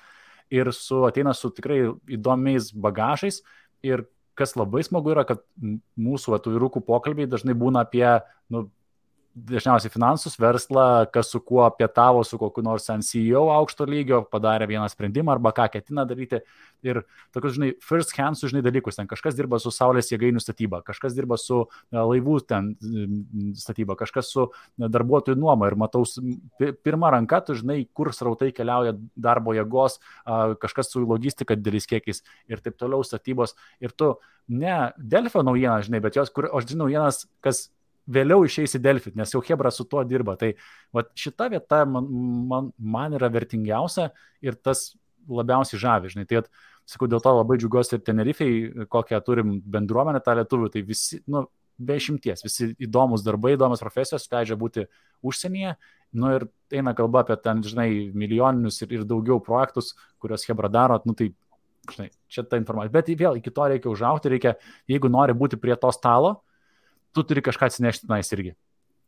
ir ateina su tikrai įdomiais bagažais. Ir kas labai smagu yra, kad mūsų vyrukų pokalbiai dažnai būna apie dažniausiai finansus, verslą, kas su kuo pietavo, su kokiu nors CEO aukšto lygio, padarė vieną sprendimą arba ką ketina daryti. Ir tokius, žinai, first hand, žinai, dalykus. Ten kažkas dirba su saulės jėgainių statyba, kažkas dirba su laivų ten statyba, kažkas su darbuotojų nuoma. Ir matau, pirmą ranką, tu žinai, kur srautai keliauja darbo jėgos, kažkas su logistika dideliais kiekiais ir taip toliau statybos. Ir tu ne Delfio naujieną, žinai, bet jos, kur aš žinau naujienas, kas vėliau išeis į Delfį, nes jau Hebra su tuo dirba. Tai vat, šita vieta man yra vertingiausia ir tas labiausiai žavi, žinai. Tai, sakau, dėl to labai džiugiuosi ir Tenerifei, kokią turim bendruomenę tą lietuvių, tai visi, be išimties, visi įdomus darbai, įdomus profesijos leidžia būti užsienyje, ir eina kalba apie ten, žinai, milijoninius ir daugiau projektus, kuriuos Hebra daro, tai, žinai, čia ta informacija. Bet vėl iki to reikia užaugti, jeigu nori būti prie to stalo, tu turi kažką atsinešti tenais irgi.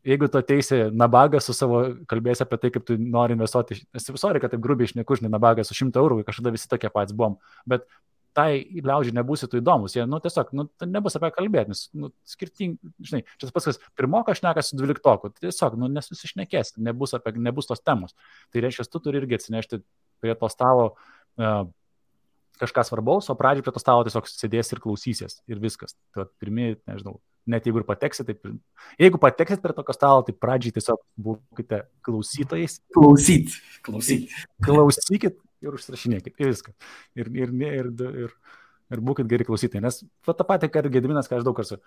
Jeigu tu ateisi nabagą su savo, kalbėsi apie tai, kaip tu nori investuoti, sorry, kad taip grubiai išneku, žinai, nabagą su 100 eurų, kažkada visi tokie patys buvom, bet tai liaudžiai nebūsi tu įdomus, jie, tiesiog, nebus apie kalbėti, nes, skirtingi, žinai, čia tas pats, kas pirmokas šnekas su 12-oku, tiesiog, nesusišnekės, nebus tos temos. Tai reiškia, tu turi irgi atsinešti prie to stalo kažką svarbaus, o pradžiai prie to stalo tiesiog sėdės ir klausysies ir viskas. Tai pirmieji, nežinau, net jeigu ir pateksit, jeigu pateksit prie tokio stalo, tai pradžiai tiesiog būkite klausytojais. Klausykit ir užsirašinėkit ir viską. Ir būkit geri klausytojai. Nes tą patį, ką ir Gediminas, ką aš daug kartų.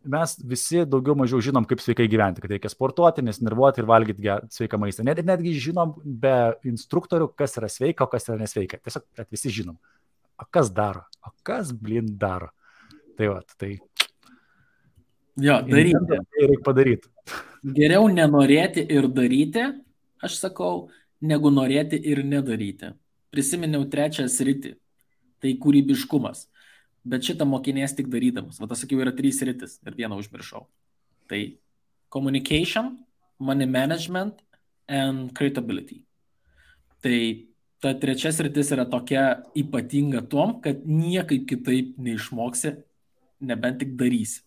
Mes visi daugiau mažiau žinom, kaip sveikai gyventi, kad reikia sportuoti, nesnervuoti ir valgyti sveiką maistą. Netgi žinom be instruktorių, kas yra sveika, o kas yra nesveika. Tiesiog visi žinom. O kas daro? O kas, daro? Tai va, tai... Jo, daryti. Tai reikia padaryti. Geriau nenorėti ir daryti, aš sakau, negu norėti ir nedaryti. Prisiminiau trečią sritį. Tai kūrybiškumas. Bet šitą mokinės tik darydamas. Va, tas sakiau, yra 3 sritis ir vieną užmiršau. Tai communication, money management and creatability. Tai ta trečia sritis yra tokia ypatinga tom, kad niekaip kitaip neišmoksi, nebent tik darysi.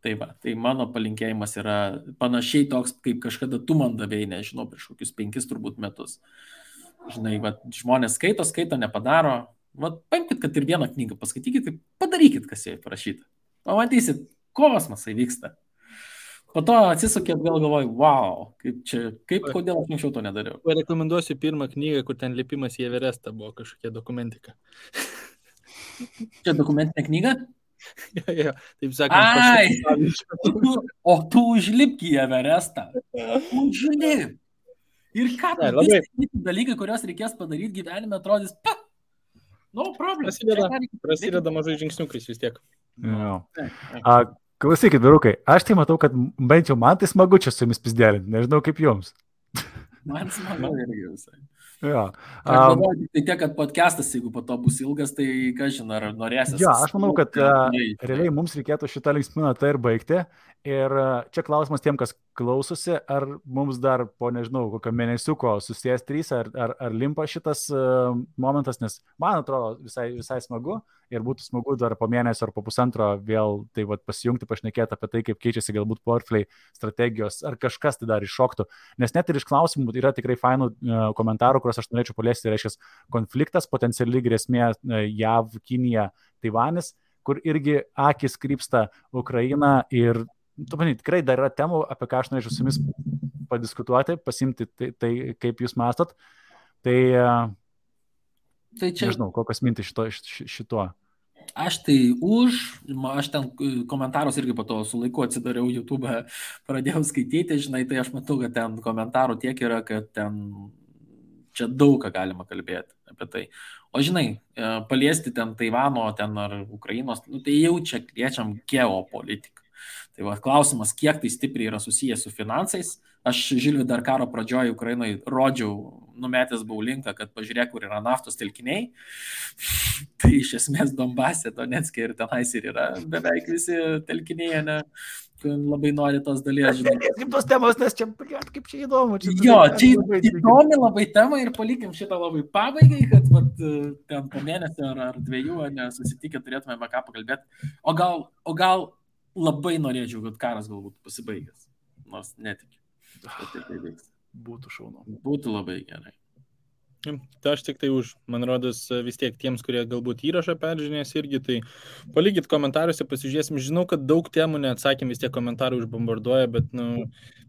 Tai va, tai mano palinkėjimas yra panašiai toks, kaip kažkada tu man davėjai, nežinau, prieš kokius 5 turbūt metus. Žinai, va, žmonės skaito, nepadaro. Va, paimkit, kad ir vieną knygą paskaitykit, tai padarykit, kas joje parašyta. Pamatysit, kosmosai vyksta. Po to atsisukėt, vėl galvoju, wow, kodėl aš anksčiau to nedariau. Rekomenduosiu pirmą knygą, kur ten lipimas į Everestą buvo kažkokia dokumentika. Čia dokumentinė knyga? Jo, taip sakant. O tu užlipk į Everestą. Užlipk. Ir ką, visi dalykai, kuriuos reikės padaryti gyvenime, atrodys, no problem. Prasideda mažai žingsniukais vis tiek. Klausykit, vyrukai, aš tai matau, kad bent jau man tai smagu čia su jumis pizdėlinti, nežinau kaip jums. Man smagu irgi visai. Jo. Aš galvoju, tai tiek, kad podcastas, jeigu po to bus ilgas, tai ką žinai, ar norėsis. Jo, aš manau, kad realiai mums reikėtų šitą linksmą natą ir baigti. Ir čia klausimas tiem, kas klausosi, ar mums dar po, nežinau, kokio mėnesiuko susijęs 3, ar limpa šitas momentas, nes man atrodo visai smagu ir būtų smagu dar po mėnesio ar po pusantro vėl tai vat, pasijungti, pašnekėti apie tai, kaip keičiasi galbūt portfeliai, strategijos, ar kažkas tai dar iššoktų. Nes net ir iš klausimų yra tikrai fainų komentarų, kuriuos aš norėčiau paliesti, tai reiškia konfliktas, potenciali grėsmė JAV, Kinija, Taivanis, kur irgi akis krypsta Ukraina ir tikrai dar yra temų, apie ką aš norėčiau su jumis padiskutuoti, pasimti tai kaip jūs mastot. Tai čia... Nežinau, kokios mintis šituo. Aš ten komentarus irgi po to su laiku atsidariau YouTube, pradėjau skaityti, žinai, tai aš matau, kad ten komentarų tiek yra, kad ten čia daug ką galima kalbėti apie tai. O žinai, paliesti ten Taivano, ten ar Ukrainos, tai jau čia liečiam geopolitiką. Tai va, klausimas, kiek tai stipriai yra susijęs su finansais. Aš Žilvi dar karo pradžioje Ukrainoje rodžiau, numetęs buvau linką, kad pažiūrėk, kur yra naftos telkiniai. Tai iš esmės Donbase, Donetske ir tenais ir yra beveik visi telkiniai, ne? Labai nori tos dalies, žinai. Kaip tos temos, nes čia, kaip čia įdomu. Jo, čia įdomi labai tema ir palikim šitą labai pabaigai, kad vat, ten po mėnesio ar 2 nesusitikę turėtume ką pakalbėti. O gal labai norėčiau, kad karas galbūt pasibaigęs. nors netikiu, kad tai vyks. Būtų šaunu. Būtų labai gerai. Tai aš tik tai už, man rodos, vis tiek tiems, kurie galbūt įrašą peržiūrės irgi, tai palikit komentaruose, pasižiūrėsim. Žinau, kad daug temų neatsakym, vis tiek komentarai užbombarduoja, bet,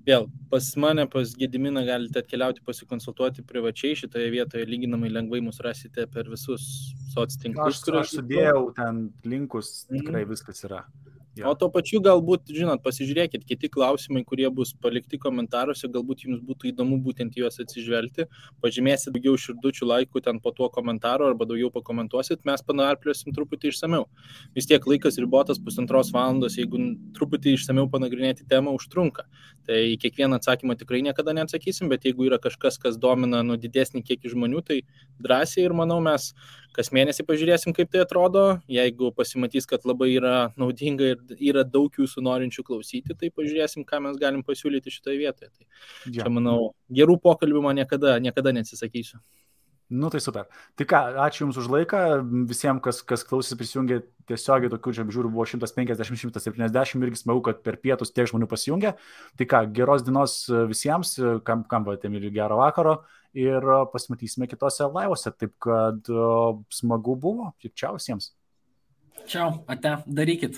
vėl, pas mane, pas Gediminą galite atkeliauti pasikonsultuoti privačiai šitoje vietoje, lyginamai lengvai mus rasite per visus soctinklus. Aš sudėjau ten linkus, tikrai viskas yra. Ja. O to pačiu galbūt, žinot, pasižiūrėkit, kiti klausimai, kurie bus palikti komentaruose, galbūt jums būtų įdomu būtent juos atsižvelgti, pažymėsit daugiau širdučių, laikų ten po tuo komentaru arba daugiau pakomentuosit, mes panarpliosim truputį išsameu. Vis tiek laikas ribotas 1,5 valandos, jeigu truputį išsameu panagrinėti temą, užtrunka. Tai į kiekvieną atsakymą tikrai niekada neatsakysim, bet jeigu yra kažkas, kas domina didesnį kiekį žmonių, tai drąsiai ir manau mes kas mėnesį pažiūrėsim, kaip tai atrodo. Jeigu pasimatys, kad labai yra naudinga ir yra daug jūsų norinčių klausyti, tai pažiūrėsim, ką mes galim pasiūlyti šitoje vietoje. Tai čia, manau, gerų pokalbių man niekada neatsisakysiu. Tai super. Tai ką, ačiū Jums už laiką. Visiems, kas klausėsi, prisijungė tiesiogiai, tokių čia žiūrų buvo 150-170, irgi smagu, kad per pietus tiek žmonių pasijungė. Tai ką, geros dienos visiems, kam patėmėlį gero vakaro ir pasimatysime kitose laivose. Taip kad smagu buvo. Čiau visiems. Čiau, ate, darykit.